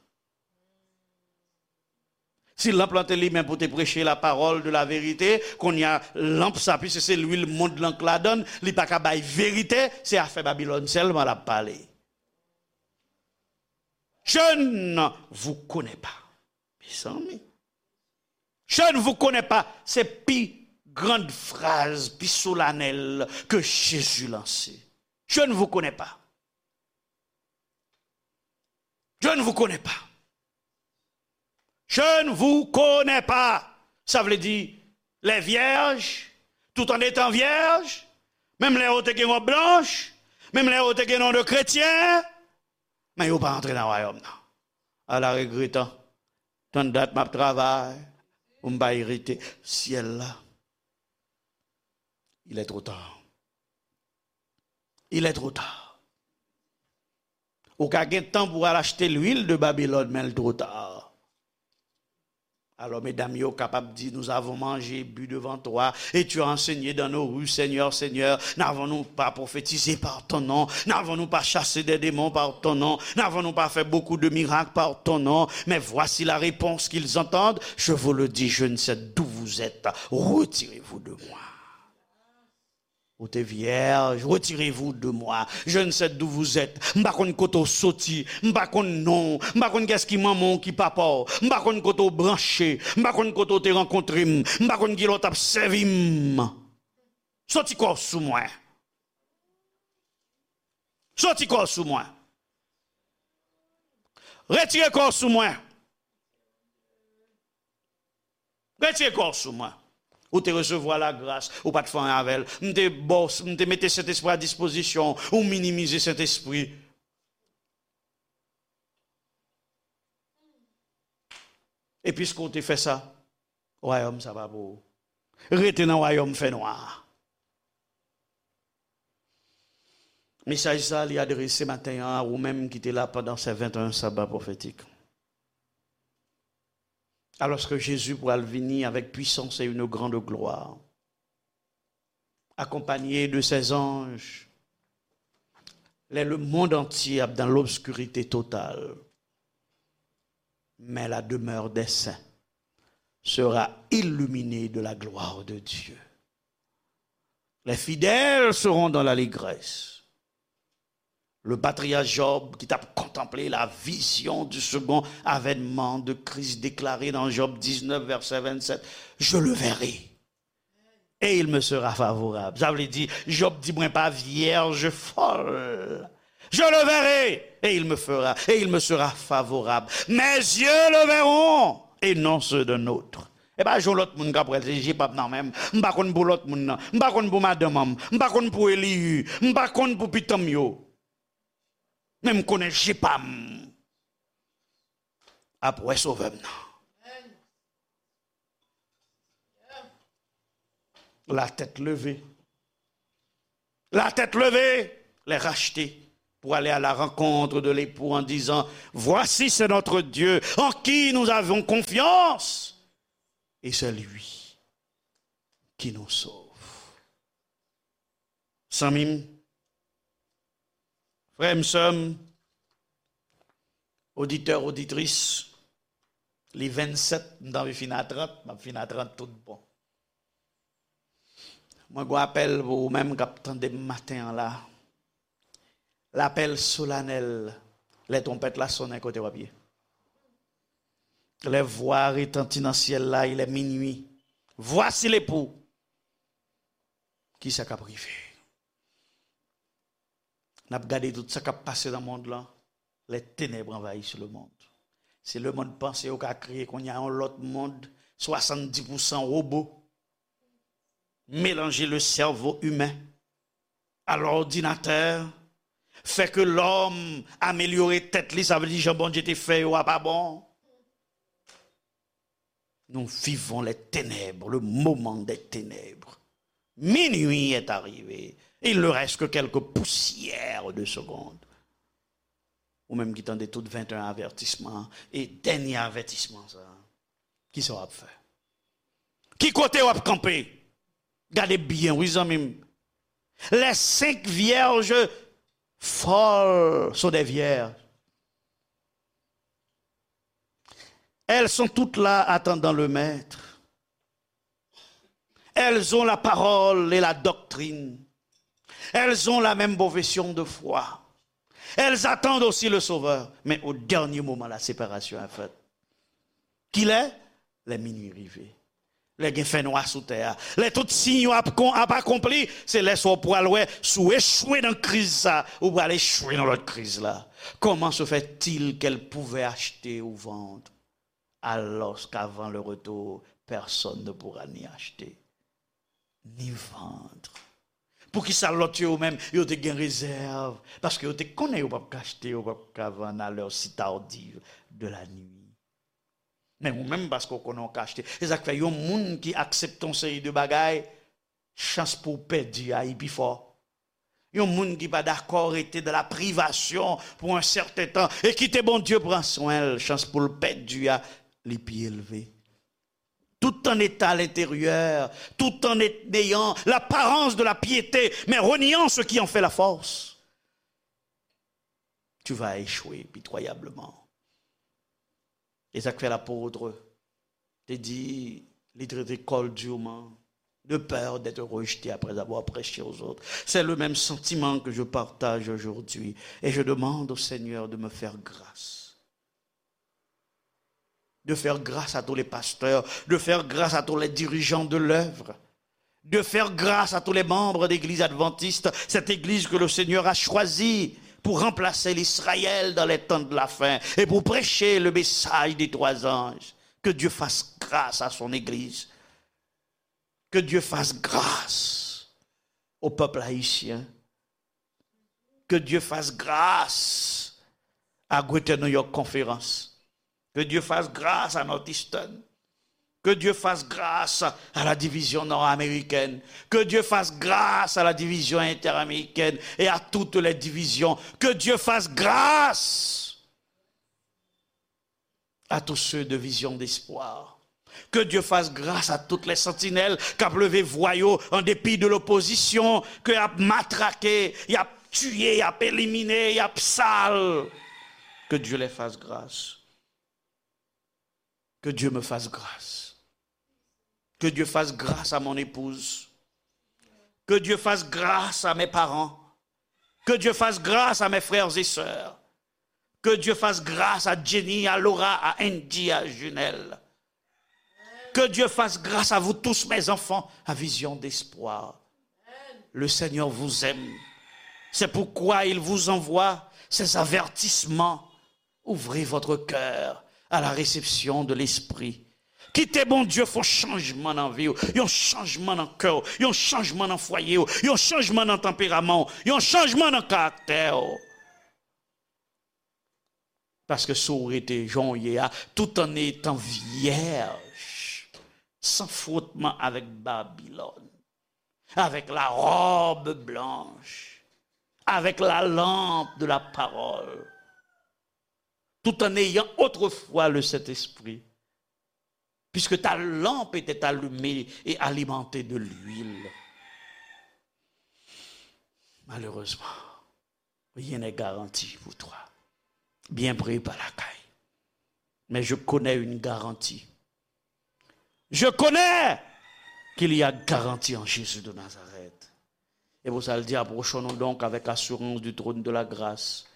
Si lanp lan te limen pou te preche la parole de la vérité, kounye a lanp sa, piske se lwil mond lan k ladan l, li pa ka bay verite, se afè Babilòn sèlman l ap pale. Je ne vous connais pas. Mezanmi. Je ne vous connais pas. Se pi grand fraz, pi solanèl ke Jezi lanse. Je ne vous connais pas. Je ne vous connais pas. Je ne vous connais pas. Sa vle di, les vierges, tout en étant vierges, menm lè yo te gen wòb blanch, menm lè yo te gen non de kretyen, men yo pa antre nan wayòm nan. Ala regretan, tann dat m ap travay pou m pa erite syèl la. Il est trop tard. Il est trop tard. Ou ka gen tan pou al achte lwil de Babilòn, men l twò ta. Alò, medam yo kapab di, nous avons mangé, bu devant toi, et tu as enseigné dans nos rues, Seigneur, Seigneur. N avons-nous pas prophétisé par ton nom? N avons-nous pas chassé des démons par ton nom? N avons-nous pas fait beaucoup de miracles par ton nom? Mais voici la réponse qu'ils entendent. Je vous le dis, je ne sais d'où vous êtes. Retirez-vous de moi. Ou te vyèj, retirez-vous de moi. Je ne sais d'où vous êtes. M pa konn kote w soti, m pa konn non w, m pa konn kiyès ki manman w, ki papa w, m pa konn kote w branche, m pa konn kote w te rankontre m, m pa konn kilè w t ap sèvi m. Soti kò w sou mwen. Soti kò w sou mwen. Retire kò w sou mwen. Retire kò w sou mwen. Ou te resevwa lagras, ou pa t fè anyen avè l. M te ba w, m te mete Sentespri a dispozisyon w, ou minimize Sentespri. E piske w te fè sa, wayòm sa pa pou ou. Rete nan wayòm fènwa a. Mesaj sa a, li adrese maten an a ou menm ki te la pandan se venteyen saba pwofetik. Alòske Jezi pral vini avèk pwisans e une grande gloire, accompagné de ses anges, lè lemonn antye ap dans l'obscurité totale, mais la demeure des saints sera illuminée de la gloire de Dieu. Les fidèles seront dans l'allégresse. Le patriarche Job, ki t ap kontanple la vision du second avènement de Christ déclaré dans Job dix-neuf, verset vingt-sept, je le verrai. Et il me sera favorable. Sa vle di, Job di, mwen pa vyèj fòl. Je le verrai, et il me fera, et il me sera favorable. Mes yeux le verront, et non ceux d'un autre. E pa jan lòt moun k ap wè l, se je pa m nan men m. M pa konn pou lòt moun nan. M pa konn pou madanm an m. M pa konn pou Eliyu. M pa konn pou pitan m yo. Men m konnen je pa m ap wè Sovè m nan. La tête levée. La tête levée, les rachetés, pour aller à la rencontre de l'époux en disant, voici, c'est notre Dieu en qui nous avons confiance, et c'est lui qui nous sauve. Zanmi m, frè m, sè m, oditè, oditris, li vennsèt, m t anvi fin a trant, m ap fin a trant tout bon. Mwen gen yon apèl pou ou menm k ap tande m maten an la. Lapèl solanèl, lè twonpèt la sonnen, kote w ap ye? Lè vwa a retanti nan syèl la, il est minuit. Voici l'époux. Kisa k ap rive? N ap gade tout sa k ap pase nan mond lan. Les ténèbres envahissent le monde. Si lemonn panse yo ka kreye kounye a yon lòt mond, swasanndis pousan wobo, mélanger le cerveau humain à l'ordinateur, fè ke lòm amelyore tèt li, sa vle di jan Bondye te fè yo a pa bon. Nous vivons les ténèbres, le moment des ténèbres. Minuit est arrivé. Il ne reste que quelques poussières de secondes. Ou menm ki tande tout venteyen avètisman e dènye avètisman sa, kisa w ap fè? Ki kote w ap kanpe? Gade byen, wi, zanmi m. Les cinq vierges folles sont des vierges. Elles sont toutes là attendant le maître. Elles ont la parole et la doctrine. Elles ont la même profession de foi. Elles attendent aussi le Sauveur. Mais au dernier moment, la séparation est faite. Kilè? Lè minui rive. Lè gen fènwa sou tè a, lè tout siy yo ap, kon, ap akonpli, se lè sa w pral wè si w echwe nan kriz sa, ou pral echwe nan lòt kriz la. Comment se fait-il qu'elle pouvait acheter ou vendre, alors qu'avant le retour, personne ne pourra ni acheter, ni vendre? Poukisa lòt yo menm, yo te gen rezèv? Paske yo te konnen yo p ap ka achte, yo p ap ka vann à l'heure si tardive de la nuit. Men ou menm, paske w konnen w ka achte. Se sa k fè yon moun ki aksepte yon seri de bagay, chans pou w pèdi a, li pi fò. Yon moun ki pa dakò rete dans la privation pour un certain temps e kite Bondye pran swen l, chans pou l pèdi a, li pi elve. Tout en état à l'intérieur, tout en ayant l'apparence de la piété, mais reniant ce qui en fait la force, tu vas échouer pitoyablement. E sa k fè lapot te di, li trete kò l durement, de peur d'être rejeté après avoir prêché aux autres. C'est le même sentiment que je partage aujourd'hui. Et je demande au Seigneur de me faire grâce. De faire grâce à tous les pasteurs, de faire grâce à tous les dirigeants de l'œuvre, de faire grâce à tous les membres d'Église adventiste, cette Église que le Seigneur a choisie pour remplacer l'Israël dans les temps de la fin et pour prêcher le message des trois anges. Que Dieu fasse grâce à son Église. Que Dieu fasse grâce au peuple haïtien. Que Dieu fasse grâce à Greater New York Conference. Que Dieu fasse grâce à Northeastern. Que Dieu fasse grâce à la division nord-américaine. Que Dieu fasse grâce à la division interaméricaine et à toutes les divisions. Que Dieu fasse grâce à tous ceux de Vision d'Espoir. Que Dieu fasse grâce à toutes les sentinelles k ap leve vwa yo an depi de l'opposition, ke y ap matrake, y ap tiye, y ap elimine, y ap sal. Que Dieu les fasse grâce. Que Dieu me fasse grâce. Que Dieu fasse grâce à mon épouse. Que Dieu fasse grâce à mes parents. Que Dieu fasse grâce à mes frères et sœurs. Que Dieu fasse grâce à Jenny, à Laura, à Andy, à Junelle. Que Dieu fasse grâce à vous tous, mes enfants, à Vision d'Espoir. Le Seigneur vous aime. C'est pourquoi il vous envoie ces avertissements. Ouvrez votre cœur à la réception de l'Esprit. Kite Bondye fè yon chanjman nan vi w, yon chanjman nan kè w, yon chanjman nan fwaye w, yon chanjman nan tanperaman w, yon chanjman nan karaktè w. Paske si w rete jan w ye a, tout en étant vierge, sans frottement avec Babylone, avec la robe blanche, avec la lampe de la parole, tout en ayant autrefois le Saint-Esprit, puisque ta lampe était allumée et alimentée de l'huile. Malheureusement, rien n'est garanti pour toi. Byen pre pa lakay. Mais je connais une garantie. Je connais qu'il y a garantie en Jésus de Nazareth. Et pour ça, il dit, approchons-nous donc avec assurance du trône de la grâce,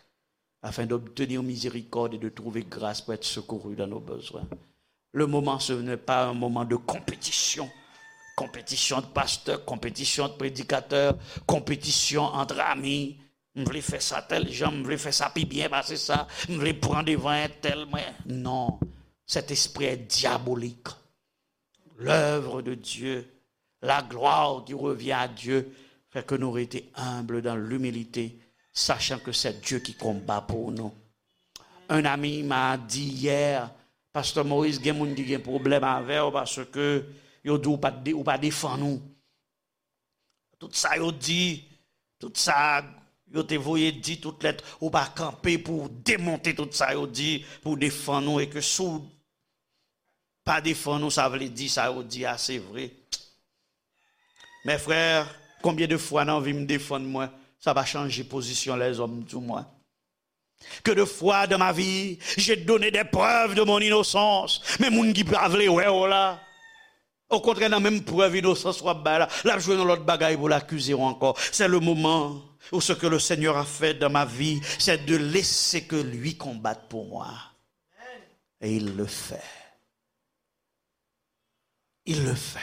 afin d'obtenir miséricorde et de trouver grâce pour être secouru dans nos besoins. Le moment, ce n'est pas un moment de compétition. Compétition de pasteurs, compétition de prédicateurs, compétition entre amis. M vle fè sa tèl jan, m vle fè sa pi byen pase sa, m vle pran devan entèl mwen. Non, cet esprit est diabolique. L'œuvre de Dieu, la gloire qui revient à Dieu, fait que nous rester humbles dans l'humilité, sachant que c'est Dieu qui combat pour nous. Un ami m'a dit hier, Pasteur Maurice, gen moun ki gen pwoblèm avè w paske yo di w pa, ou pa defann ou. Tout sa yo di, tout sa yo te voye di, tout lèt, ou pa kanpe pou w demonte tout sa yo di, pou w defann ou, e ke si w pa defann ou, sa vle di sa yo di a, se vre. Mes frères, combien de fois nan vi m defann mwen, sa pa chanje pozisyon lèzòm sou mwen. Que de fois dans ma vie, j'ai donné des preuves de mon innocence. Men moun ki pa vle wè w la, okontrè, nan menm prèv inosans w ap bay la, l ap jwenn yon lòt bagay pou l akize w ankò. C'est le moment où ce que le Seigneur a fait dans ma vie, c'est de laisser que lui combatte pour moi. Et il le fait. Il le fait.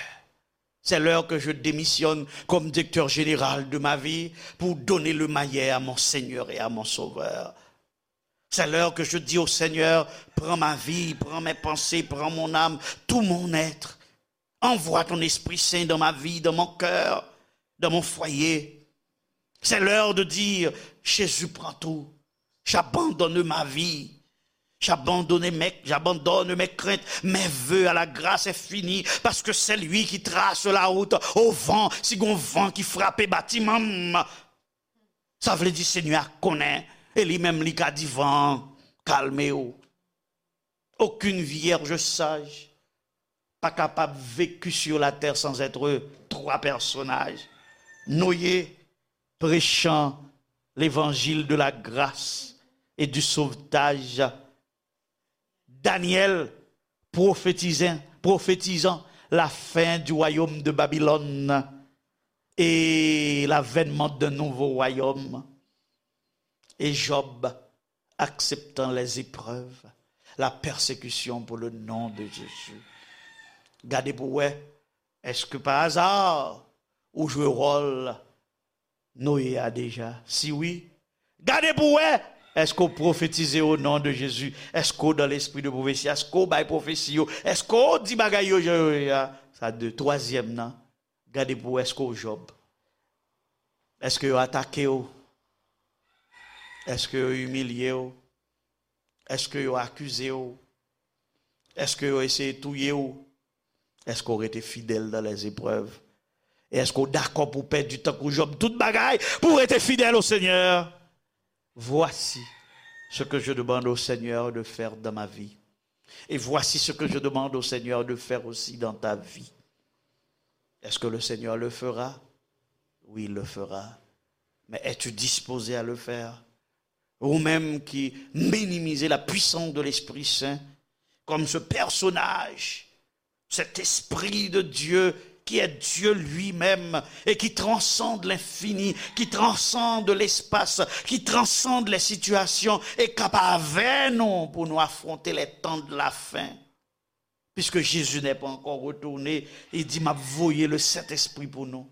C'est l'heure que je démissionne comme directeur général de ma vie pour donner le maillet à mon Seigneur et à mon Sauveur. C'est l'heure que je dis au Seigneur, prends ma vie, prends mes pensées, prends mon âme, tout mon être. Envoie ton Esprit Saint dans ma vie, dans mon cœur, dans mon foyer. C'est l'heure de dire, Jésus, prends tout. J'abandonne ma vie. J'abandonne mes, j'abandonne mes craintes, mes vœux à la grâce infinie, parce que c'est lui qui trace la route au vent, si gon van ki frape batiman m. Sa vle di Senyè a konnen, e li menm li ka di van an, kalme w. Aucune vierge sage pa kapab vécu sur la terre sans être trois personnages. Noé, prêchant l'évangile de la grâce et du sauvetage. Daniel, prophétisant, prophétisant la fin du royaume de Babylone et l'avènement d'un nouveau royaume. Et Job, acceptant les épreuves, la persécution pour le nom de Jésus. Gade pou wè, èske pa aza ou jwe wòl Noye a deja? Si wi, gade pou wè, èske w pwofetize o non de Jezi? Èske w dans l'esprit de prophétie? Èske w bay pwofesi yo? Èske w di bagay yo jan yo ye a? Sa de. Twazyèm nan, gade pou wè èske w Jòb. Èske yo atake w? Èske yo imilye w? Èske yo akize w? Èske yo eseye touye w? Èske w rete fidèl dans les épreuves? E èske w dakò pou w pèdi tankou Jòb tout bagay pou w rete fidèl au Seigneur? Voici ce que je demande au Seigneur de faire dans ma vie. Et voici ce que je demande au Seigneur de faire aussi dans ta vie. Est-ce que le Seigneur le fera? Oui, il le fera. Mais es-tu disposé à le faire? Ou menm ki minimize la puissance de l'Esprit Saint comme ce personnage, cet Esprit de Dieu qui est Dieu lui-même et qui transcende l'infini, qui transcende l'espace, qui transcende les situations, e k ap avè nou pou nou afronte les temps de la fin. Puisque Jésus n'est pas encore retourné, il dit, m ap voye le Saint-Esprit pou nou.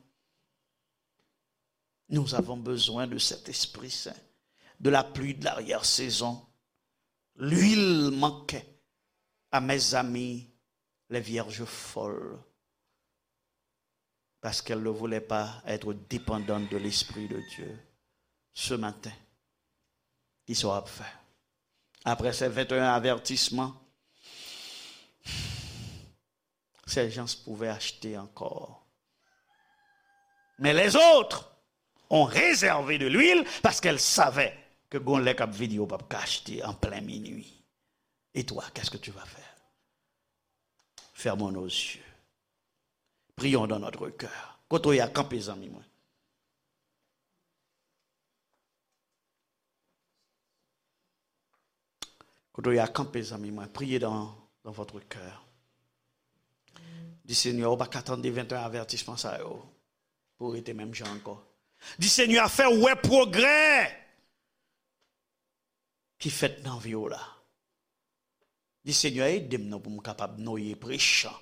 Nous avons besoin de cet Esprit Saint, de la pluie de l'arrière-saison. L'huile manquait à mes amis, les vierges folles, parce qu'elles ne voulaient pas être dépendantes de l'Esprit de Dieu. Ce matin, kisa w ap fè? Après ces vingt et un avertissements, ces gens pouvaient acheter encore. Mais les autres ont réservé de l'huile parce qu'elles savaient que gon lè k ap vini yo p ap ka achte en plein minuit. Et toi, qu'est-ce que tu vas faire? Fermons nos yeux. Prions dans notre cœur. Kote w ye a, kanpe, zanmi mwen. Kote w ye a, kanpe, zanmi mwen. Priez dans, dans votre cœur. Di, Senyè, ou pa ka tande vingt et un avertissement sa yo pou w rete menm jan ankò. Di, Senyè, fè w wè pwogrè ki fèt nan vi w la. Di, Senyè, ede m non pou m kapab Noye, prêchant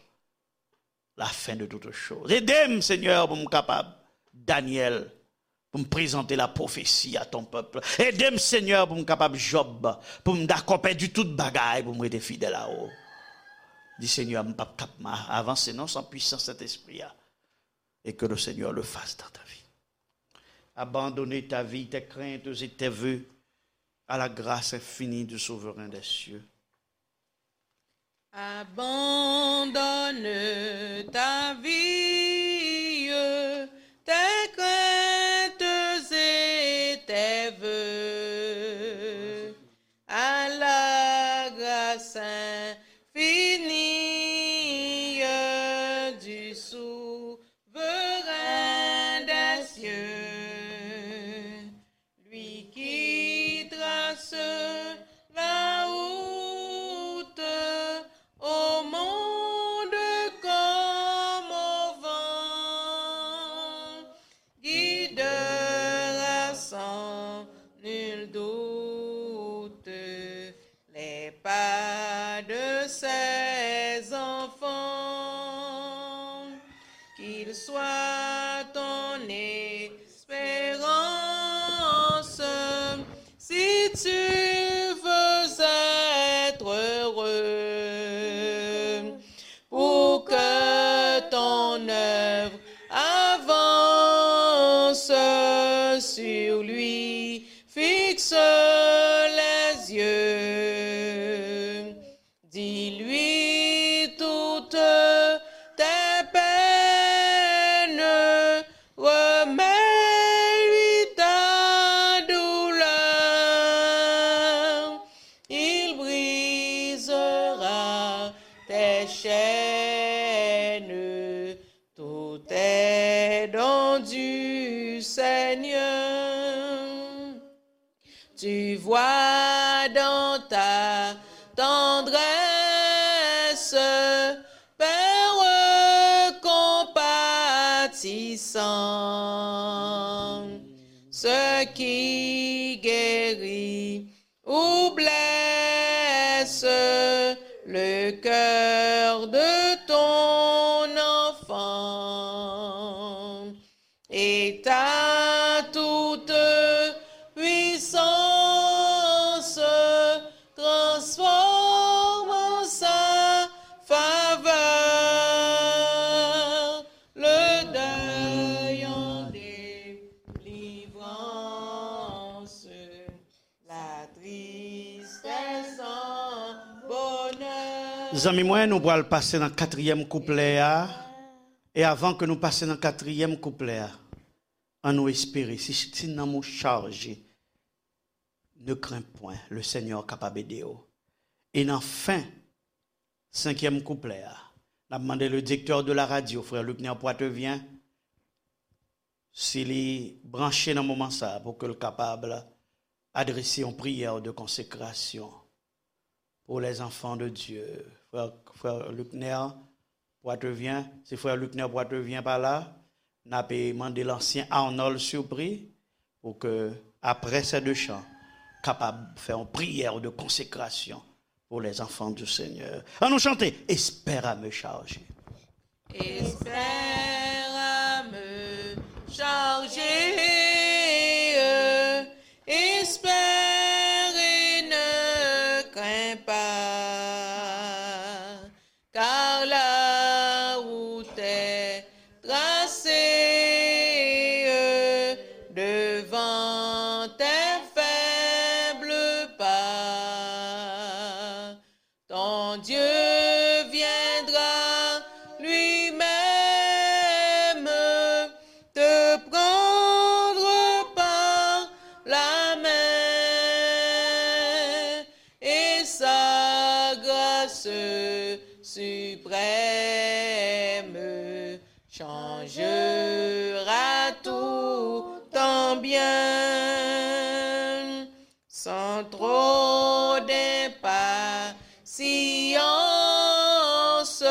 la fin de toutes choses. Ede m, Senyè, pou m kapab Daniel, pou m prezante la prophétie à ton peuple. Ede m, Senyè, pou m kapab Jòb, pou m dakò pèdi tout bagay, pou m rete fidèl a ou. Di, Senyè, m p ap kap ma-, avanse non san pwisans Sentespri a. Et que le Seigneur le fasse dans ta vie. Abandonner ta vie, tes craintes et tes vœux à la grâce infinie du Souverain des cieux. Abandonne ta vie, tes craintes et tes vœux à la grâce infinie du Souverain des cieux, lui qui trace la route au monde comme au vent. sur lui, fixe les yeux. Dis-lui toutes tes peines, remets-lui ta douleur. Il brisera tes chaînes, tout est don du Seigneur. Tu vois dans ta tendresse, Père compatissant, ce qui guérit ou blesse le cœur de ton enfant. Et ta toute puissance transforme en sa faveur le deuil en délivrance, la tristesse en bonheur. Zanmi mwen, nou pral pase nan katriyèm kouplè a. E avan ke nou pase nan katriyèm kouplè a, an nou espere, si, si nanm ou chaje, ne crains point, le Seigneur kapab ede w. E nan fen senkyèm kouplè a, n ap mande le directeur de la radio, frè Luckner Poitevin, si li branche nan moman sa a, pou ke l kapab adrese yon priyè de konsekrasyon pour les enfants de Dieu. Frè, frè Luckner Poitevin, si frè Luckner Poitevin pa la, n ap mande lansyen Arnold Surpris pou ke, apre sè de chan, kapab fè yon priyè de konsekrasyon pour les enfants du Seigneur. An nou chante, Espère à me charger. Espère à me charger, espère et ne crains pas, car la route est tracée devant tes faibles pas. Ton Dieu viendra lui-même te prendre par la main et sa grâce suprême changera tout en bien. Sans trop d'impatience,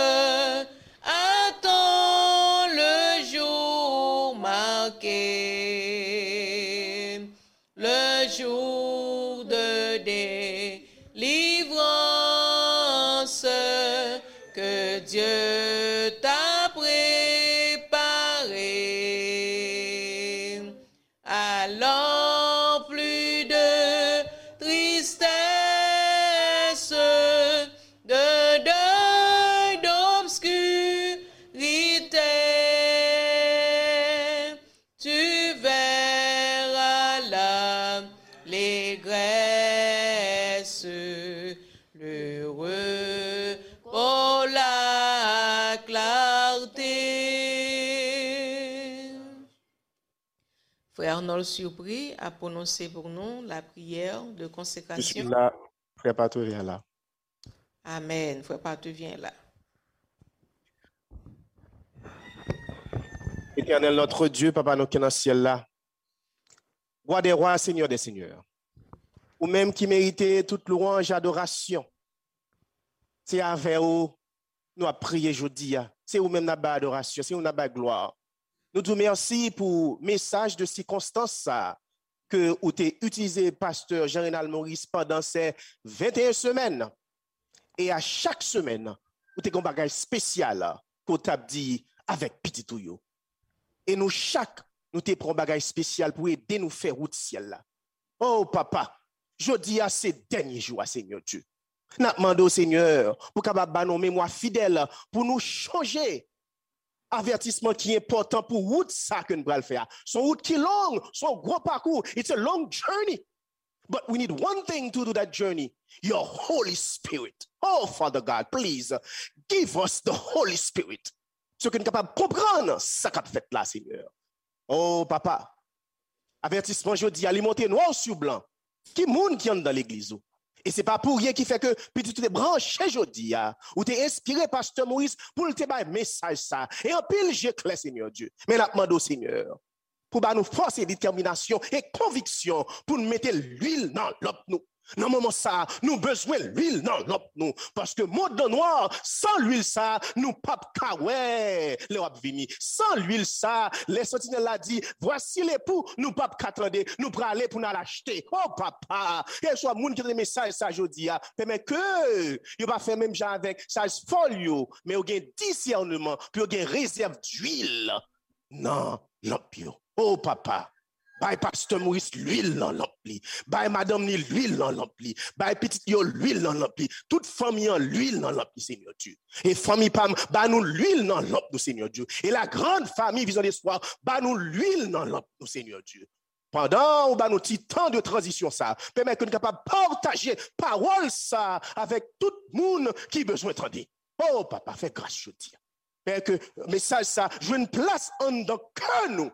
attends le jour marqué, le jour de délivrance que Dieu t'a préparé. Alors plus de tristesse, de deuil, d'obscurité, tu verras l'allégresse, le repos, la clarté. Frè Arnold Surpris ap pwononse pou nou la priyè de konsekrasyon. Je suis là, frè Patrevyen la. Amèn, frè Patrevyen la. Éternel notre Dieu, Papa nou ki nan syèl la, Roi des rois, Seigneur des seigneurs, ou menm ki merite tout lwanj, adorasyon, se avè ou nou ap priye jodi a. Se ou menm n ap bay adorasyon, se ou n ap bay glwa. Nou di w mèsi pou mesaj de sikonstans sa a ke ou te itilize pastè Jean Renald Maurice pandan se venteyen semèn. E a chak semèn, ou te gen yon bagay espesyal ke w t ap di avèk pitit ou yo. E nou chak, nou te pran yon bagay espesyal pou ede nou fè wout syèl la. O Papa, jodi a se dènye jou a, Senyè Dye. N ap mande w, Senyè, pou w kapab ba nou yon memwa fidèl, pou nou chonje avètisman ki enpòtan pou wout sa ke n pral fè a. Se yon wout ki long, se yon gwo pakou. It's a long journey. But we need one thing to do that journey. Your Holy Spirit. Oh, Father God, please give us the Holy Spirit. So ke n kapab konprann sa k ap fèt la, Senyè. Oh, Papa, avètisman jodi a, li monte nwa sou blan. Ki moun ki anndan legliz ou? E se pa pou ryen ki fè ke pitit ou te branche jodi a, ou te enspire Pastè Moris pou l te bay mesaj sa. E anpil je klè, Senyè Dye. Men n ap mande w, Senyè, pou ba nou fòs e detèminasyon e konviksyon pou n mete lwil nan lanp nou. Nan moman sa a, nou bezwen lwil nan lanp nou. Paske mond lan nwa, san lwil sa a, nou p ap ka wè lè w ap vini. San lwil sa a, lè santinèl la di, "Voici l'époux," nou p ap ka tande, nou prale pou n al achte. Oh, Papa, keswa moun ki tande mesaj sa jodi a, pèmèt ke yo pa fè menm jan avèk saj fòl yo, men yo gen disèneman, pou yo gen rezèv lwil nan lanp yo. Oh, Papa, bay Pastè Moris lwil nan lanp li. Bay madanm li lwil nan lanp li. Bay pitit yo lwil nan lanp li. Tout fanmi an lwil nan lanp li, Senyè Dye. E fanmi pa m, ba nou lwil nan lanp nou, Senyè Dye. E la grande famille Vision d'Espoir, ba nou lwil nan lanp nou, Senyè Dye. Pandan ou ba nou ti tan de tranzisyon sa, pèmèt ke nou kapab pataje pawòl sa avèk tout moun ki bezwen tande. Oh, Papa, fè gras jodi a. Fè ke mesaj sa jwenn plas anndan kè nou.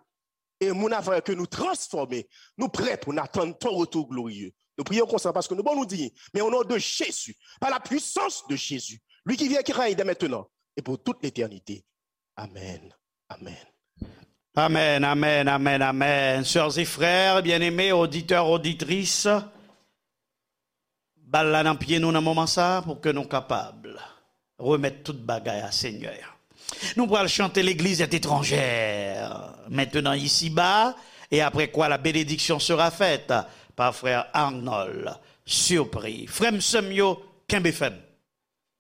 E moun ap wè ke nou transfòme, nou prè pou n atann ton retou gloriye. Nou priye w konsa paske nou bon nou di, men o non de Jezi, pa la pwisans de Jezi, li ki viv, ki règne dès maintenant et pour toute l'éternité. Amèn. Amèn. Amen, amen, amen, amen. Sœurs et frères, bien-aimés, auditeurs, auditrices, bal la nan pye nou nan moman sa a pou ke nou kapab remèt tout bagay a Senyè a. Nou pral chante L'église est étrangère, maintenant ici-bas, et après quoi la bénédiction sera faite par frère Arnold Surpris. Frè m, sè m yo, kenbe fèm.